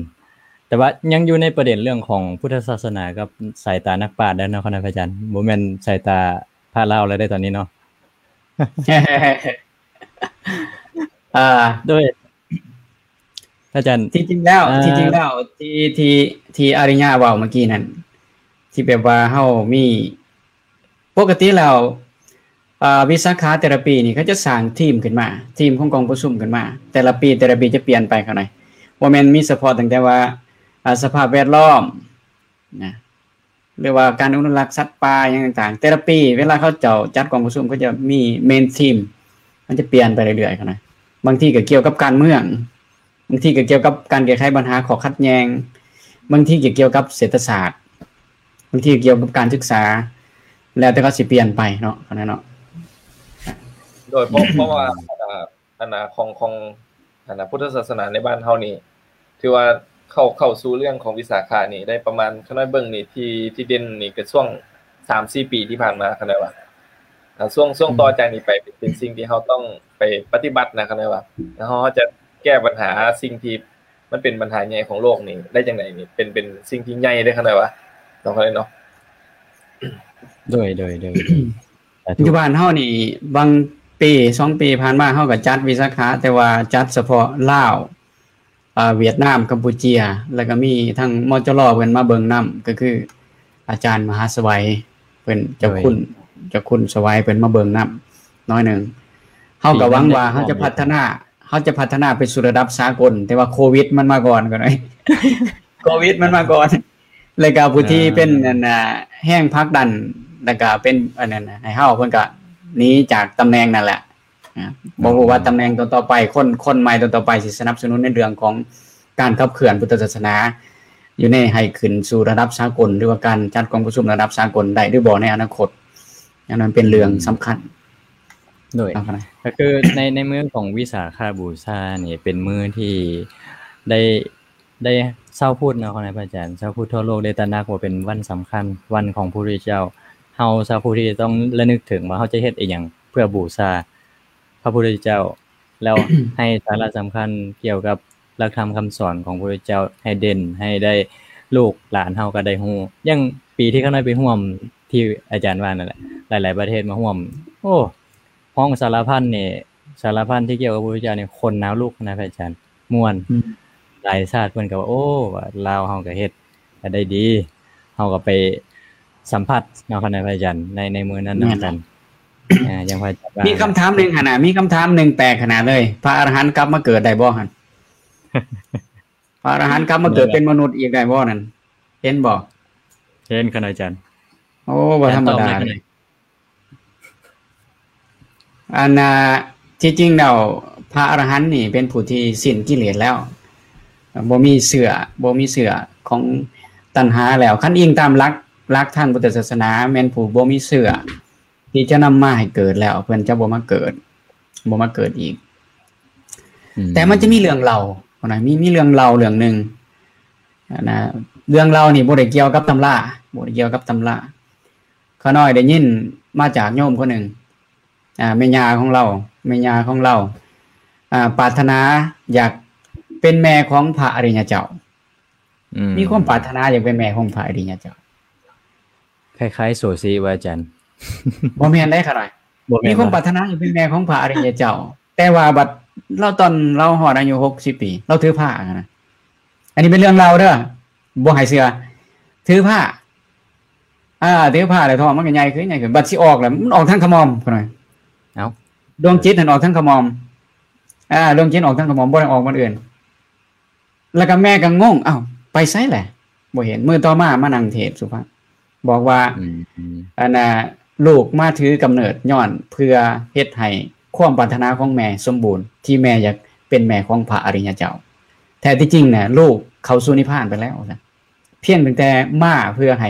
ແຕ່ວ່າຍັງຢູ່ໃນປະເດັນເລື່ອງຂອງພຸດທະສາສະໜາກັບສາຍຕານັກປາດເດີເນາະ ຄະນະອາຈານ ບໍ່ແມ່ນສາຍຕາພະລາວແລ້ວເດ້ຕອນນີ້ເນາະ. ອ່າ ໂດຍ ອາຈານ ທີ່ຈິງແລ້ວ ອ່າ ທີ່ຈິງແລ້ວ ທີ່ ທີ່ ທີ່ອາລິຍາເວົ້າເມື່ອກີ້ນັ້ນ ທີ່ແບບວ່າເຮົາມີ ປົກກະຕິແລ້ວ ອ່າ ວິສາຂະແຕ່ລະປີນີ້ ເຂົາຈະສ້າງທີມຂຶ້ນມາ ທີມຂອງກອງປະຊຸມຂຶ້ນມາ ແຕ່ລະປີ ແຕ່ລະປີຈະປ່ຽນໄປ ເຂົ້າໃນ ບໍ່ແມ່ນມີສະເພາະຕັ້ງແຕ່ວ່າ ອ່າ ສະພາບແວດລ້ອມນະ ຫຼືວ່າການອະນຸລັກສັດປ່າຫຍັງຕ່າງໆ ແຕ່ລະປີເວລາເຂົາເຈົ້າຈັດກອງປະຊຸມ ເຂົາຈະມີເມນທີມ ມັນຈະປ່ຽນໄປເລື້ອຍໆ ເຂົ້າໃນ ບາງທີກໍກ່ຽວກັບການເມືອງ ບາງທີກໍກ່ຽວກັບການແກ້ໄຂບັນຫາຂໍ້ຂັດແຍ່ງ, ບາງທີກໍກ່ຽວກັບເສດຖະສາດ, ບາງທີກໍກ່ຽວກັບການສຶກສາ, ແລ້ວແຕ່ເຂົາຊິປ່ຽນໄປເນາະ ອັນນັ້ນເນາະ. ໂດຍ ເພາະ ເພາະວ່າ ອັນນ່າ ອັນນ່າ ຂອງ ຂອງ ອັນນ່າ ພຸດທະສາສະໜາໃນບ້ານເຮົານີ້ ຖືວ່າເຂົ້າ ເຂົ້າສູ່ເລື່ອງຂອງວິສາຂະນີ້ໄດ້ປະມານ ຂ້ານ້ອຍເບິ່ງນີ້ ທີ່ ທີ່ເດັ່ນນີ້ກໍຊ່ວງສາມສີ່ປີທີ່ຜ່ານມາ ຂ້ານ້ອຍວ່າ ອ່າ ຊ່ວງ ຊ່ວງ ອືມ ຕໍ່ຈາກນີ້ໄປ ເປັນ ເປັນສິ່ງທີ່ເຮົາຕ້ອງໄປປະຕິບັດນະ ຄັນວ່າເຮົາ ເຮົາຈະແກ້ບັນຫາສິ່ງທີ່ມັນເປັນບັນຫາໃຫຍ່ຂອງໂລກນີ້ໄດ້ຈັ່ງໃດນີ້ ເປັນ ເປັນສິ່ງທີ່ໃຫຍ່ເດ້ ຄັນວ່າເນາະ ເນາະ. ໂດຍ ໂດຍ ໂດຍ ໂດຍ ສາທຸ. ຢູ່ບ້ານເຮົານີ້ ບາງປີສອງປີຜ່ານມາ ເຮົາກໍຈັດວິສາຂະ ແຕ່ວ່າຈັດສະເພາະລາວ ອ່າ ຫວຽດນາມ, ກຳປູເຈຍ ແລ້ວກໍມີທັງ ມຈລ ເພິ່ນມາເບິ່ງນຳ ກໍຄືອາຈານມະຫາສະໄຫວ ເພິ່ນ ເຈົ້າຄຸນ ເຈົ້າຄຸນສະໄຫວ ເພິ່ນມາເບິ່ງນຳໜ້ອຍໜຶ່ງ. ເຮົາກໍຫວັງວ່າເຮົາຈະພັດທະນາ ເຮົາຈະພັດທະນາໄປສູ່ລະດັບສາກົນ ແຕ່ວ່າໂຄວິດມັນມາກ່ອນ ກໍໄດ້ ໂຄວິດມັນມາກ່ອນ ແລ້ວກໍຜູ້ທີ່ເປັນ ອ່າ ອັນນ່າ ແຮງຜັກດັນ ແລ້ວກໍເປັນອັນນັ້ນໃຫ້ເຮົາ ເພິ່ນກໍໜີຈາກຕຳແໜ່ງນັ້ນແຫຼະ. ອ່າ ບໍ່ຮູ້ວ່າຕຳແໜ່ງຕໍ່ໆໄປ ຄົນ ຄົນໃໝ່ຕໍ່ໆໄປຊິສະໜັບສະໜູນໃນເລື່ອງຂອງການຂັບເຄື່ອນພຸດທະສາສະໜາ ຢູ່ໃນ ໃຫ້ຂຶ້ນສູ່ລະດັບສາກົນ ຫຼືວ່າການຈັດກອງປະຊຸມລະດັບສາກົນໄດ້ຫຼືບໍ່ໃນອະນາຄົດ. ອັນນັ້ນເປັນເລື່ອງສຳຄັນ. ໂດຍ ເອົາ ກໍຄືໃນ ໃນມື້ຂອງວິສາຂະບູຊານີ້ ເປັນມື້ທີ່ໄດ້ ໄດ້ຊາວພຸດເນາະ ຂອງນາຍພະອາຈານ ຊາວພຸດທົ່ວໂລກໄດ້ຕະໜັກວ່າເປັນວັນສຳຄັນ ວັນຂອງພະພຸດທະເຈົ້າ. ເຮົາຊາວພຸດທີ່ຕ້ອງລະນຶກເຖິງວ່າເຮົາຈະເຮັດອີ່ຫຍັງເພື່ອບູຊາພະພຸດທະເຈົ້າ ແລ້ວໃຫ້ສາລະສຳຄັນກ່ຽວກັບຫຼັກທຳຄຳສອນຂອງພະພຸດທະເຈົ້າໃຫ້ເດັ່ນ ໃຫ້ໄດ້ ລູກຫຼານເຮົາກໍໄດ້ຮູ້. ຢ່າງປີທີ່ຂ້ານ້ອຍໄປຮ່ວມ ທີ່ອາຈານວ່ານັ້ນແຫຼະ ຫຼາຍໆປະເທດມາຮ່ວມ ໂອ້ ຮ້ອງສາລະພັນນີ້ ສາລະພັນທີ່ກ່ຽວກັບພະພຸດທະເຈົ້ານີ້ ຄົນນາວລຸກນະ ພະອາຈານ ມ່ວນ. ອືມ ຫຼາຍຊາດເພິ່ນກໍວ່າ ໂອ້ ວ່າລາວເຮົາກໍເຮັດ ກໍໄດ້ດີ ເຮົາກໍໄປສຳຜັດເນາະ ຄະນະພະອາຈານ ໃນ ໃນມື້ນັ້ນນຳກັນ. ອ່າ ຢ່າງພະອາຈານວ່າ ມີຄຳຖາມໜຶ່ງຫັ້ນນະ ມີຄຳຖາມໜຶ່ງແປກຂະໜາດເລີຍ ພະອະລະຫັນກັບມາເກີດໄດ້ບໍ່ຫັ້ນ? ພະອະລະຫັນກັບມາເກີດເປັນມະນຸດອີກໄດ້ບໍ່ນັ້ນ? ເຫັນບໍ່? ເຫັນ ຄະນະອາຈານ. ໂອ້ ບໍ່ທຳມະດາເດ້. ອັນນ່າ ທີ່ຈິງແລ້ວ ພະອະລະຫັນນີ້ເປັນຜູ້ທີ່ສິ້ນກິເລດແລ້ວ ບໍ່ມີເຊື້ອ ບໍ່ມີເຊື້ອຂອງຕັນຫາແລ້ວ. ຄັນອີງຕາມຫຼັກ ຫຼັກທາງພຸດທະສາສະໜາ ແມ່ນຜູ້ບໍ່ມີເຊື້ອທີ່ຈະນຳມາໃຫ້ເກີດແລ້ວ ເພິ່ນຈະບໍ່ມາເກີດ ບໍ່ມາເກີດອີກ. ອືມ ແຕ່ມັນຈະມີເລື່ອງເລົ່ານະ ມີ ມີເລື່ອງເລົ່າເລື່ອງໜຶ່ງນະ ເລື່ອງເລົ່ານີ້ບໍ່ໄດ້ກ່ຽວກັບຕຳລາ ບໍ່ໄດ້ກ່ຽວກັບຕຳລາ. ຂ້ານ້ອຍໄດ້ຍິນມາຈາກໂຍມຄົນໜຶ່ງ ອ່າ ແມ່ຍ່າຂອງລາວ ແມ່ຍ່າຂອງລາວ ອ່າ ປາດຖະໜາຢາກເປັນແມ່ຂອງພະອະລິຍະເຈົ້າ. ອືມ ມີຄວາມປາດຖະໜາຢາກເປັນແມ່ຂອງພະອະລິຍະເຈົ້າ. ຄ້າຍໆໂຊຊີວ່າອາຈານ. ບໍ່ແມ່ນເດ້ຂ້ານ້ອຍ. ບໍ່ແມ່ນ ມີຄວາມປາດຖະໜາຢາກເປັນແມ່ຂອງພະອະລິຍະເຈົ້າ. ແຕ່ວ່າບັດລາວ ຕອນລາວຮອດອາຍຸຫົກສິບປີ ລາວຖືພະຫັ້ນນະ. ອັນນີ້ເປັນເລື່ອງລາວເດີ ບໍ່ໃຫ້ເຊື່ອ. ຖືພະ ອ່າ ຖືພະແລ້ວທ້ອງມັນກໍໃຫຍ່ຂຶ້ນ ໃຫຍ່ຂຶ້ນ. ບັດຊິອອກແລ້ວ ມັນອອກທາງຂະໝ່ອມ ຂ້ານ້ອຍ. ເອົ້າ ດວງຈິດຫັ້ນອອກທາງຂະໝ່ອມ. ອ່າ ດວງຈິດອອກທາງຂະໝ່ອມ ບໍ່ໄດ້ອອກບ່ອນອື່ນ. ແລ້ວກໍແມ່ກໍງົງ ອ້າວ ໄປໃສແຫຼະ ບໍ່ເຫັນ. ມື້ຕໍ່ມາມານັ່ງເທດສຸພາບ ບອກວ່າ ອືມ ອັນນ່າ ລູກມາຖືກຳເນີດຍ້ອນເພື່ອເຮັດໃຫ້ຄວາມປາດຖະໜາຂອງແມ່ສົມບູນ ທີ່ແມ່ຢາກເປັນແມ່ຂອງພະອະລິຍະເຈົ້າ. ແທ້ທີ່ຈິງນະ ລູກເຂົ້າສູ່ນິບພານໄປແລ້ວ ວ່າຊັ້ນ. ພຽງຕັ້ງແຕ່ມາເພື່ອໃຫ້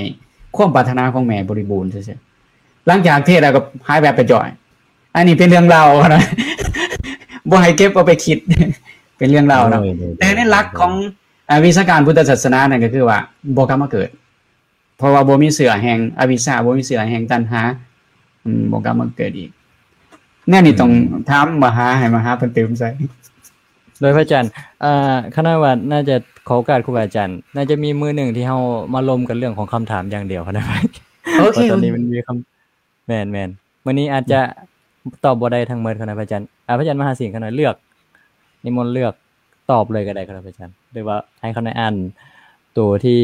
ຄວາມປາດຖະໜາຂອງແມ່ບໍລິບູນຊື່ໆ. ຫຼັງຈາກເທດແລ້ວກໍຫາຍແວບໄປຈ່ອຍ. ອັນນີ້ເປັນເລື່ອງລາວນະ ບໍ່ໃຫ້ເກັບເອົາໄປຄິດ ເປັນເລື່ອງລາວເນາະ. ໂດຍ ໂດຍ ແຕ່ໃນຫຼັກຂອງ ໂດຍ ອາ ວິຊາການພຸດທະສາສະໜານັ້ນກໍຄືວ່າບໍ່ກັບມາເກີດ ເພາະວ່າບໍ່ມີເຊື້ອແຫ່ງອະວິຊຊາ ບໍ່ມີເຊື້ອແຫ່ງຕັນຫາ ອືມ ບໍ່ກັບມາເກີດອີກ. ແນວນີ້ ອືມ ຕ້ອງຖາມມະຫາ ໃຫ້ມະຫາເພິ່ນຕື່ມໃສ່. ໂດຍ ພະອາຈານ ເອີ ຂ້ານ້ອຍວ່າໜ້າຈະຂໍໂອກາດຄູບາອາຈານ ໜ້າຈະມີມື້ໜຶ່ງທີ່ເຮົາມາລົມກັນເລື່ອງຂອງຄຳຖາມຢ່າງດຽວ ຂ້ານ້ອຍວ່າ. ໂອເຄ ເພາະຕອນນີ້ມັນມີຄຳ ແມ່ນໆ ມື້ນີ້ອາດຈະ ອືມ ຕອບບໍ່ໄດ້ທັງໝົດ ຂ້ານ້ອຍ ພະອາຈານ. ອາ ພະອາຈານມະຫາສິງ ຂ້ານ້ອຍເລືອກ ນິມົນເລືອກຕອບເລີຍກໍໄດ້ ຂ້ານ້ອຍ ພະອາຈານ ຫຼືວ່າໃຫ້ຂ້ານ້ອຍອ່ານໂຕທີ່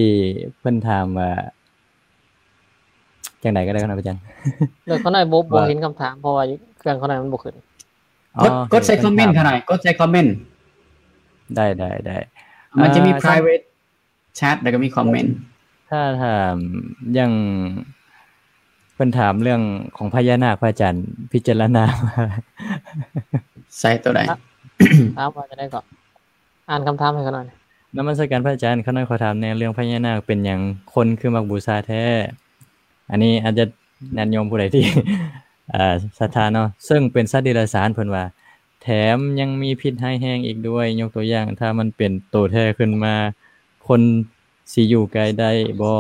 ເພິ່ນຖາມວ່າ ຈັ່ງໃດກໍໄດ້ ຂ້ານ້ອຍ ພະອາຈານ. ແລ້ວຂ້ານ້ອຍບໍ່ ບໍ່ເຫັນຄຳຖາມ ເພາະວ່າເຄື່ອງຂ້ານ້ອຍມັນບໍ່ຂຶ້ນ. ອໍ ກົດ ກົດໃສ່ຄອມເມັນຂ້ານ້ອຍ ກົດໃສ່ຄອມເມັນ. ໄດ້ ໄດ້ ໄດ້. ມັນຈະມີ ອ່າ private chat ແລ້ວກໍມີຄອມເມັນ. ຖ້າຖາມຢ່າງເພິ່ນຖາມເລື່ອງຂອງພະຍານາກ ພະອາຈານພິຈາລະນາ ໃສ່ໂຕໃດ? ຖາມວ່າຈັ່ງໃດກໍ? ອ່ານຄຳຖາມໃຫ້ຂ້ານ້ອຍ. ນະມັດສະການພະອາຈານ, ຂ້ານ້ອຍຂໍຖາມແດ່ ເລື່ອງພະຍານາກເປັນຫຍັງຄົນຄືມັກບູຊາແທ້? ອັນນີ້ອາດຈະຍາດໂຍມຜູ້ໃດທີ່ ເອີ ສັດທາເນາະ, ເຊິ່ງເປັນສັດເດຍລະສານ ເພິ່ນວ່າ ແຖມຍັງມີພິດຮ້າຍແຮງອີກດ້ວຍ. ຍົກຕົວຢ່າງ, ຖ້າມັນເປັນໂຕແທ້ຂຶ້ນມາ, ຄົນຊິຢູ່ໃກ້ໄດ້ບໍ່?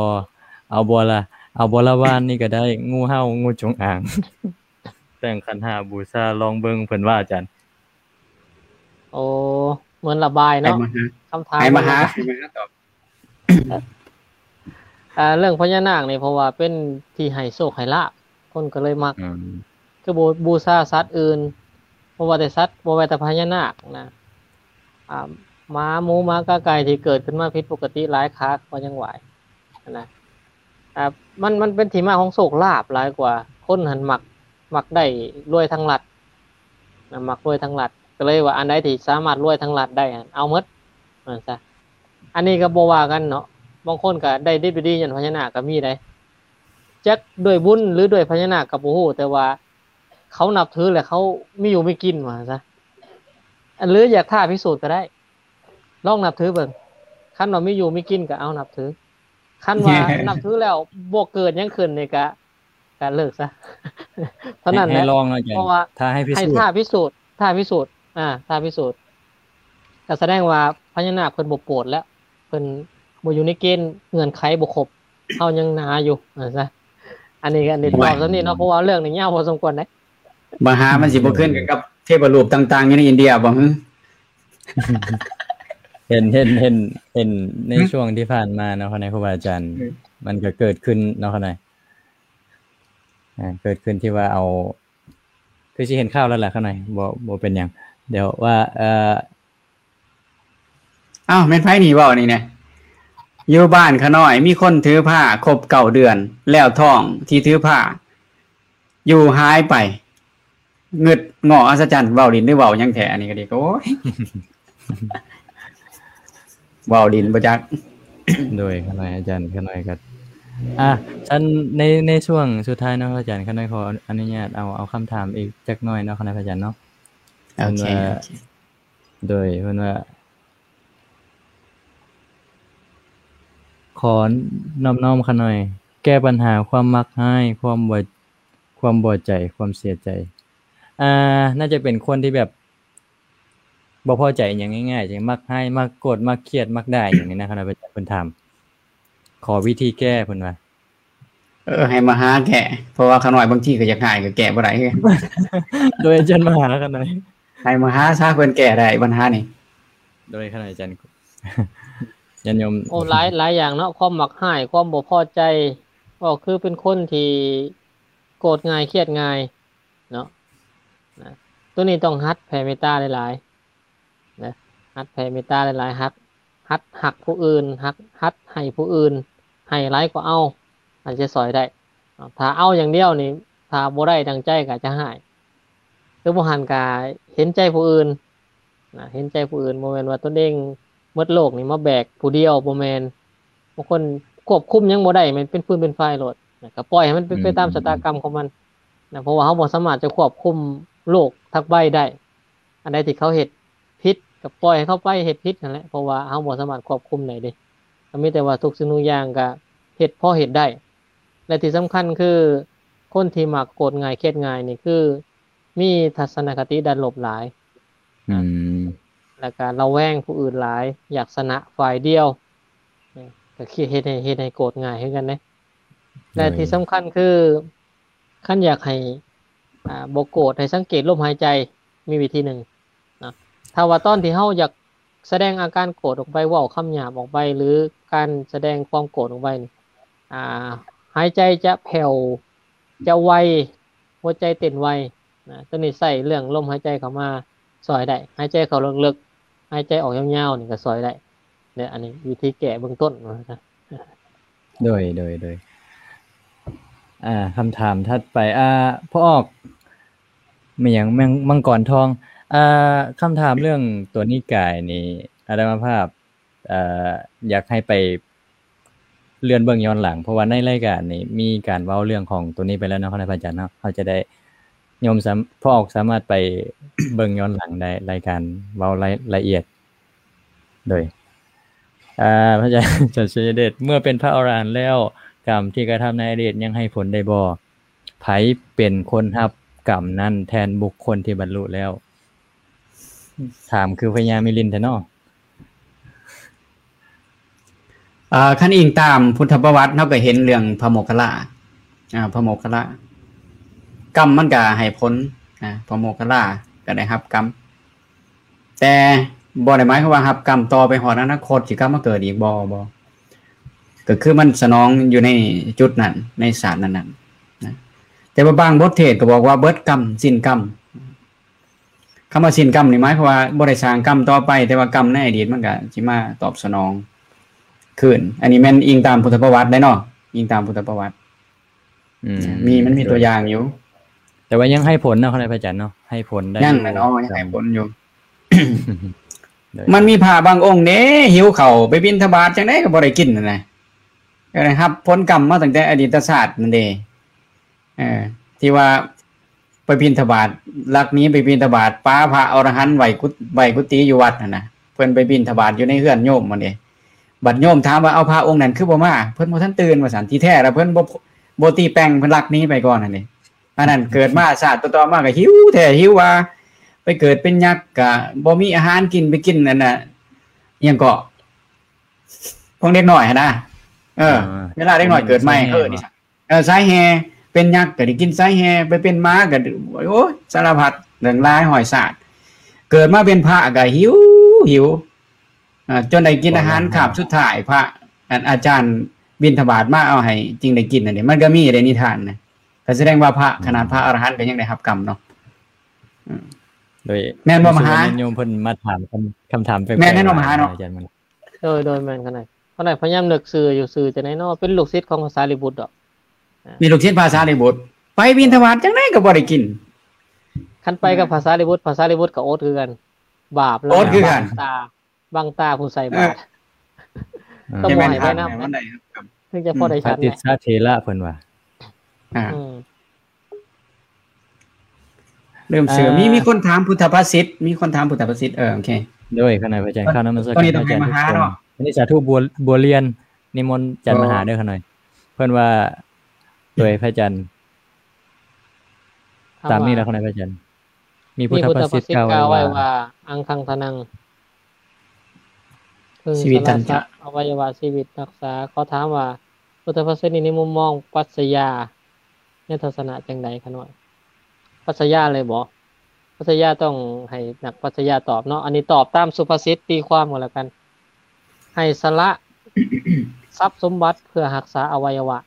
ເອົາບໍ່ລະ, ເອົາບໍ່ລະ ວານນີ້ກໍໄດ້, ງູເຫົ່າ, ງູຈົງອາງ. ແຕ່ງຂັນຫ້າບູຊາລອງເບິ່ງ ເພິ່ນວ່າ ອາຈານ. ໂອ້ ເໝືອນລະບາຍເນາະ ໃຫ້ມະຫາ ຄຳຖາມ ໃຫ້ມະຫາ ໃຫ້ມະຫາຕອບ. ອ່າ ເລື່ອງພະຍານາກນີ້ ເພາະວ່າເປັນທີ່ໃຫ້ໂຊກໃຫ້ລາບ ຄົນກໍເລີຍມັກ. ອືມ ຄືບູ ບູຊາສັດອື່ນ ບໍ່ວ່າແຕ່ສັດ ບໍ່ວ່າແຕ່ພະຍານາກນະ ອ່າ ໝາ ໝູ ໝາ ກາ ໄກ່ ທີ່ເກີດຂຶ້ນມາຜິດປົກກະຕິຫຼາຍຂາ ກໍຍັງໄຫວ້ຫັ້ນນະ. ອ່າ ມັນ ມັນເປັນທີ່ມາຂອງໂຊກລາບຫຼາຍກວ່າ. ຄົນຫັ້ນມັກ ມັກໄດ້ລວຍທາງລັດນະ ມັກລວຍທາງລັດ ກໍເລີຍວ່າອັນໃດທີ່ສາມາດລວຍທາງລັດໄດ້ຫັ້ນ ເອົາໝົດ ວ່າຊັ້ນຊະ. ອັນນີ້ກໍບໍ່ວ່າກັນເນາະ, ບາງຄົນກໍໄດ້ດິບໄດ້ດີຍ້ອນພະຍານາກກໍມີໄດ໋. ຈັກດ້ວຍບຸນ ຫຼື ດ້ວຍພະຍານາກກໍບໍ່ຮູ້, ແຕ່ວ່າເຂົານັບຖື ແລະ ເຂົາມີຢູ່ມີກິນ ວ່າຊັ້ນຊະ. ຫຼື ຢາກທ້າພິສູດກໍໄດ້, ລອງນັບຖືເບິ່ງ. ຄັນວ່າມີຢູ່ມີກິນກໍເອົານັບຖື. ຄັນວ່ານັບຖືແລ້ວບໍ່ເກີດຫຍັງຂຶ້ນນີ້ກະ ກະເລີກຊະ ເທົ່ານັ້ນແຫຼະ. ໃຫ້ລອງເນາະອາຈານ, ເພາະວ່າຖ້າໃຫ້ພິສູດ ໃຫ້ທ້າພິສູດ ທ້າພິສູດ ອ່າ ທ້າພິສູດ ກະສະແດງວ່າພະຍານາກເພິ່ນບໍ່ໂປດແລ້ວ, ເພິ່ນບໍ່ຢູ່ໃນເກນເງື່ອນໄຂບໍ່ຄົບ, ເຮົາຍັງໜາຢູ່ ວ່າຊັ້ນຊະ. ອັນນີ້ກະ ອັນນີ້ຕອບສ່ຳນີ້ເນາະ, ເພາະວ່າເລື່ອງນີ້ຍາວພໍສົມຄວນເດ້. ມະຫາມັນຊິບໍ່ຄືນກັນກັບເທບະຮູບຕ່າງໆຢູ່ໃນອິນເດຍບໍ່? ເຫັນ ເຫັນ ເຫັນ ເຫັນໃນ ຮະ? ຊ່ວງທີ່ຜ່ານມາເນາະ ຄະນະຄູບາອາຈານ ເອີ ມັນກໍເກີດຂຶ້ນເນາະ ຄະນະ ອ່າ ເກີດຂຶ້ນທີ່ວ່າເອົາ ຄືຊິເຫັນຂ່າວແລ້ວລະ ຄະນະ ບໍ່ ບໍ່ເປັນຫຍັງ ດຽວວ່າ ເອີ ອ້າວ ແມ່ນໃຜນີ້ເວົ້ານີ້ນະ? ຢູ່ບ້ານຂະນ້ອຍມີຄົນຖືພາຄົບເກົ້າເດືອນ ແລ້ວທ້ອງທີ່ຖືພາຢູ່ຫາຍໄປ. ງຶດງໍ້ອັດສະຈັນ ເວົ້າຫຼິ້ນຫຼືເວົ້າຫຍັງແທ້ ອັນນີ້ກໍດີ. ໂອ້ຍ ເວົ້າຫຼິ້ນບໍ່ຈັກ. ໂດຍ ຂະນ້ອຍອາຈານ ຂະນ້ອຍກໍ ອ່າ ຊັ້ນໃນ ໃນຊ່ວງສຸດທ້າຍເນາະອາຈານ ຂະນ້ອຍຂໍອະນຸຍາດເອົາ ເອົາຄຳຖາມອີກຈັກໜ້ອຍເນາະ ຄະນະອາຈານເນາະ. ໂອເຄ ເພິ່ນວ່າ ໂອເຄ ໂດຍ ເພິ່ນວ່າ ຂໍນອບນ້ອມຂະນ້ອຍ ແກ້ບັນຫາຄວາມມັກຮ້າຍ ຄວາມບໍ່ ຄວາມບໍ່ໃຈ ຄວາມເສຍໃຈ. ອ່າ ໜ້າຈະເປັນຄົນທີ່ແບບບໍ່ພໍໃຈຫຍັງງ່າຍໆ ຈັ່ງມັກຮ້າຍ ມັກໂກດ ມັກຄຽດ ມັກດ່າຫຍັງນີ້ນະ ຄະນະອາຈານ ເພິ່ນຖາມ ຂໍວິທີແກ້ ເພິ່ນວ່າ. ເອີ ໃຫ້ມະຫາແກ້ ເພາະວ່າຂ້ານ້ອຍບາງທີກໍຢາກຮ້າຍ ກໍແກ້ບໍ່ໄດ້ຄືກັນ. ໂດຍອາຈານມະຫາຂ້ານ້ອຍ ໃຫ້ມະຫາຊະ ເພິ່ນແກ້ໄດ້ບັນຫານີ້. ໂດຍຂ້ານ້ອຍອາຈານ ຍາດໂຍມ. ໂອ້ ຫຼາຍ ຫຼາຍຢ່າງເນາະ ຄວາມມັກຮ້າຍ ຄວາມບໍ່ພໍໃຈ ກໍຄືເປັນຄົນທີ່ໂກດງ່າຍ ຄຽດງ່າຍເນາະ ນະ. ໂຕນີ້ຕ້ອງຫັດແຜ່ເມດຕາຫຼາຍໆ ນະ ຫັດແຜ່ເມດຕາຫຼາຍໆ ຫັດ ຫັດຮັກຜູ້ອື່ນ ຫັກ ຫັດໃຫ້ຜູ້ອື່ນ ໃຫ້ຫຼາຍກວ່າເອົາ ອາດຈະຊ່ອຍໄດ້. ຖ້າເອົາຢ່າງດຽວນີ້ ຖ້າບໍ່ໄດ້ດັ່ງໃຈກໍອາດຈະຮ້າຍ ຫຼືບໍ່ຫັ້ນກໍເຫັນໃຈຜູ້ອື່ນ ນະ ເຫັນໃຈຜູ້ອື່ນ ບໍ່ແມ່ນວ່າຕົນເອງໝົດໂລກນີ້ມາແບກຜູ້ດຽວ ບໍ່ແມ່ນ. ບາງຄົນຄວບຄຸມຫຍັງບໍ່ໄດ້ ແມ່ນເປັນຟືນເປັນໄຟໂລດ ນະ ກໍປ່ອຍໃຫ້ມັນເປັນໄປຕາມຊະຕາກຳຂອງມັນ ນະ ເພາະວ່າເຮົາບໍ່ສາມາດຈະຄວບຄຸມໂລກທັກໃບໄດ້. ອັນໃດທີ່ເຂົາເຮັດຜິດ ກໍປ່ອຍໃຫ້ເຂົາໄປເຮັດຜິດຫັ້ນແຫຼະ ເພາະວ່າເຮົາບໍ່ສາມາດຄວບຄຸມໄດ້ເດ້. ກໍມີແຕ່ວ່າທຸກສິ່ງທຸກຢ່າງກໍເຮັດພໍເຮັດໄດ້ ແລະທີ່ສຳຄັນຄື ຄົນທີ່ມັກໂກດງ່າຍ ຄຽດງ່າຍນີ້ ຄືມີທັດສະນະຄະຕິດ້ານລົບຫຼາຍ ອືມ ແລ້ວກໍລະແວງຜູ້ອື່ນຫຼາຍ ຢາກຊະນະຝ່າຍດຽວ ກໍຄິດເຮັດໃຫ້ ເຮັດໃຫ້ໂກດງ່າຍຄືກັນເດ້. ແລະທີ່ສຳຄັນຄື ຄັນຢາກໃຫ້ ອ່າ ບໍ່ໂກດ ໃຫ້ສັງເກດລົມຫາຍໃຈ ມີວິທີໜຶ່ງເນາະ. ຖ້າວ່າຕອນທີ່ເຮົາຢາກສະແດງອາການໂກດອອກໄປ ເວົ້າຄຳຫຍາບອອກໄປ ຫຼືການສະແດງຄວາມໂກດອອກໄປນີ້ ອ່າ ຫາຍໃຈຈະແຜ່ວ ຈະໄວ ຫົວໃຈເຕັ້ນໄວ ນະ. ໂຕນີ້ໃຊ້ເລື່ອງລົມຫາຍໃຈເຂົ້າມາຊ່ອຍໄດ້ ຫາຍໃຈເຂົ້າເລິກໆ ຫາຍໃຈອອກຍາວໆ ນີ້ກໍຊ່ອຍໄດ້ເດ້. ອັນນີ້ວິທີແກ້ເບື້ອງຕົ້ນວ່າຊັ້ນ. ໂດຍ ໂດຍ ໂດຍ ອ່າ ຄຳຖາມຖັດໄປ ອ່າ ພໍ່ອອກ ແມ່ນຫຍັງ ແມ່ນ ມັງກອນທອງ ອ່າ ຄຳຖາມເລື່ອງຕົວນິກາຍນີ້ ອາດຕະມາພາບ ເອີ ຢາກໃຫ້ໄປເລື່ອນເບິ່ງຍ້ອນຫຼັງ ເພາະວ່າໃນລາຍການນີ້ມີການເວົ້າເລື່ອງຂອງຕົວນີ້ໄປແລ້ວເນາະ ຄະນະພະອາຈານເນາະ. ເຮົາຈະໄດ້ ໂຍມສາມ- ພໍ່ອອກສາມາດໄປເບິ່ງຍ້ອນຫຼັງໄດ້ ລາຍການເວົ້າລາຍລະອຽດ. ໂດຍ ອາ ພະອາຈານ ອາຈານໄຊຍະເດດ ເມື່ອເປັນພະອໍລະຫັນແລ້ວ ກຳທີ່ກະທຳໃນອະດີດຍັງໃຫ້ຜົນໄດ້ບໍ່? ໃຜເປັນຄົນຮັບກຳນັ້ນແທນບຸກຄົນທີ່ບັນລຸແລ້ວ? ຖາມຄືພະຍາມິລິນແທ້ເນາະ. ເອີ ຄັນອີງຕາມພຸດທະປະຫວັດ ເຮົາກໍເຫັນເລື່ອງພະໂມກຄະລາ ອາ ພະໂມກຄະລາ ກຳມັນກໍໃຫ້ຜົນ ອາ ພະໂມກຄະລາກໍໄດ້ຮັບກຳ ແຕ່ບໍ່ໄດ້ໝາຍຄວາມວ່າຮັບກຳຕໍ່ໄປຮອດອະນາຄົດ ຊິກັບມາເກີດອີກບໍ່? ບໍ່ ກໍຄືມັນສະໜອງຢູ່ໃນຈຸດນັ້ນ ໃນຊາດນັ້ນໆ ນະ. ແຕ່ວ່າບາງບົດເທດກໍບອກວ່າເບິດກຳ ສິ້ນກຳ. ຄຳວ່າສິ້ນກຳນີ້ໝາຍຄວາມວ່າບໍ່ໄດ້ສ້າງກຳຕໍ່ໄປ ແຕ່ວ່າກຳໃນອະດີດມັນກະຊິມາຕອບສະໜອງຄືນ. ອັນນີ້ແມ່ນອີງຕາມພຸດທະປະຫວັດໄດ໋ເນາະ ອີງຕາມພຸດທະປະຫວັດ. ອືມ ມີ ມັນມີຕົວຢ່າງຢູ່ ແຕ່ວ່າຍັງໃຫ້ຜົນເນາະ ຄະນະພະອາຈານເນາະ ໃຫ້ຜົນໄດ້ ຍັງແຫຼະເນາະ ຍັງໃຫ້ຜົນຢູ່. ໂດຍ ມັນມີພະບາງອົງເດ້ ຫິວເຂົ້າ ໄປບິນທະບາດຈັ່ງໃດກໍບໍ່ໄດ້ກິນຫັ້ນນະ ກໍໄດ້ຮັບຜົນກຳມາຕັ້ງແຕ່ອະດີດຕະຊາດນັ້ນເດ້. ເອີ ທີ່ວ່າໄປບິນທະບາດ ລັກໜີໄປບິນທະບາດ ປາພະອໍລະຫັນໄວ້ກຸ- ໄວ້ກຸຕິຢູ່ວັດຫັ້ນນະ ເພິ່ນໄປບິນທະບາດຢູ່ໃນເຮືອນໂຍມຫັ້ນເດ້. ບັດໂຍມຖາມວ່າ ເອົາ ພະອົງນັ້ນຄືບໍ່ມາ? ເພິ່ນບໍ່ທັນຕື່ນວ່າຊັ້ນ. ທີ່ແທ້ລະເພິ່ນບໍ່ ບໍ່ຕີແປ່ງ ເພິ່ນລັກໜີໄປກ່ອນຫັ້ນເດ້. ອັນນັ້ນເກີດມາຊາດຕໍ່ໆມາກໍຫິວແທ້ຫິວວ່າ ໄປເກີດເປັນຍັກກໍບໍ່ມີອາຫານກິນ ໄປກິນອັນນ່າ ອີ່ຫຍັງເກາະ ຂອງເດັກນ້ອຍຫັ້ນນະ. ເອີ ເວລາເດັກນ້ອຍເກີດໃໝ່ ເອີ ນີ້ ເອີ ສາຍແຮ່ ເປັນຍັກກໍໄດ້ກິນສາຍແຮ່ ໄປເປັນໝາກໍ ໂອ້ຍ ສາລະພັດເລື່ອງຫຼາຍຮ້ອຍຊາດ. ເກີດມາເປັນພະກໍຫິວ ຫິວ ອ່າ ຈົນໄດ້ກິນອາຫານຄາບສຸດທ້າຍ ພະ ອັນ ອາຈານບິນທະບາດມາເອົາໃຫ້ຈຶ່ງໄດ້ກິນຫັ້ນເດ້. ມັນກໍມີເດ້ນິທານນະ ກໍສະແດງວ່າພະ ອືມ ຂະໜາດພະອະລະຫັນກໍຍັງໄດ້ຮັບກຳເນາະ. ອືມ ໂດຍ ແມ່ນບໍ່ມະຫາ? ໂຍມເພິ່ນມາຖາມຄຳ ຄຳຖາມແປກໆ ແມ່ນແນ່ນອນມະຫາເນາະ ອາຈານມັນ. ໂດຍ ໂດຍ ແມ່ນຂະໜາດ ຂະໜາດພະຍາຍາມນຶກຊື່ຢູ່ ຊື່ຈັ່ງໃດເນາະ ເປັນລູກສິດຂອງພະສາລີບຸດດອກ. ອາ ມີລູກສິດພະສາລີບຸດ ໄປບິນທະບາດຈັ່ງໃດກໍບໍ່ໄດ້ກິນ. ຄັນໄປກັບພະສາລີບຸດ ພະສາລີບຸດກໍອົດຄືກັນ ບາບລະ ອົດຄືກັນ ບັງຕາ ບັງຕາຜູ້ໃສ່ບາດ ເອີ ຕ້ອງບໍ່ໃຫ້ໄປນຳ ເອີ ເຖິງຈະພໍໄດ້ ອືມ ປະຕິດສາເຖລະເພິ່ນວ່າ. ອືມ ເລີ່ມເຊື່ອ ເອີ ມີ ມີຄົນຖາມພຸດທະພາສິດ ມີຄົນຖາມພຸດທະພາສິດ. ເອີ ໂອເຄ ໂດຍ ຄະນະພະອາຈານ ເອີ ຂ້າວນະມັດສະການພະອາຈານທຸກຄົນ. ອັນນີ້ສາທຸບົວ ບົວລຽນ ນິມົນອາຈານມະຫາເດີຂ້ານ້ອຍ. ເພິ່ນວ່າ ໂດຍພະອາຈານ ຕາມນີ້ແຫຼະຂ້ານ້ອຍພະອາຈານ. ມີພຸດທະພາສິດກ່າວໄວ້ວ່າ ອັງຄັງທະນັງ ເພິ່ງສະຫຼະສະອະໄວຍະວະຊີວິດຮັກສາ. ຂໍຖາມວ່າ ພຸດທະພາສິດນີ້ ໃນມຸມມອງປັດຊະຍາ ໃນທັດສະນະຈັ່ງໃດຂະນ້ອຍ? ປັດຊະຍາເລີຍບໍ? ປັດຊະຍາຕ້ອງໃຫ້ນັກປັດຊະຍາຕອບເນາະ. ອັນນີ້ຕອບຕາມສຸພາສິດຕີຄວາມກໍແລ້ວກັນ. ໃຫ້ສະຫຼະຊັບສົມບັດເພື່ອຮັກສາອະໄວຍະວະ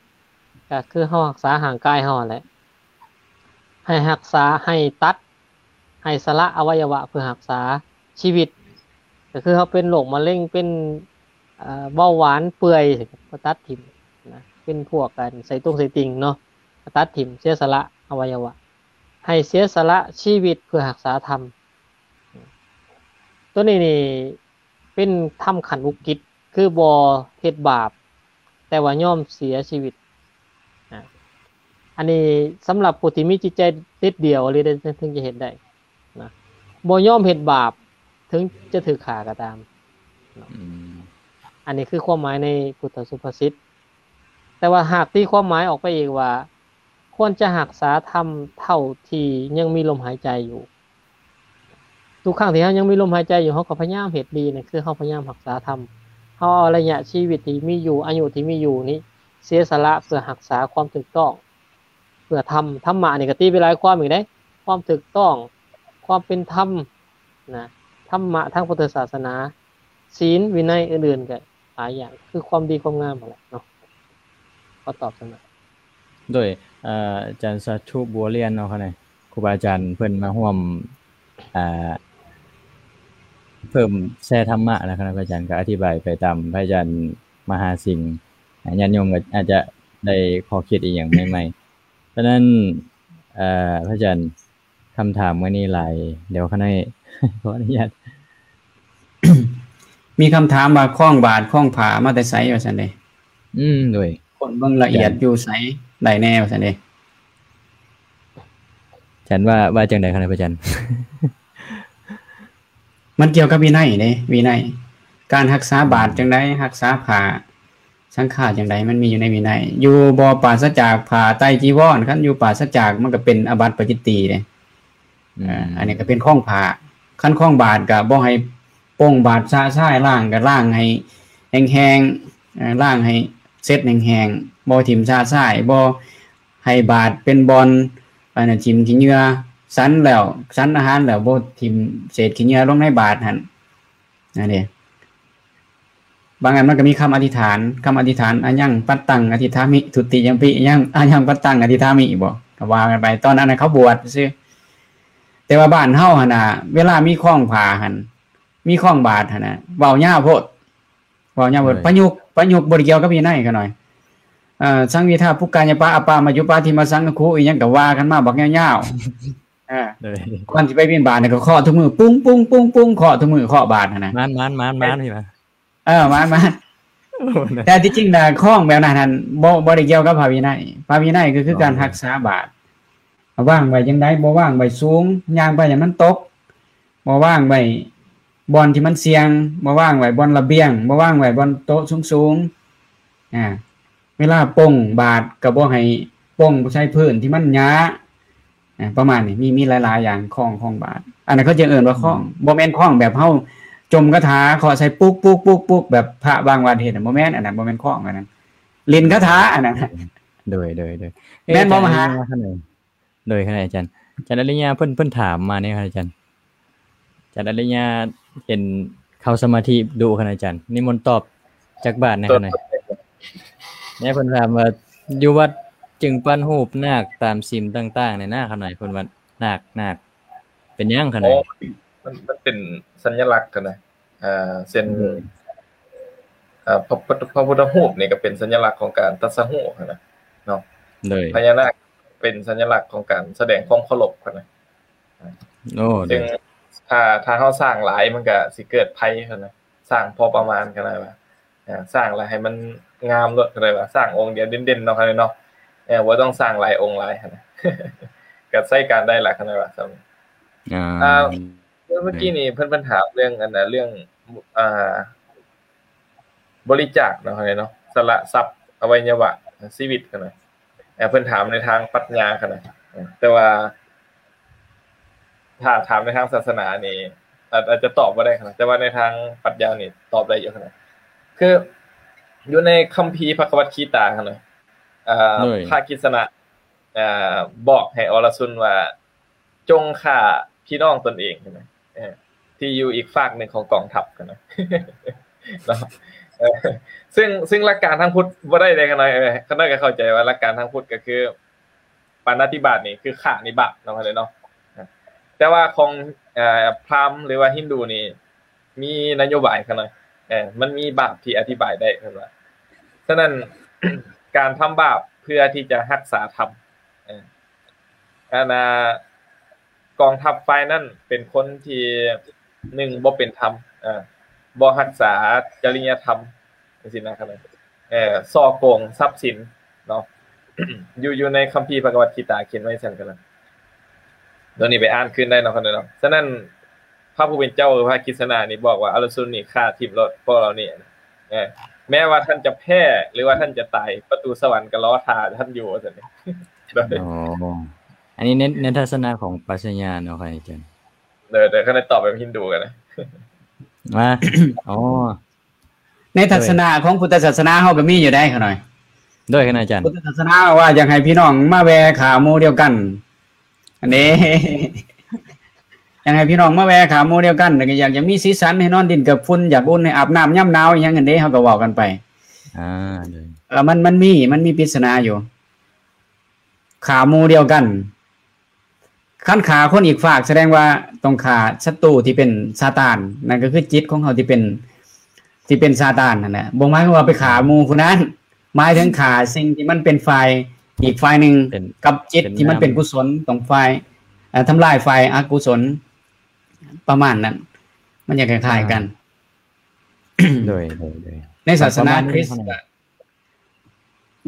ກໍຄືເຮົາຮັກສາຮ່າງກາຍເຮົາຫັ້ນແຫຼະ. ໃຫ້ຮັກສາ ໃຫ້ຕັດ ໃຫ້ສະຫຼະອະໄວຍະວະເພື່ອຮັກສາຊີວິດ ກໍຄືເຮົາເປັນໂລກມະເຮັງ ເປັນ ເອີ ເບົາຫວານເປື່ອຍ ກໍຕັດຖິ້ມນະ ເປັນພວກອັນໄສ້ຕົງໄສ້ຕິ່ງເນາະ ກໍຕັດຖິ້ມ ເສຍສະຫຼະອະໄວຍະວະ ໃຫ້ເສຍສະຫຼະຊີວິດເພື່ອຮັກສາທຳ. ໂຕນີ້ນີ້ ເປັນທຳຂັ້ນອຸກິດ ຄືບໍ່ເຮັດບາບ ແຕ່ວ່າຍອມເສຍຊີວິດ. ອາ ອັນນີ້ສຳລັບຜູ້ທີ່ມີຈິດໃຈເດັດດ່ຽວອີ່ຫຼີເດ້ ເຖິງຈະເຮັດໄດ້ນະ ບໍ່ຍອມເຮັດບາບ ເຖິງຈະຖືກຂ້າກໍຕາມເນາະ. ອືມ ອັນນີ້ຄືຄວາມໝາຍໃນພຸດທະສຸພາສິດ. ແຕ່ວ່າຫາກຕີຄວາມໝາຍອອກໄປອີກວ່າ ຄວນຈະຮັກສາທຳເທົ່າທີ່ຍັງມີລົມຫາຍໃຈຢູ່. ທຸກຄັ້ງທີ່ເຮົາຍັງມີລົມຫາຍໃຈຢູ່ ເຮົາກໍພະຍາຍາມເຮັດດີ ນັ້ນຄືເຮົາພະຍາຍາມຮັກສາທຳ. ເຮົາເອົາໄລຍະຊີວິດທີ່ມີຢູ່ ອາຍຸທີ່ມີຢູ່ນີ້ ເສຍສະຫຼະເພື່ອຮັກສາຄວາມຖືກຕ້ອງ ເພື່ອທຳ. ທຳມະນີ້ກໍຕີໄປຫຼາຍຄວາມອີກເດ້ ຄວາມຖືກຕ້ອງ ຄວາມເປັນທຳນະ ທຳມະທາງພຸດທະສາສະໜາ ສິນ ວິໄນ ອື່ນໆ ກໍຫຼາຍຢ່າງ ຄືຄວາມດີຄວາມງາມຫັ້ນແຫຼະເນາະ. ຂໍຕອບສ່ຳນັ້ນ. ໂດຍ ອາ ອາຈານສາທຸ ບົວລຽນເນາະ ຄະນະ ຄູບາອາຈານເພິ່ນມາຮ່ວມ ອາ ເພີ່ມແຊທຳມະນະ ຄະນະ ພະອາຈານກໍອະທິບາຍໄປຕາມພະອາຈານມະຫາສິງ ອາ ຍາດໂຍມກໍອາດຈະໄດ້ຂໍ້ຄິດອີ່ຫຍັງໃໝ່ໆ. ສະນັ້ນ ອາ ພະອາຈານ ຄຳຖາມມື້ນີ້ຫຼາຍ ດຽວຂ້ານ້ອຍຂໍອະນຸຍາດ ມີຄຳຖາມວ່າ ຄ້ອງບາດຄ້ອງຜ້າມາແຕ່ໃສ ວ່າຊັ້ນເດ້. ອືມ ໂດຍ ຄົ້ນເບິ່ງລະອຽດຢູ່ໃສໄດ້ແດ່ ວ່າຊັ້ນເດ້. ອາຈານວ່າ ວ່າຈັ່ງໃດຄະນະ ພະອາຈານ? ມັນກ່ຽວກັບວິໄນເດ້ ວິໄນ ການຮັກສາບາດ ອືມ ຈັ່ງໃດ ຮັກສາຜ້າ ສັງຂາຈັ່ງໃດ ມັນມີຢູ່ໃນວິໄນ. ຢູ່ບໍ່ປາສະຈາກຜ້າໄຕຈີວອນ ຄັນຢູ່ປາສະຈາກ ມັນກໍເປັນອາບັດປາຈິດຕີເດ້. ອືມ ເອີ ອັນນີ້ກໍເປັນຄ້ອງຜ້າ. ຄັນຄ້ອງບາດກໍບໍ່ໃຫ້ປົງບາດຊະຊາຍ ລ້າງກໍລ້າງໃຫ້ແຫ້ງໆ ເອີ ລ້າງໃຫ້ເຊັດແຫ້ງໆ ບໍ່ຖິ້ມຊະຊາຍ ບໍ່ໃຫ້ບາດເປັນບ່ອນ ອັນນັ້ນ ຖິ້ມຂີ້ເຫຍື້ອ ສັນແລ້ວ ສັນອາຫານແລ້ວ ບໍ່ຖິ້ມເສດຂີ້ເຫຍື້ອລົງໃນບາດຫັ້ນ ອັນນີ້. ບາງອັນມັນກໍມີຄຳອະທິຖານ ຄຳອະທິຖານ ອາຍັງປັດຕັງອະທິຖາມິ ທຸຕິຍຳປິ ອາຍັງ ອາຍັງປັດຕັງອະທິຖາມິບໍ ກໍວ່າກັນໄປ. ຕອນນັ້ນນະເຂົາບວດຊື່ ແຕ່ວ່າບ້ານເຮົາຫັ້ນນະ ເວລາມີຄ້ອງຜ້າຫັ້ນ ມີຄ້ອງບາດຫັ້ນນະ ເວົ້າຍາວໂພດ ເວົ້າຍາວໂພດ. ໂດຍ ປະຍຸກ ປະຍຸກບໍ່ໄດ້ກ່ຽວກັບວິໄນຂະນ້ອຍ. ເອີ ສັງວິທາປຸກກາຍະປະອະປາມາຍຸປາທິມະສັງຄະຄູ ອີ່ຫຍັງກໍວ່າກັນມາບັກຍາວໆ. ເອີ ໂດຍ ກ່ອນຊິໄປບິນບາດນີ້ກໍເຄາະທຸກມື້ ປຸ້ງໆໆໆ ເຄາະທຸກມື້ ເຄາະບາດຫັ້ນນະ ໝານໆໆໆ ເອີ ໝານໆ. ໂອ້ ແຕ່ທີ່ຈິງນະ ຄ້ອງແບບນັ້ນຫັ້ນ ບໍ່ ບໍ່ໄດ້ກ່ຽວກັບພະວິໄນ. ພະວິໄນກໍຄືການ ອໍ ຮັກສາບາດ ວາງໄວ້ຈັ່ງໃດ ບໍ່ວາງໄວ້ສູງ ຍ່າງໄປໃຫ້ມັນຕົກ ບໍ່ວາງໄວ້ບ່ອນທີ່ມັນສ່ຽງ ບໍ່ວາງໄວ້ບ່ອນລະບຽງ ບໍ່ວາງໄວ້ບ່ອນໂຕະສູງໆ. ອາ ເວລາປົງບາດກໍບໍ່ໃຫ້ປົງໃສ່ພື້ນທີ່ມັນຫຍ້າ ອາ ປະມານນີ້ ມີ ມີຫຼາຍໆຢ່າງ ຄ້ອງ ຄ້ອງບາດ ອັນນັ້ນເຂົາຈະເອີ້ນວ່າຄ້ອງ ອືມ ບໍ່ແມ່ນຄ້ອງແບບເຮົາຈົ່ມຄາຖາເຄາະໃສ່ປຸກໆໆໆ ແບບພະບາງວັດເຮັດ ບໍ່ແມ່ນ ອັນນັ້ນບໍ່ແມ່ນຄ້ອງ ອັນນັ້ນຫຼິ້ນຄາຖາ ອັນນັ້ນ. ໂດຍ ໂດຍ ໂດຍ ແມ່ນບໍ່ມະຫາ? ໂດຍ ຄະນະອາຈານ ອາຈານອະລິຍາ ເພິ່ນ ເພິ່ນຖາມມານີ້ ອາຈານ ອາຈານອະລິຍາ ເຫັນເຂົ້າສະມາທິດຸ ຄະນະອາຈານ ນິມົນຕອບຈັກບາດແດ່ ຄະນະ. ແມ່ເພິ່ນຖາມວ່າ ຢູ່ວັດຈຶ່ງປັ້ນຮູບນາກຕາມສິມຕ່າງໆ ນີ້ນະ ຄະນະ ເພິ່ນວ່ານາກ ນາກ ເປັນຫຍັງ ຄະນະ? ອໍ ມັນ ມັນເປັນສັນຍະລັກ ຄະນະ. ເຊັ່ນ ອືມ ເອີ ພະ ພະ ພະພຸດທະຮູບນີ້ກໍເປັນສັນຍະລັກຂອງການຕັດສະຮູ້ຫັ້ນນະເນາະ. ໂດຍ ພະຍານາກເປັນສັນຍະລັກຂອງການສະແດງຄວາມເຄົາລົບຫັ້ນນະ. ໂອ້ ໂດຍ ຊຶ່ງຖ້າ ຖ້າເຮົາສ້າງຫຼາຍມັນກໍຊິເກີດໄພຫັ້ນນະ. ສ້າງພໍປະມານກໍໄດ້ວ່າ ເອີ ສ້າງແລ້ວໃຫ້ມັນງາມໂລດກໍໄດ້ວ່າ ສ້າງອົງດຽວເດັ່ນໆ ເນາະ ເນາະ. ເອີ ບໍ່ຕ້ອງສ້າງຫຼາຍອົງຫຼາຍຫັ້ນນະ ກໍໃຊ້ການໄດ້ລະ ຄັນໄດ້ວ່າສ່ຳນີ້. ອ່າ ອ່າ ເມື່ອ ເມື່ອກີ້ນີ້ເພິ່ນ ເພິ່ນຖາມເລື່ອງອັນນ່າ ເລື່ອງ ອ່າ ບໍລິຈາກເນາະ ເນາະ ສະຫຼະຊັບ ອະໄວຍະວະ ຊີວິດຫັ້ນນະ. ເອີ ເພິ່ນຖາມໃນທາງປັດຍາຫັ້ນນະ ເອີ ແຕ່ວ່າຖ້າຖາມໃນທາງສາສະໜານີ້ ອາດ ອາດຈະຕອບບໍ່ໄດ້ຫັ້ນນະ ແຕ່ວ່າໃນທາງປັດຍານີ້ຕອບໄດ້ຢູ່ຫັ້ນນະ. ຄື ຢູ່ໃນຄຳພີພະຄະວັດຄີຕາຫັ້ນນະ ເອີ ໂດຍ ພະກິດສະນະ ເອີ ບອກໃຫ້ອໍລະຊຸນວ່າ ຈົ່ງຂ້າພີ່ນ້ອງຕົນເອງຫັ້ນນະ ເອີ ທີ່ຢູ່ອີກຟາກໜຶ່ງຂອງກອງທັບຫັ້ນນະ ເນາະ ເອີ ຊຶ່ງ ຊຶ່ງຫຼັກການທາງພຸດບໍ່ໄດ້ເດ້ ຂະນ້ອຍ ເອີ ຂະນ້ອຍກໍເຂົ້າໃຈວ່າຫຼັກການທາງພຸດກໍຄື ປານາຕິບາດນີ້ຄືຂ້ານີ້ບາບເນາະ ເນາະ ແຕ່ວ່າຂອງ ເອີ ພຣາມ ຫຼືວ່າຮິນດູນີ້ ມີນະໂຍບາຍຂະນ້ອຍ ເອີ ມັນມີບາບທີ່ອະທິບາຍໄດ້ເພິ່ນວ່າ. ສະນັ້ນ ການທຳບາບເພື່ອທີ່ຈະຮັກສາທຳ ເອີ ອັນນ່າ ກອງທັບຝ່າຍນັ້ນເປັນຄົນທີ່ ໜຶ່ງ ບໍ່ເປັນທຳ ເອີ ບໍ່ຮັກສາຈະລິຍະທຳ ຈັ່ງຊີ້ນະ ເອີ ສໍ້ໂກງຊັບສິນເນາະ ຢູ່ ຢູ່ໃນຄຳພີພະຄະວັດຄີຕາຂຽນໄວ້ຊັ້ນ ໂຕນີ້ໄປອ່ານຄືນໄດ້ເນາະ ເນາະ. ສະນັ້ນ ພະຜູ້ເປັນເຈົ້າ ຫຼື ພະກິດສະນານີ້ບອກວ່າ ອາລະຊຸນນີ້ຂ້າຖິ້ມໂລດ ພວກເຫຼົ່ານີ້ ເອີ ແມ້ວ່າທ່ານຈະແພ້ ຫຼືວ່າທ່ານຈະຕາຍ ປະຕູສະຫວັນກໍລໍຖ້າທ່ານຢູ່ ວ່າຊັ້ນເດ. ອໍ ອັນນີ້ໃນ ໃນທັດສະນະຂອງປັດຊະຍາເນາະ ອາຈານ. ໂດຍ ໂດຍ ຄັນໄດ້ຕອບແບບຮິນດູກໍໄດ້ ມາ ອໍ ໃນທັດສະນະຂອງພຸດທະສາສະໜາເຮົາກໍມີຢູ່ໄດ໋ ຂະນ້ອຍ. ໂດຍ ຂະນ້ອຍອາຈານ. ພຸດທະສາສະໜາວ່າຢາກໃຫ້ພີ່ນ້ອງມາແວ່ຂາໝູ່ດຽວກັນ ອັນນີ້ ຢາກໃຫ້ພີ່ນ້ອງມາແວ່ຂາໝູ່ດຽວກັນ ແລ້ວກໍຢາກ ຢາກມີສີສັນ ໃຫ້ນອນດິນກັບຝຸ່ນ ຢາກອຸ່ນໃຫ້ອາບນ້ຳຍາມໜາວ ອີ່ຫຍັງຫັ້ນເດ້ ເຮົາກໍເວົ້າກັນໄປ. ອ່າ ໂດຍ ເອີ ມັນ ມັນມີ ມັນມີປິດສະໜາຢູ່ ຂາໝູ່ດຽວກັນ. ຄັນຂ້າຄົນອີກຟາກ ສະແດງວ່າຕ້ອງຂ້າສັດຕູທີ່ເປັນຊາຕານ ນັ້ນກໍຄືຈິດຂອງເຮົາທີ່ເປັນ ທີ່ເປັນຊາຕານນັ້ນແຫຼະ. ບໍ່ໝາຍຄວາມວ່າໄປຂ້າໝູ່ຜູ້ນັ້ນ ໝາຍເຖິງຂ້າສິ່ງທີ່ມັນເປັນຝ່າຍ ອີກຝ່າຍໜຶ່ງ ເປັນ ກັບຈິດທີ່ມັນເປັນ ເປັນນາມ ກຸສົນ ຕ້ອງຝ່າຍ ເອີ ທຳລາຍຝ່າຍອະກຸສົນ ປະມານນັ້ນ ມັນຈະຄ້າຍໆກັນ. ອ່າ ໂດຍ ໂດຍ ໂດຍ ໃນສາສະໜາຄຣິດ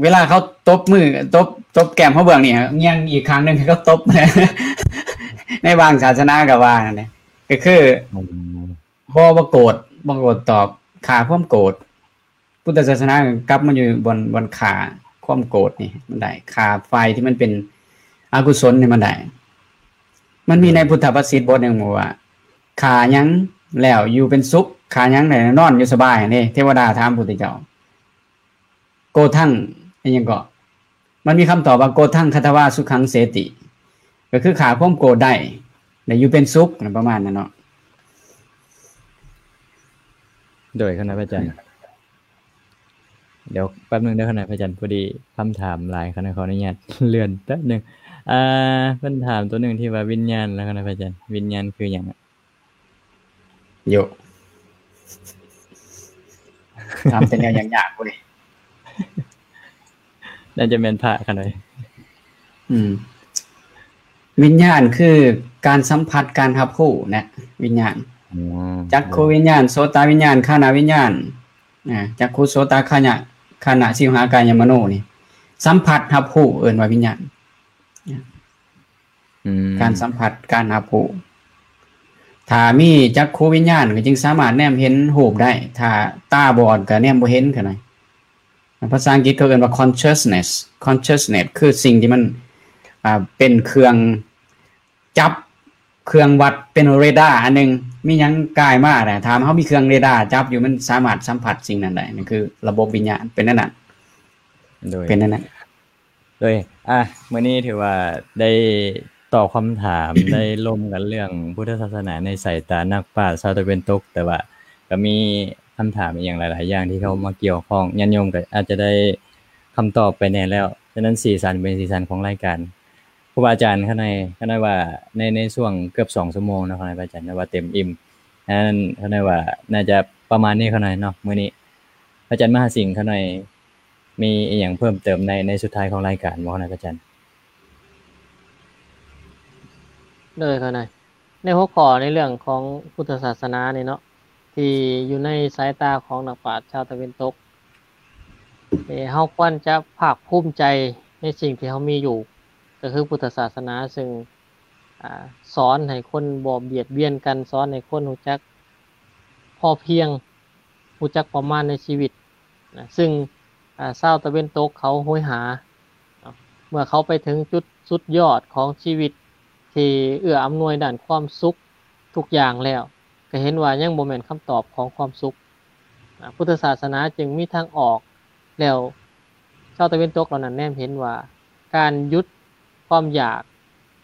ເວລາເຂົາຕົບມື ຕົບ ຕົບແກ້ມເຮົາເບື້ອງນີ້ ງຽງອີກຂ້າງໜຶ່ງໃຫ້ເຂົາຕົບ ໃນບາງສາສະໜາກໍວ່ານັ້ນແຫຼະ ກໍຄື ອືມ ບໍ່ ບໍ່ໂກດ ບໍ່ໂກດຕອບ ຂ້າຄວາມໂກດ. ພຸດທະສາສະໜາກໍກັບມາຢູ່ບ່ອນ ບ່ອນຂ້າຄວາມໂກດນີ້ມັນໄດ້ ຂ້າຝ່າຍທີ່ມັນເປັນອະກຸສົນນີ້ມັນໄດ້. ມັນມີໃນ ອືມ ພຸດທະພາສິດບົດໜຶ່ງບອກວ່າ ຂ້າຫຍັງແລ້ວຢູ່ເປັນສຸກ ຂ້າຫຍັງແລ້ວນອນຢູ່ສະບາຍ ເດ້ ເທວະດາຖາມພຸດທະເຈົ້າ ໂກທັງ ອີ່ຫຍັງເກາະ ມັນມີຄຳຕອບວ່າ ໂກທັງຄະທະວາສຸຂັງເສຕິ ກໍຄືຂ້າຄວາມໂກດໄດ້ ແລະ ຢູ່ເປັນສຸກ ປະມານນັ້ນເນາະ. ໂດຍ ຂະນະພະອາຈານ ດຽວແປັບໜຶ່ງເດີ ຂະນະພະອາຈານ ພໍດີຄຳຖາມຫຼາຍ ຂະນະ ຂໍອະນຸຍາດເລື່ອນແປັບໜຶ່ງ. ອ່າ ເພິ່ນຖາມຕົວໜຶ່ງທີ່ວ່າວິນຍານ ແລ້ວ ຂະນະພະອາຈານ ວິນຍານຄືຫຍັງ? ໂຍ ຖາມແຕ່ແນວຍາກໆພຸ້ນເດ. ໜ້າຈະແມ່ນພະຂະໜ້ອຍ. ອືມ ວິນຍານຄືການສຳຜັດ ການຮັບຮູ້ນະ ວິນຍານ. ອໍ ຈັກຂຸວິນຍານ ໂສຕະວິນຍານ ຄານະວິນຍານ ອາ ຈັກຂຸ ໂສຕະຄານະ ຄານະ ຊິວຫາກາຍະມະໂນນີ້ ສຳຜັດຮັບຮູ້ ເອີ້ນວ່າວິນຍານ. ອືມ ການສຳຜັດ ການຮັບຮູ້. ຖ້າມີຈັກຂຸວິນຍານກໍຈຶ່ງສາມາດແນມເຫັນຮູບໄດ້ ຖ້າຕາບອດກໍແນມບໍ່ເຫັນ ຂະໜ້ອຍ. ພາສາອັງກິດເຂົາເອີ້ນວ່າ consciousness. Consciousness ຄືສິ່ງທີ່ມັນ ອ່າ ເປັນເຄື່ອງຈັບ ເຄື່ອງວັດ ເປັນເຣດາອັນໜຶ່ງ ມີຫຍັງກາຍມານະ ຖ້າເຮົາມີເຄື່ອງເຣດາຈັບຢູ່ ມັນສາມາດສຳຜັດສິ່ງນັ້ນໄດ້. ນັ້ນຄືລະບົບວິນຍານ ເປັນແນວນັ້ນ. ໂດຍ ເປັນແນວນັ້ນ. ໂດຍ ອ່າ ມື້ນີ້ຖືວ່າໄດ້ຕອບຄຳຖາມ ໄດ້ລົມກັນເລື່ອງພຸດທະສາສະໜາໃນສາຍຕານັກປາດຊາວຕາເວັນຕົກ, ແຕ່ວ່າກໍມີຄຳຖາມອີ່ຫຍັງຫຼາຍໆຢ່າງທີ່ເຂົ້າມາກ່ຽວຂ້ອງ, ຍາດໂຍມກໍອາດຈະໄດ້ຄຳຕອບໄປແດ່ແລ້ວ. ສະນັ້ນສີສັນເປັນສີສັນຂອງລາຍການ. ຄູບາອາຈານ ຂ້ານ້ອຍ ຂ້ານ້ອຍວ່າໃນ ໃນຊ່ວງເກືອບສອງຊົ່ວໂມງເນາະ ຂະນ້ອຍ ພະອາຈານ ແຕ່ວ່າເຕັມອີ່ມ. ອັນນັ້ນ ຂ້ານ້ອຍວ່າໜ້າຈະປະມານນີ້ ຂະນ້ອຍເນາະ ມື້ນີ້. ພະອາຈານມະຫາສິງ ຂ້ານ້ອຍ ມີອີ່ຫຍັງເພີ່ມເຕີມໃນ ໃນສຸດທ້າຍຂອງລາຍການບໍ່ ຂະນ້ອຍ ພະອາຈານ? ໂດຍ ຂະນ້ອຍ ໃນຫົວຂໍ້ໃນເລື່ອງຂອງພຸດທະສາສະໜານີ້ເນາະ ທີ່ຢູ່ໃນສາຍຕາຂອງນັກປາດຊາວຕາເວັນຕົກ ເອີ ເຮົາຄວນຈະພາກພູມໃຈໃນສິ່ງທີ່ເຮົາມີຢູ່ ກໍຄືພຸດທະສາສະໜາ ຊຶ່ງ ອາ ສອນໃຫ້ຄົນບໍ່ບຽດບຽນກັນ, ສອນໃຫ້ຄົນຮູ້ຈັກພໍພຽງ, ຮູ້ຈັກປະມານໃນຊີວິດນະ, ຊຶ່ງ ອາ ຊາວຕາເວັນຕົກເຂົາໂຫຍຫາເນາະ, ເມື່ອເຂົາໄປເຖິງຈຸດສຸດຍອດຂອງຊີວິດທີ່ເອື້ອອຳນວຍດ້ານຄວາມສຸກທຸກຢ່າງແລ້ວ, ກໍເຫັນວ່າຍັງບໍ່ແມ່ນຄຳຕອບຂອງຄວາມສຸກ. ພຸດທະສາສະໜາຈຶ່ງມີທາງອອກ. ແລ້ວຊາວຕາເວັນຕົກເຫຼົ່ານັ້ນແນມເຫັນວ່າ ການຢຸດຄວາມຢາກ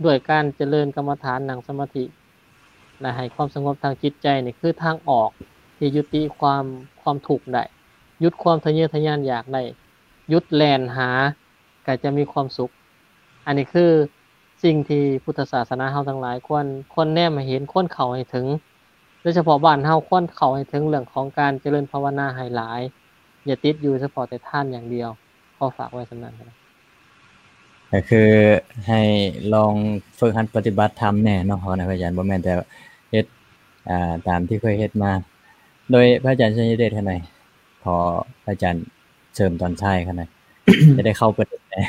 ດ້ວຍການຈະເລີນກຳມະຖານ, ນັ່ງສະມາທິ ແລະ ໃຫ້ຄວາມສະຫງົບທາງຈິດໃຈນີ້ ຄືທາງອອກທີ່ຍຸຕິຄວາມ, ຄວາມທຸກໄດ້, ຢຸດຄວາມທະເຍີທະຍານຢາກໄດ້, ຢຸດແລ່ນຫາ ກໍຈະມີຄວາມສຸກ. ອັນນີ້ຄືສິ່ງທີ່ພຸດທະສາສະໜາເຮົາທັງຫຼາຍຄວນ, ຄວນແນມໃຫ້ເຫັນ, ຄວນເຂົ້າໃຫ້ເຖິງ. ໂດຍສະເພາະບ້ານເຮົາຄວນເຂົ້າໃຫ້ເຖິງເລື່ອງຂອງການຈະເລີນພາວະນາໃຫ້ຫຼາຍ, ຢ່າຕິດຢູ່ສະເພາະແຕ່ທານຢ່າງດຽວ. ຂໍຝາກໄວ້ສ່ຳນັ້ນ. ກໍຄືໃຫ້ລອງຝຶກຫັດປະຕິບັດທຳແດ່ເນາະ ພະອາຈານ, ບໍ່ແມ່ນແຕ່ເຮັດ, ອ່າ, ຕາມທີ່ເຄີຍເຮັດມາ. ໂດຍພະອາຈານໄຊຍະເດດ ຂ້ານ້ອຍ, ຂໍພະອາຈານເສີມຕອນທ້າຍຂ້ານ້ອຍ, ຈະໄດ້ເຂົ້າປະເດັນແດ່.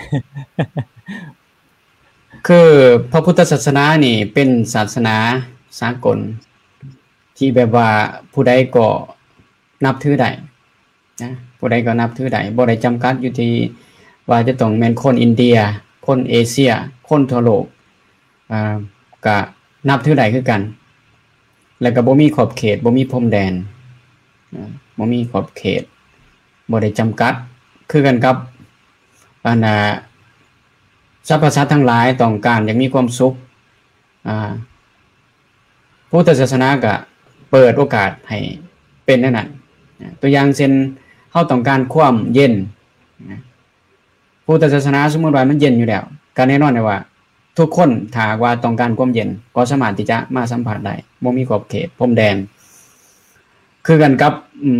ຄືພະພຸດທະສາສະໜານີ້ເປັນສາສະໜາສາກົນ ທີ່ແບບວ່າຜູ້ໃດກໍນັບຖືໄດ້ນະ, ຜູ້ໃດກໍນັບຖືໄດ້, ບໍ່ໄດ້ຈຳກັດຢູ່ທີ່ວ່າຈະຕ້ອງແມ່ນຄົນອິນເດຍ, ຄົນເອເຊຍ, ຄົນທົ່ວໂລກ, ອ່າ, ກະນັບຖືໄດ້ຄືກັນ. ແລ້ວກໍບໍ່ມີຂອບເຂດ, ບໍ່ມີພົມແດນ, ອ່າ, ບໍ່ມີຂອບເຂດ, ບໍ່ໄດ້ຈຳກັດ. ຄືກັນກັບ ອັນນ່າ ສັບພະສັດທັງຫຼາຍຕ້ອງການຢາກມີຄວາມສຸກ, ອ່າ, ພຸດທະສາສະໜາກໍເປີດໂອກາດໃຫ້ເປັນແນວນັ້ນ. ຕົວຢ່າງເຊັ່ນ ເຮົາຕ້ອງການຄວາມເຢັນນະ, ພຸດທະສາສະໜາສົມມຸດວ່າມັນເຢັນຢູ່ແລ້ວ, ກໍແນ່ນອນແຫຼະວ່າ ທຸກຄົນ ຖ້າຫາກວ່າຕ້ອງການຄວາມເຢັນ ກໍສາມາດທີ່ຈະມາສຳຜັດໄດ້, ບໍ່ມີຂອບເຂດພົມແດນ. ຄືກັນກັບ,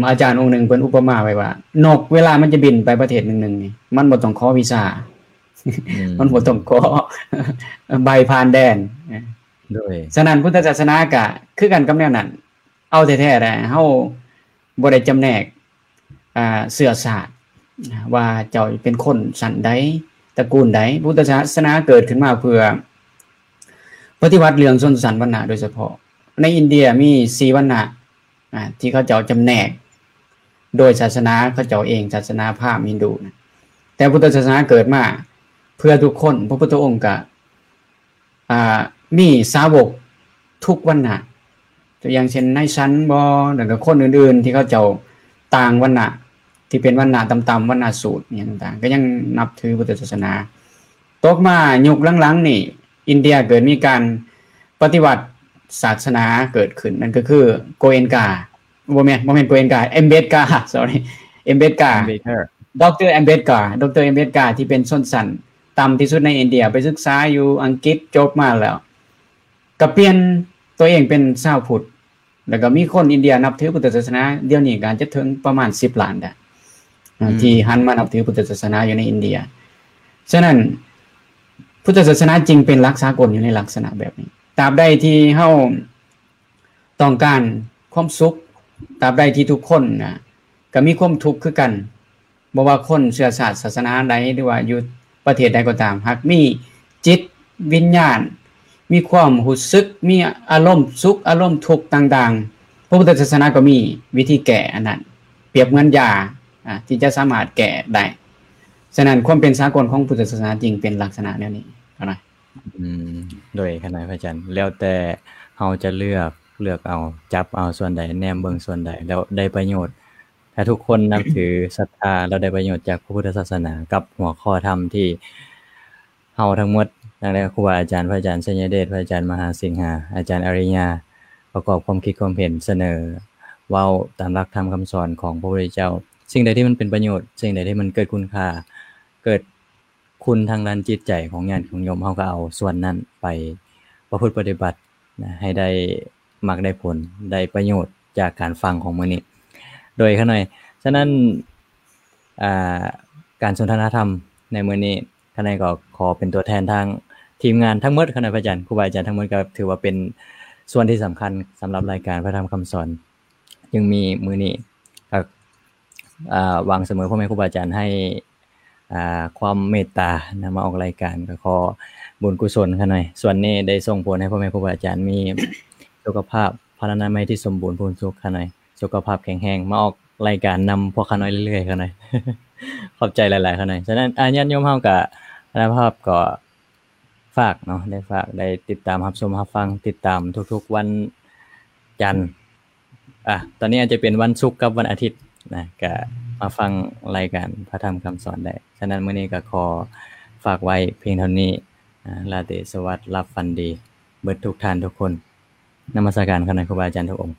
ອາຈານອົງໜຶ່ງເພິ່ນອຸປະມາໄວ້ວ່າ ນົກເວລາມັນຈະບິນໄປປະເທດໜຶ່ງໆນີ້ ມັນບໍ່ຕ້ອງຂໍວີຊາ, ມັນບໍ່ຕ້ອງຂໍໃບຜ່ານແດນ. ໂດຍ ສະນັ້ນ ພຸດທະສາສະໜາກະຄືກັນກັບແນວນັ້ນ, ເອົາແທ້ໆແຫຼະ, ເຮົາບໍ່ໄດ້ຈຳແນກ ອ່າ ເຊື້ອຊາດ ວ່າເຈົ້າເປັນຄົນຊັ້ນໃດ, ຕະກູນໃດ. ພຸດທະສາສະໜາເກີດຂຶ້ນມາເພື່ອປະຕິວັດເລື່ອງຊົນຊັ້ນວັນນະໂດຍສະເພາະ. ໃນອິນເດຍມີສີ່ວັນນະ ອ່າ ທີ່ເຂົາເຈົ້າຈຳແນກໂດຍສາສະໜາເຂົາເຈົ້າເອງ, ສາສະໜາພາມ, ຮິນດູນະ. ແຕ່ພຸດທະສາສະໜາເກີດມາເພື່ອທຸກຄົນ. ພະພຸດທະອົງກະ ອ່າ ມີສາວົກທຸກວັນນະ, ຕົວຢ່າງເຊັ່ນ ນາຍສັນບໍ ແລ້ວກໍຄົນອື່ນໆ ທີ່ເຂົາເຈົ້າຕ່າງວັນນະ, ທີ່ເປັນວັນນະຕ່ຳໆ, ວັນນະສູດ ຫຍັງຕ່າງໆ ກໍຍັງນັບຖືພຸດທະສາສະໜາ. ຕົກມາຍຸກຫຼັງໆນີ້ ອິນເດຍເກີດມີການປະຕິວັດສາສະໜາເກີດຂຶ້ນ, ນັ້ນກໍຄືໂກເອັນກາ, ບໍ່ແມ່ນ, ບໍ່ແມ່ນໂກເອັນກາ, ແອມເບດກາ, sorry, ແອມເບດກາ, ດອກເຕີ ແອມເບດກາ, ດອກເຕີ ແອມເບດກາ ທີ່ເປັນຊົນຊັ້ນ ຕ່ຳທີ່ສຸດໃນອິນເດຍ, ໄປສຶກສາຢູ່ອັງກິດ, ຈົບມາແລ້ວກໍປ່ຽນຕົວເອງເປັນຊາວພຸດ, ແລ້ວກໍມີຄົນອິນເດຍນັບຖືພຸດທະສາສະໜາ ດຽວນີ້ກໍອາດຈະເຖິງປະມານສິບລ້ານໄດ້ ອືມ ທີ່ຫັນມານັບຖືພຸດທະສາສະໜາຢູ່ໃນອິນເດຍ. ສະນັ້ນ ພຸດທະສາສະໜາຈຶ່ງເປັນຫຼັກສາກົນຢູ່ໃນລັກສະນະແບບນີ້. ຕາບໃດທີ່ເຮົາ ຕ້ອງການຄວາມສຸກ, ຕາບໃດທີ່ທຸກຄົນນະ ກໍມີຄວາມທຸກຄືກັນ, ບໍ່ວ່າຄົນເຊື້ອຊາດສາສະໜາໃດ ຫຼືວ່າຢູ່ປະເທດໃດກໍຕາມ, ຫາກມີຈິດວິນຍານ, ມີຄວາມຮູ້ສຶກ, ມີອາລົມສຸກ, ອາລົມທຸກຕ່າງໆ, ພະພຸດທະສາສະໜາກໍມີວິທີແກ້ອັນນັ້ນ, ປຽບເໝືອນຢາ ອາ ທີ່ຈະສາມາດແກ້ໄດ້. ສະນັ້ນ ຄວາມເປັນສາກົນຂອງພຸດທະສາສະໜາຈຶ່ງເປັນລັກສະນະແນວນີ້ເທົ່ານັ້ນ. ອືມ ໂດຍ ຂະນະພະອາຈານ ແລ້ວແຕ່ເຮົາຈະເລືອກ, ເລືອກເອົາ, ຈັບເອົາສ່ວນໃດ, ແນມເບິ່ງສ່ວນໃດ ແລ້ວໄດ້ປະໂຫຍດ. ຖ້າທຸກຄົນນັບຖື, ສັດທາ ແລ້ວໄດ້ປະໂຫຍດຈາກພະພຸດທະສາສະໜາ ກັບຫົວຂໍ້ທຳທີ່ເຮົາທັງໝົດ, ຕັ້ງແຕ່ຄູບາອາຈານ, ພະອາຈານໄຊຍະເດດ, ພະອາຈານມະຫາສິງຫາ, ອາຈານອາລິຍາ ປະກອບຄວາມຄິດຄວາມເຫັນ, ສະເໜີເວົ້າຕາມຫຼັກທຳຄຳສອນຂອງພະພຸດທະເຈົ້າ, ສິ່ງໃດທີ່ມັນເປັນປະໂຫຍດ, ສິ່ງໃດທີ່ມັນເກີດຄຸນຄ່າ, ເກີດ ຄຸນທາງດ້ານຈິດໃຈຂອງຍາດຂອງໂຍມ, ເຮົາກໍເອົາສ່ວນນັ້ນໄປປະພຶດປະຕິບັດນະ ໃຫ້ໄດ້ມັກໄດ້ຜົນ, ໄດ້ປະໂຫຍດຈາກການຟັງຂອງມື້ນີ້ ໂດຍຂ້ານ້ອຍ. ສະນັ້ນ ອ່າ ການສົນທະນາທຳໃນມື້ນີ້ ຂ້ານ້ອຍກໍຂໍເປັນຕົວແທນທາງທີມງານທັງໝົດ, ຂ້ານ້ອຍພະອາຈານ, ຄູບາອາຈານທັງໝົດ ກໍຖືວ່າເປັນສ່ວນທີ່ສຳຄັນສຳລັບລາຍການພະທຳຄຳສອນ. ຈຶ່ງມີມື້ນີ້ ກໍ ອ່າ ຫວັງສະເໝີພໍ່ແມ່ຄູບາອາຈານໃຫ້ ອ່າ ຄວາມເມດຕານຳມາອອກລາຍການ, ກໍຂໍບຸນກຸສົນຂ້ານ້ອຍ ສ່ວນນີ້ໄດ້ສົ່ງຜົນໃຫ້ພໍ່ແມ່ຄູບາອາຈານມີສຸຂະພາບພະລານາໄມທີ່ສົມບູນພູນສຸກຂ້ານ້ອຍ, ສຸຂະພາບແຂງແຮງ, ມາອອກລາຍການນຳພວກຂ້ານ້ອຍເລື້ອຍໆຂ້ານ້ອຍ. ຂອບໃຈຫຼາຍໆຂ້ານ້ອຍ. ສະນັ້ນ ອາ ຍາດໂຍມເຮົາກໍ ລະພາບກໍ ຝາກເນາະ, ໄດ້ຝາກ, ໄດ້ຕິດຕາມຮັບຊົມຮັບຟັງ, ຕິດຕາມທຸກໆວັນຈັນ, ອ່າ ຕອນນີ້ອາດຈະເປັນວັນສຸກກັບວັນອາທິດ ນະ ກະມາຟັງລາຍການພະທຳຄຳສອນໄດ້. ສະນັ້ນ ມື້ນີ້ກະຂໍຝາກໄວ້ພຽງເທົ່ານີ້. ອາ ລາຕີສະຫວັດ ຫຼັບຝັນດີ ເບິດທຸກທ່ານທຸກຄົນ. ນະມັດສະການ ຂອບໃນຄູບາອາຈານທຸກອົງ.